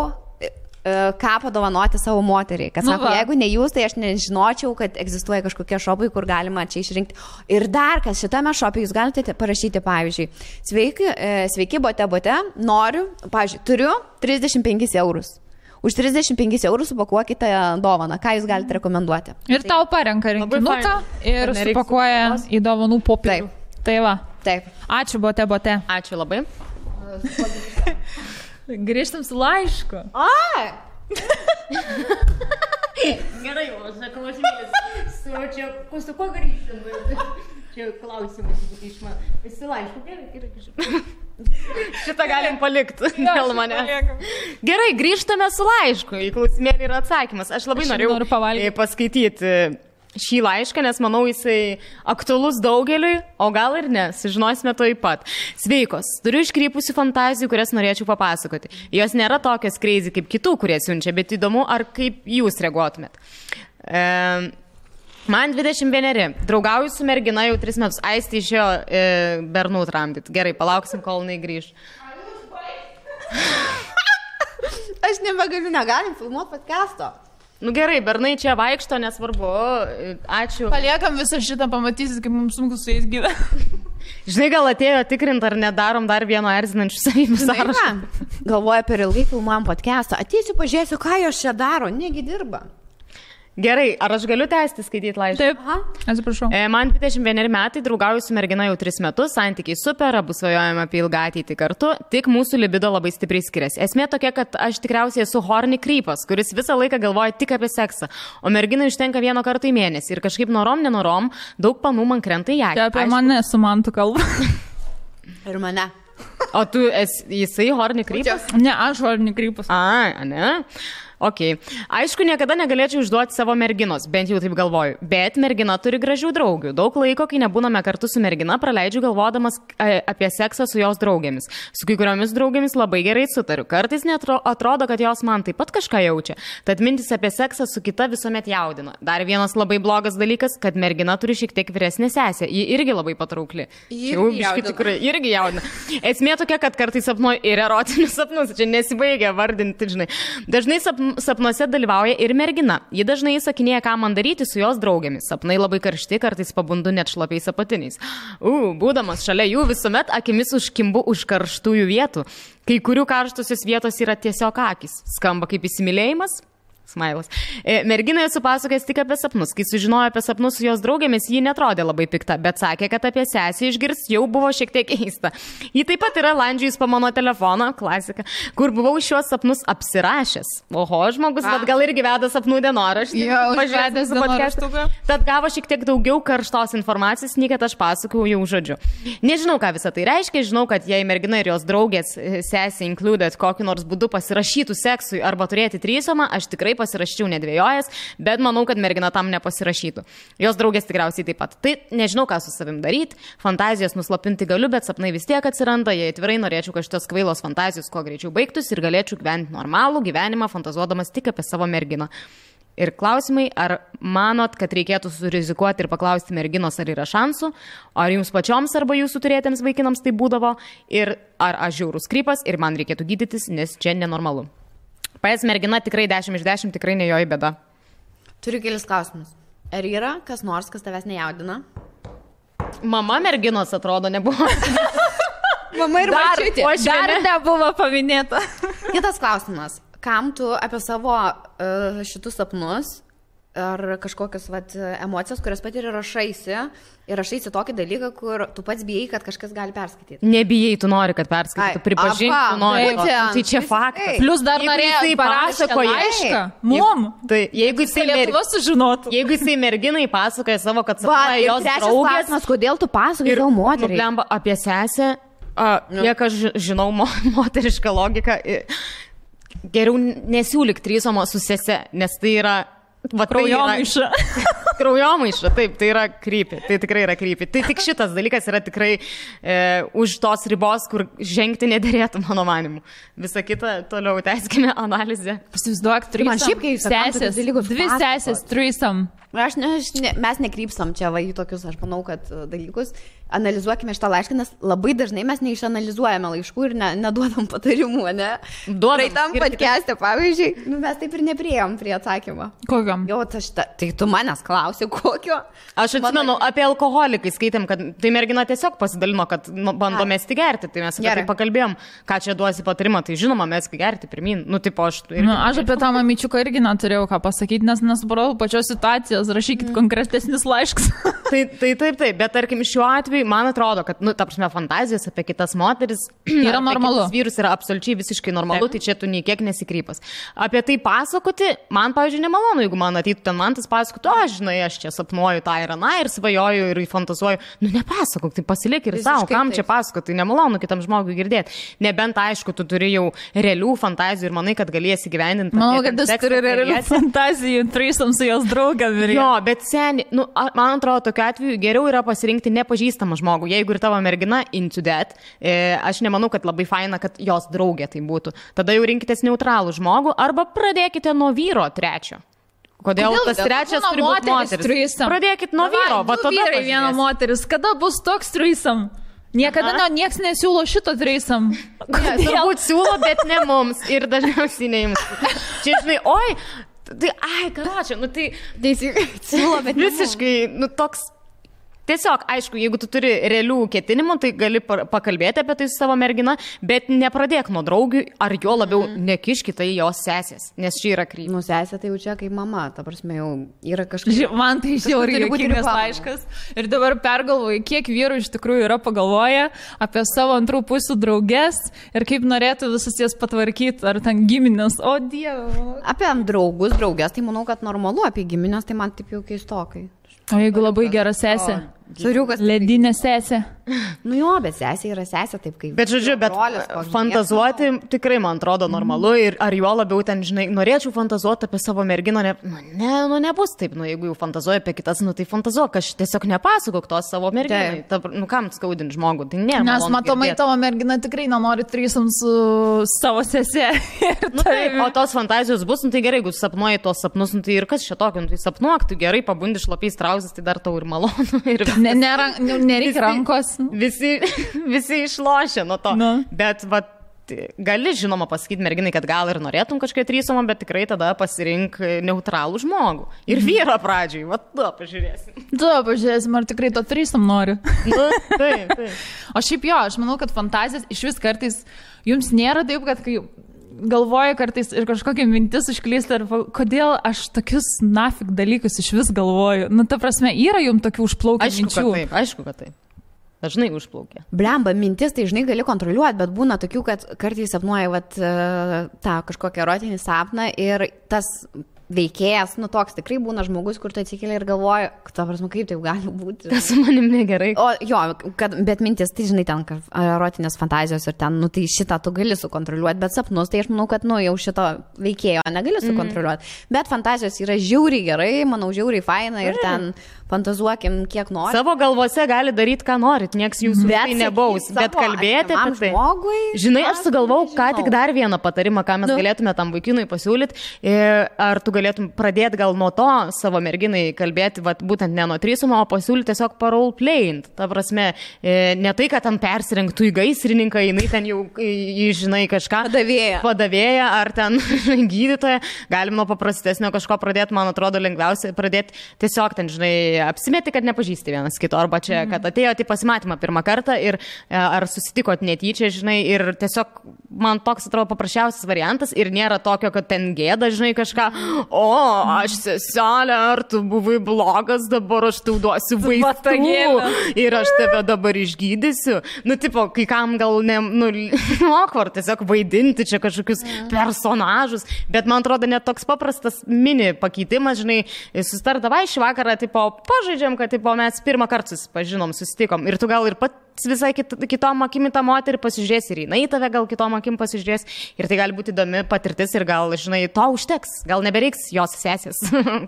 C: ką padovanoti savo moteriai. Kad sako, jeigu ne jūs, tai aš nežinočiau, kad egzistuoja kažkokie šopai, kur galima čia išrinkti. Ir dar, kas šitame šope jūs galite parašyti, pavyzdžiui, sveiki, bote, noriu, pavyzdžiui, turiu 35 eurus. Už 35 eurų supakuokite dovaną. Ką jūs galite rekomenduoti?
A: Ir tau parenka rinkinuką ir supakuoja į dovanų popierių. Tai va.
C: Taip.
A: Ačiū, bote.
B: Ačiū labai.
A: Grįžtam su laišku.
B: Gerai, o sakau, aš mėlis. Su kuo grįžtam? Čia klausimas iš man. Visi laišku, gerai. Šitą galim palikti dėl manęs. Gerai, grįžtame su laišku. Į klausimėlį yra atsakymas. Aš labai noriu paskaityti šį laišką, nes manau jisai aktualus daugeliui, o gal ir ne, sužinosime to taip pat. Sveikos, turiu iškrypusių fantazijų, kurias norėčiau papasakoti. Jos nėra tokios crazy kaip kitų, kurie siunčia, bet įdomu, ar kaip jūs reaguotumėt. Man 21, draugauju su mergina jau 3 metus, Aistė išėjo bernų tramdyti. Gerai, palauksim, kol jinai grįž.
C: Aš nebegaliu, negalim filmuoti podcast'o.
B: Nu gerai, bernai čia vaikšto, nesvarbu. Ačiū.
A: Paliekam visą šitą, pamatysit, kaip mums sunku su jais gyventi.
B: Žinai, gal atėjo tikrint, ar nedarom dar vieno erzinančių savybių sąrašą.
C: Galvoju, per ilgai filmuojam podcast'ą. Ateisiu, pažiūrėsiu, ką jos čia daro. Negi dirba.
B: Gerai, ar aš galiu tęsti skaityti laišką?
A: Taip, atsiprašau.
B: Man 21 metai, draugauju su mergina jau 3 metus, santykiai super, abu svajojame apie ilgą ateitį kartu, tik mūsų libido labai stipriai skiriasi. Esmė tokia, kad aš tikriausiai esu horny krypas, kuris visą laiką galvoja tik apie seksą, o merginai užtenka 1 kartą į mėnesį ir kažkaip norom, nenorom, daug panų man krenta į akį.
A: Tai apie mane su mantu kalba.
C: Ir mane.
B: O tu jisai horny krypas?
A: Ne, aš horny krypas.
B: Ne? Ok. Aišku, niekada negalėčiau išduoti savo merginos, bent jau taip galvoju. Bet mergina turi gražių draugių. Daug laiko, kai nebūname kartu su mergina, praleidžiu galvodamas apie seksą su jos draugėmis. Su kai kuriomis draugėmis labai gerai sutariu. Kartais atrodo, kad jos man taip pat kažką jaučia. Tad mintis apie seksą su kita visuomet jaudina. Dar vienas labai blogas dalykas, kad mergina turi šiek tiek vyresnę sesę. Ji irgi labai patraukli. Jau biški tikrai irgi jaudina. Esmė tokia, kad kartais sapnuoju ir erotinius sapnus. Čia nesibaigia vardinti, žinai. Dažnai sapnuose dalyvauja ir mergina. Ji dažnai įsakinėja, ką man daryti su jos draugėmis. Sapnai labai karšti, kartais pabundu net šlapiais apatiniais. Būdamas šalia jų visuomet akimis užkimbu už karštųjų vietų. Kai kurių karštusios vietos yra tiesiog akis. Skamba kaip įsimylėjimas. Smailas. Mergina esu pasakojęs tik apie sapnus. Kai sužinojo apie sapnus su jos draugėmis, ji netrodė labai pikta, bet sakė, kad apie sesį išgirs jau buvo šiek tiek keista. Ji taip pat yra landžiujus po mano telefoną, klasika, kur buvau šios sapnus apsirašęs. Oho, žmogus, bet gal irgi veda sapnų dienoraštį.
A: Pažiūrėjęs dienoraštuką.
B: Tad gavo šiek tiek daugiau karštos informacijos, nei kad aš pasakojau jau žodžiu. Nežinau, ką visą tai reiškia, žinau, kad jei mergina ir jos draugės sesė included kokiu nors būdu pasirašytų seksui arba turėti trysomą, aš tikrai pasirašyčiau nedvėjojęs, bet manau, kad mergina tam nepasirašytų. Jos draugės tikriausiai taip pat. Tai nežinau, ką su savim daryti, fantazijas nuslopinti galiu, bet sapnai vis tiek atsiranda, jei atvirai norėčiau, kad šitos kvailos fantazijos kuo greičiau baigtųsi ir galėčiau gyventi normalų gyvenimą, fantazuodamas tik apie savo merginą. Ir klausimai, ar manot, kad reikėtų surizikuoti ir paklausti merginos, ar yra šansų, ar jums pačioms arba jūsų turėtiems vaikinams tai būdavo, ir ar aš žiaurus krypas ir man reikėtų gydytis, nes čia nenormalu. Paės mergina tikrai 10 iš 10, tikrai ne jo į bėdą.
C: Turiu kelis klausimus. Ar yra kas nors, kas tavęs nejaudina?
B: Mama merginos atrodo nebuvo.
C: Mama ir mačiutė.
A: Dar nebuvo paminėta.
C: Kitas klausimas. Kam tu apie savo šitus sapnus ar kažkokias emocijas, kurias patiri, rašaisi tokį dalyką, kur tu pats bijai, kad kažkas gali perskaityti?
B: Nebijai, tu nori, kad perskaitytų, pripažinti, tu nori. Tai čia faktas.
A: Plus dar norėjai parašyti laišką. Mum.
B: Tai jeigu jisai merginai pasakoja savo, kad sapnuoja jos draugės.
C: Klausimas, kodėl tu pasakoji savo moteriai?
B: Nublemba apie sesę, kiek aš žinau moterišką logiką, geriau nesiūlyk trysomo su sese, nes tai yra
A: kraujomaiša.
B: Kraujomaiša, taip, tai yra krypį. Tai tikrai yra krypį. Tai tik šitas dalykas yra tikrai už tos ribos, kur žengti nederėtų, mano manimu. Visa kita, toliau tęskime analizę.
A: Įsivaizduok, sesės, 2 sesės, threesome.
C: Mes nekrypstam čia į tokius, aš manau, kad dalykus. Analizuokime šitą laišką, nes labai dažnai mes neišanalizuojame laiškų ir neduodam patarimų, ne? Praeitam podcast'e, pavyzdžiui, mes taip ir nepriejom prie atsakymo.
A: Kokiam?
C: Jo, tai tu manęs klausi, kokio?
B: Aš atsimenu, apie alkoholį, kai skaitėm, kad tai mergina tiesiog pasidalino, kad bando mesti gerti, tai mes apie tai pakalbėjom, ką čia duosi patarimą, tai žinoma, meski gerti pirmin.
A: Aš apie tą mamyčiuką irgi neturėjau ką pasakyti, nes nesupratau pačios situacijos, rašykit konkretesnis laiškas.
B: Taip, bet tarkim šiuo atveju man atrodo, kad, ta prasme, fantazijos apie kitas moteris
A: yra normalu.
B: Vyrus yra absoliučiai visiškai normalu, tai čia tu nei kiek nesikrypas. Apie tai pasakoti, man, pavyzdžiui, nemalonu, jeigu man ateitų ten mantas pasakotų, žinai, aš čia sapnuoju tą ir aną ir svajoju ir fantazuoju. Nepasakok, tai pasilik ir savo, kam čia pasakoti, tai nemalonu kitam žmogui girdėti. Nebent, aišku, tu turi jau realių fantazijų ir manai, kad galėsi gyvendinti.
A: Manau, kad jis turi realių fantazijų, threesome su jos draugam.
B: Jo, bet seniai, man atrodo, tokiu atveju geriau yra pasirinkti nepažįstamą žmogų. Jeigu ir tavo mergina into that, aš nemanau, kad labai faina, kad jos draugė tai būtų. Tada jau rinkitės neutralų žmogų arba pradėkite nuo vyro trečio, Kodėl tas trečias turi būti moteris? Pradėkit nuo vyro, va tada
A: vyrai viena moteris. Kada bus toks threesome? Niekada nieks nesiūlo šito threesome.
B: Turbūt siūlo, bet ne mums. Ir dažniausiai ne jums. Čia, žinai, oi, tai, karočią, nu tai
C: siūlo, bet
B: visiškai, nu toks. Tiesiog, aišku, jeigu tu turi realių ketinimų, tai gali pakalbėti apie tai su savo mergina, bet nepradėk nuo draugių, ar jo labiau nekiškite į jos sesės, nes čia yra kryptis.
C: Nu, sesė tai jau čia kaip mama, ta prasme, jau yra kažkas.
A: Man tai žiauriai juokingas laiškas. Ir dabar pergalvoju, kiek vyrų iš tikrųjų yra pagalvoję apie savo antrų pusių draugės ir kaip norėtų visus jas patvarkyti, ar ten giminės, o dieve.
C: Apie draugus, draugės, tai manau, kad normalu, apie giminės, tai man taip jau keistokai.
A: O jeigu labai gera sesė?
C: Suriukas.
A: Ledinė sesė.
C: Nu jo, bet sesė yra sesė taip kaip.
B: Bet žodžiu, bet fantazuoti tikrai man atrodo normalu ir ar jo labiau ten, žinai, norėčiau fantazuoti apie savo merginą, nebus taip, jeigu jau fantazuoju apie kitas, tai fantazuok, aš tiesiog nepasakok to savo merginai. Kam skaudinti žmogų, tai ne.
A: Nes matomai tavo mergina tikrai nenori threesome su savo sesė.
B: O tos fantazijos bus, tai gerai, jeigu sapnuoji tos sapnus, tai ir kas čia tokio, tai sapnuok, tu gerai pabundi šlapiais trauzės, tai dar tau ir malonu.
A: Nereikia rankos.
B: Visi išlošia nuo to. Bet gali, žinoma, pasakyti merginai, kad gal ir norėtum kažkiek threesome, bet tikrai tada pasirink neutralų žmogų. Ir vyrą pradžiai.
A: Pažiūrėsim, ar tikrai to threesome nori.
B: Taip.
A: O šiaip jo, aš manau, kad fantazijas iš vis kartais jums nėra taip, kad kai galvoju kartais ir kažkokia mintis užklysta, kodėl aš tokius nafik dalykus iš vis galvoju. Nu, ta prasme, yra jums tokių užplaukiančių minčių.
B: Aišku, kad taip. Dažnai užplaukia.
C: Blemba, mintis tai žinai gali kontroliuoti, bet būna tokių, kad kartais sapnuoja tą kažkokią erotinį sapną ir tas veikėjas, toks tikrai būna žmogus, kur tu atsikeli ir galvoji, ta prasme, kaip taip gali būti.
B: Tas su manim negerai.
C: O jo, bet mintis, tai žinai, ten erotinės fantazijos ir ten, tai šitą tu gali sukontroliuoti, bet sapnus, tai aš manau, kad, jau šito veikėjo negali sukontroliuoti. Bet fantazijos yra žiauriai gerai, manau, žiauriai faina ir ten fantazuokim, kiek nori.
B: Savo galvose gali daryti, ką norit, nieks jūsų tai nebaus, bet kalbėti apie tai. Žinai, aš sugalvau, ką tik dar vieną patarimą, ką mes galėtume tam vaikinui pasiūlyti. Ar tu galėtum pradėti gal nuo to savo merginai kalbėti, būtent ne nuo threesome, o pasiūlyti tiesiog roleplaying. Ta prasme, ne tai, kad ten persirinktų į gaisrininką, jinai ten jau, žinai, kažką padavėja ar ten gydytoja. Galim nuo paprastesnio kažko pradėti, man atrodo, lengviausia pradėti tiesiog ten, žinai, apsimeti, kad nepažįsti vienas kito, arba čia, kad atėjote į pasimatymą pirmą kartą ir ar susitikot netyčia, žinai, ir tiesiog man toks atrodo paprasčiausias variantas ir nėra tokio, kad ten gėda, žinai, kažką, aš seselė, ar tu buvai blogas, dabar aš tau duosiu vaistų ir aš tave dabar išgydysiu. Tipo, kai kam gal awkward, tiesiog vaidinti čia kažkokius personažus, bet man atrodo net toks paprastas mini pakeitimas, žinai, susitardavai šį vakarą, tipo, pažaidžiam, kad mes pirmą kartą susitikom ir tu gal ir pats visai kitom akim į tą moterį pasižiūrės ir jinai tave gal kitom akim pasižiūrės ir tai gali būti įdomi patirtis ir gal, žinai, to užteks, gal nebereiks jos sesės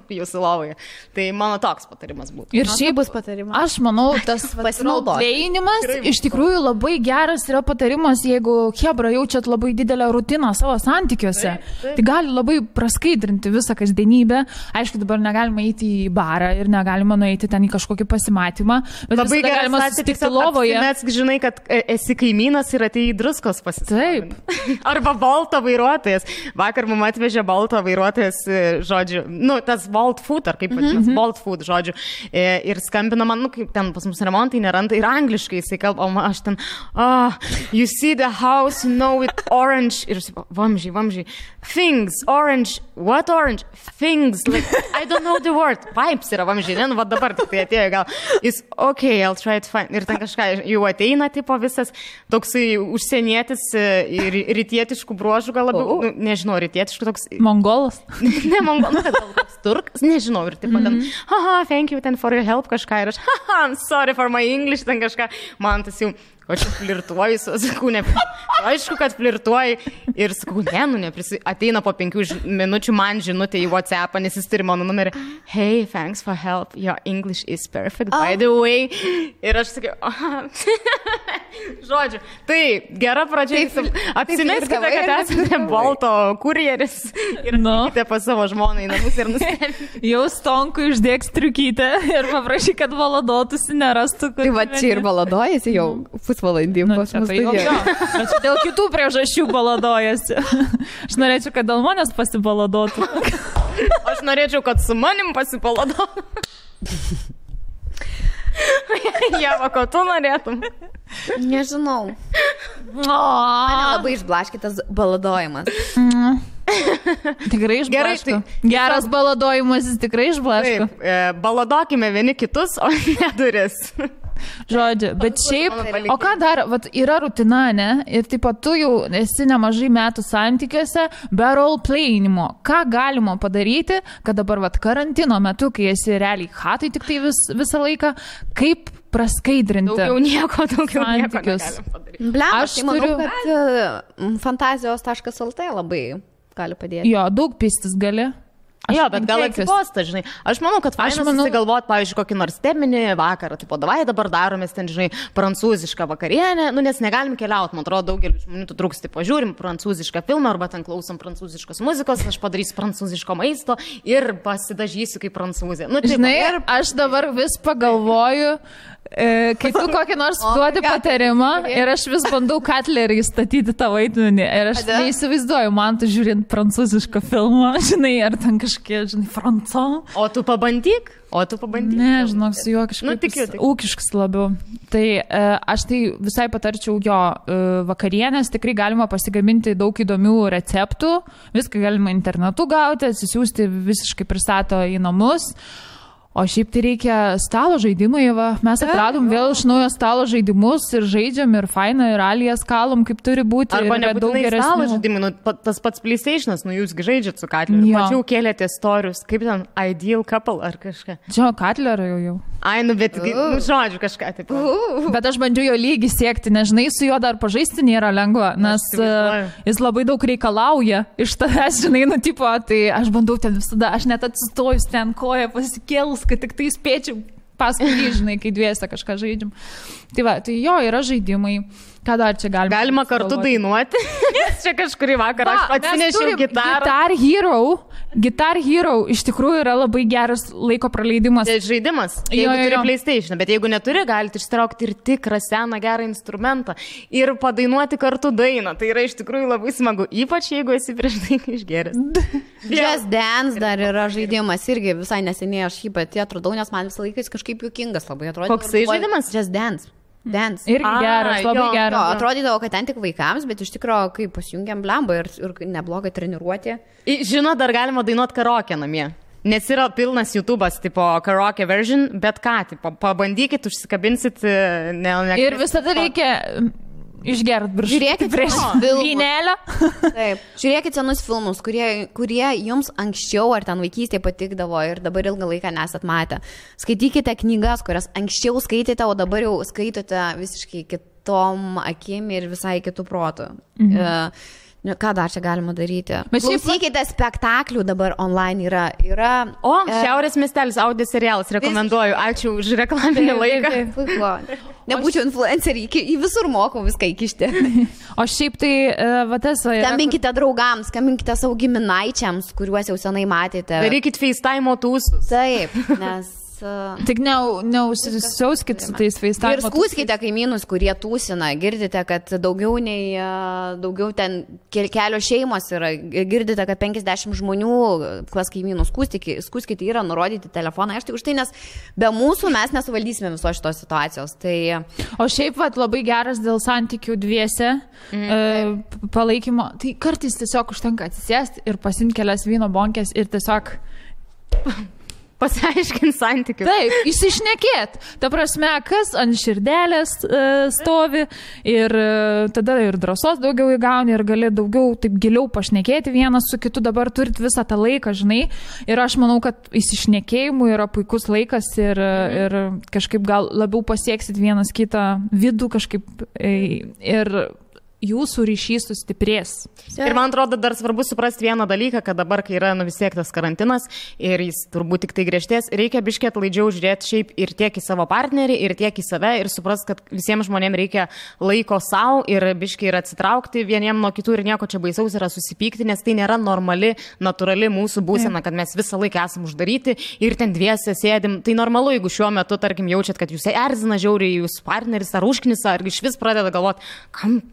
B: jūsų lovoje. Tai mano toks patarimas būtų.
A: Ir šiaip bus patarimas. Aš manau, tas roleplayimas iš tikrųjų labai geras yra patarimas, jeigu chebra jaučiat labai didelę rutiną savo santykiuose. Tai gali labai praskaidrinti visą kasdienybę. Aišku, dabar negalima eiti į barą ir negalima nueiti ten į kažkokį pasimatymą, bet labai galima susitikti lovoje.
B: Mes žinai, kad esi kaimynas ir atėjai druskos pasisavint. Arba Bolto vairuotojas. Vakar mum atvežė Bolto vairuotojas, žodžiu, tas Bolt Food, ar kaip vadinasi, Bolt Food, žodžiu. Ir skambina man, kaip ten pas mus remontai neranda, ir angliškai jisai kalba, o aš ten, you see the house, with orange, ir vamžiai, things, orange, what orange? Things, like, I don't know the word. Vibes yra vamžiai, va dabar tik tai atėjo gal. Jis, okay, I'll try to find. Ir ten kažką jau ateina, tipo visas toksai užsienietis ir rytietiškų bruožų, gal labiau, nežinau, rytietiškų toks.
A: Mongolas?
B: Ne, mongolas, gal toks turkas, nežinau, ir tipo ten, thank you ten for your help kažką, ir aš, I'm sorry for my English, ten kažką, man tas jau, o čia flirtuoju, sakau, aišku, kad flirtuoju ir sakau, ateina po 5 minučių man žinutė į WhatsAppą, nes jis turi mano numerį, hey, thanks for help, your English is perfect, by the way. Ir aš sakiau, Žodžiu, tai gera pradžia. Apsimeskite, kad esate Bolto kurjeris ir nukite pas savo žmoną į namus ir nustebėkite.
A: Jau Stonkui uždėk striukytę ir paprašyk, kad baladotųsi, nerastų.
C: Tai va čia ir baladojasi jau pusvalandį.
A: Bet dėl kitų priežasčių baladojasi. Aš norėčiau, kad dėl manęs pasibaladotų.
B: Aš norėčiau, kad su manim pasibaladotų. Jeva, ko tu norėtum?
C: Nežinau. Mane labai išblaškytas baladojimas.
A: Tikrai išblaško. Geras baladojimas, jis tikrai išblaško.
B: Baladokime vieni kitus, o ne duris.
A: Žodžiu, bet šiaip, o ką dar, vat, yra rutina, ne? Ir taip pat tu jau esi nemažai metų santykiuose be roleplayinimo. Ką galima padaryti, kad dabar vat, karantino metu, kai esi realiai hatai tik tai visą laiką, kaip praskaidrinti
B: daugiau nieko
A: santykius?
C: Aš manau, kad fantazijos.lt labai gali padėti.
A: Jo, daug pistis gali.
B: Jo, bet gal atsiposta, žinai. Aš manau, kad susigalvot, pavyzdžiui, kokį nors teminį vakarą, tipo, davai dabar daromės ten, žinai, prancūzišką vakarienę, nes negalim keliauti, man atrodo, daugelį žmonių tu trūks, tipo, žiūrim prancūzišką filmą arba ten klausom prancūziškos muzikos, aš padarysiu prancūziško maisto ir pasidažysiu kaip prancūzė. Nu,
A: žinai, aš dabar vis pagalvoju, kai tu kokį nors duodi patarimą ir aš vis bandau Katlerį įstatyti tą vaidmenį ir aš neįsivaizduoju, man tu žiūrint prancūzišką filmą, žinai, ar ten kažkiek, žinai, franco.
B: O tu pabandyk?
A: Ne, žinok, su juo kažkaip ūkiškas labiau. Tai aš tai visai patarčiau jo vakarienės, tikrai galima pasigaminti daug įdomių receptų, viską galima internetu gauti, atsisiųsti visiškai pristato į namus. O šiaip tai reikia stalo žaidimai, va. Mes atradom vėl iš naujo stalo žaidimus ir žaidžiam ir fainą, ir alijas kalom, kaip turi būti.
B: Arba nebūtinai stalo žaidimai, nu, tas pats PlayStation'as, nu jūs žaidžiat su Katleriu. Mačiau kėlėte istorius, kaip ten Ideal Couple ar kažką.
A: Čia Katlerio jau.
B: Ai, nu, bet, nu, žodžiu, kažką taip.
A: Bet aš bandžiu jo lygį siekti, nežinai, su juo dar pažaisti nėra lengva, nes jis labai daug reikalauja iš tavęs, žinai, nu, tipo, tai aš bandau ten visada, aš net atsistojus ten koją pasikėlus, kad tik tai spėčiau paskui jį, žinai, kai dviese kažką žaidžiam. Tai va, tai jo, yra žaidimai. Ką dar čia galima?
B: Galima kartu dainuoti. Čia kažkurį vakarą aš atsinešiau gitarą.
A: Guitar Hero iš tikrųjų yra labai geras laiko praleidimas.
B: Tai žaidimas. Jeigu turi PlayStation, bet jeigu neturi, galite ištraukti ir tikrą seną gerą instrumentą ir padainuoti kartu dainą. Tai yra iš tikrųjų labai smagu, ypač jeigu esi prieš tai išgeręs.
C: Just Dance dar yra žaidimas, irgi visai neseniai aš jį pati atradau, nes man visą laiką jis kažkaip juokingas labai atrodo.
B: Koksai žaidimas?
C: Just Dance.
A: Irgi geras, labai geras.
C: Atrodydavo, kad ten tik vaikams, bet iš tikrųjų, kai pasijungiam blambą ir neblogai treniruoti.
B: Žinot, dar galima dainuoti karaoke namie. Nes yra pilnas YouTube'as, tipo karaoke version, bet ką, tipo, pabandykit, užsikabinsit.
A: Ir visada reikia išgert virš.
C: Žiūrėkit
A: prieš vynelę.
C: Taip. Žiūrėkit senus filmus, kurie jums anksčiau ar ten vaikystėje patikdavo ir dabar ilgą laiką nesat matę. Skaitykite knygas, kurias anksčiau skaitėte, o dabar jau skaitote visiškai kitom akim ir visai kitų protų. Ką dar čia galima daryti? Klausykite spektaklių dabar online yra.
B: O, Šiaurės miestelis audio serialas, rekomenduoju. Ačiū už reklaminį laiką.
C: Nebūčiau influencerį, į visur mokau viską įkišti.
A: O šiaip tai, va tas...
C: Skambinkite draugams, skambinkite savo giminaičiams, kuriuos jau senai matėte.
B: Darykit FaceTime tūsus.
C: Taip, nes...
A: Tik neužsisiauskit su tais FaceTime.
C: Ir skūskite kaimynus, kurie tūsina. Girdite, kad daugiau ten kelios šeimos yra. Girdite, kad 50 žmonių, kas kaimynų skūskite, yra nurodyti telefoną. Aš tik už tai, nes be mūsų mes nesuvaldysime visos šitos situacijos. Tai...
A: O šiaip vat, labai geras dėl santykių dviese palaikymo. Tai kartais tiesiog užtenka atsisėsti ir pasimti kelias vyno bonkės ir tiesiog...
B: Pasiaiškint santykius.
A: Taip, įsišnekėt. Ta prasme, kas ant širdelės stovi ir tada ir drąsos daugiau įgauni ir gali daugiau taip giliau pašnekėti vienas su kitu. Dabar turit visą tą laiką, žinai. Ir aš manau, kad įsišnekėjimų yra puikus laikas ir kažkaip gal labiau pasieksit vienas kitą vidų kažkaip ir jūsų ryšys sustiprės.
B: Ir man atrodo, dar svarbu suprasti vieną dalyką, kad dabar, kai yra vis tiek tas karantinas ir jis turbūt tik tai griežtės, reikia biškiai atlaidžiau žiūrėti šiaip ir tiek į savo partnerį, ir tiek į save ir suprasti, kad visiems žmonėms reikia laiko savo ir biškiai ir atsitraukti vieniem nuo kitų ir nieko čia baisaus yra susipykti, nes tai nėra normali, natūrali mūsų būsena, kad mes visą laiką esam uždaryti ir ten dviese sėdim. Tai normalu, jeigu šiuo metu, tarkim, jaučiat, kad jūs erzina žiauriai, jūsų partneris ar užknisa, ar iš vis pradeda galvoti,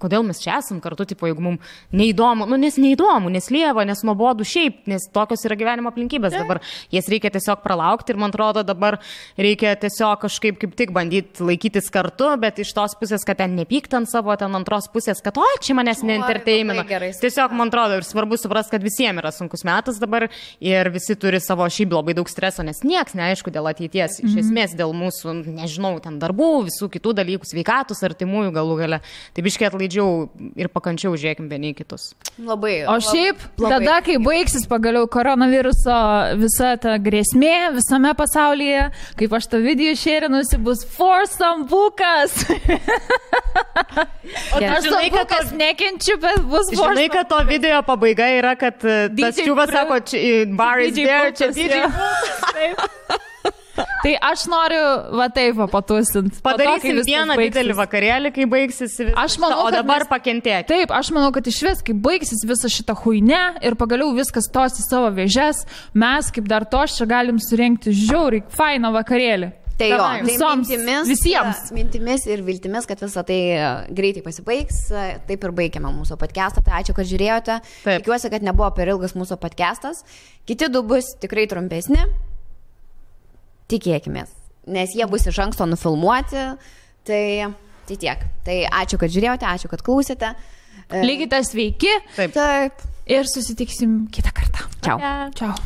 B: kodėl mes čia esam kartu, tipo, jeigu mums neįdomu, nes neįdomu, nes lieva, nes nuobodu šiaip, nes tokios yra gyvenimo aplinkybės dabar. Jas reikia tiesiog pralaukti ir man atrodo dabar reikia tiesiog kažkaip kaip tik bandyti laikytis kartu, bet iš tos pusės, kad ten nepykt ant savo, ten antros pusės, kad čia manęs neentertainina. Tiesiog man atrodo ir svarbu suprasti, kad visiems yra sunkus metas dabar ir visi turi savo šiaip labai daug streso, nes nieks neaišku dėl ateities, iš esmės dėl mūsų, nežinau, ten darbų, visų kitų dalykų, sveikatos, artimųjų galų gale. Tai biškiai atlaidžiau ir pakančiau žiūrėkim vieni kitus.
C: Labai.
A: O šiaip, tada, kai baigsis pagaliau koronaviruso visa ta grėsmė visame pasaulyje, kaip aš tą video šėrinusi, bus foursome bukas. O aš žinai, kad kas nekenčiu, bet bus foursome.
B: Žinai, kad to video pabaiga yra, kad tas čiūvas sako, bar is there, čia DJ.
A: Tai aš noriu, va taip, patusinti.
B: Padarysim vieną didelį vakarėlį, kai baigsis visą, o dabar pakentėti.
A: Taip, aš manau, kad iš vis, kai baigsis visą šitą huinę ir pagaliau viskas tos į savo vėžes, mes kaip dar tos čia galim surengti žiauriai fainą vakarėlį.
C: Tai jo,
A: visiems.
C: Mintimis ir viltimis, kad visą tai greitai pasibaigs. Taip ir baigiame mūsų podcastą. Tai ačiū, kad žiūrėjote. Tikiuosi, kad nebuvo per ilgas mūsų podcastas. Kiti du bus tikrai trumpesni. Tikėkimės, nes jie bus iš anksto nufilmuoti, tai tiek. Tai ačiū, kad žiūrėjote, ačiū, kad klausėte.
A: Likite sveiki.
C: Taip.
A: Ir susitiksim kitą kartą.
C: Čiau.
A: Čiau.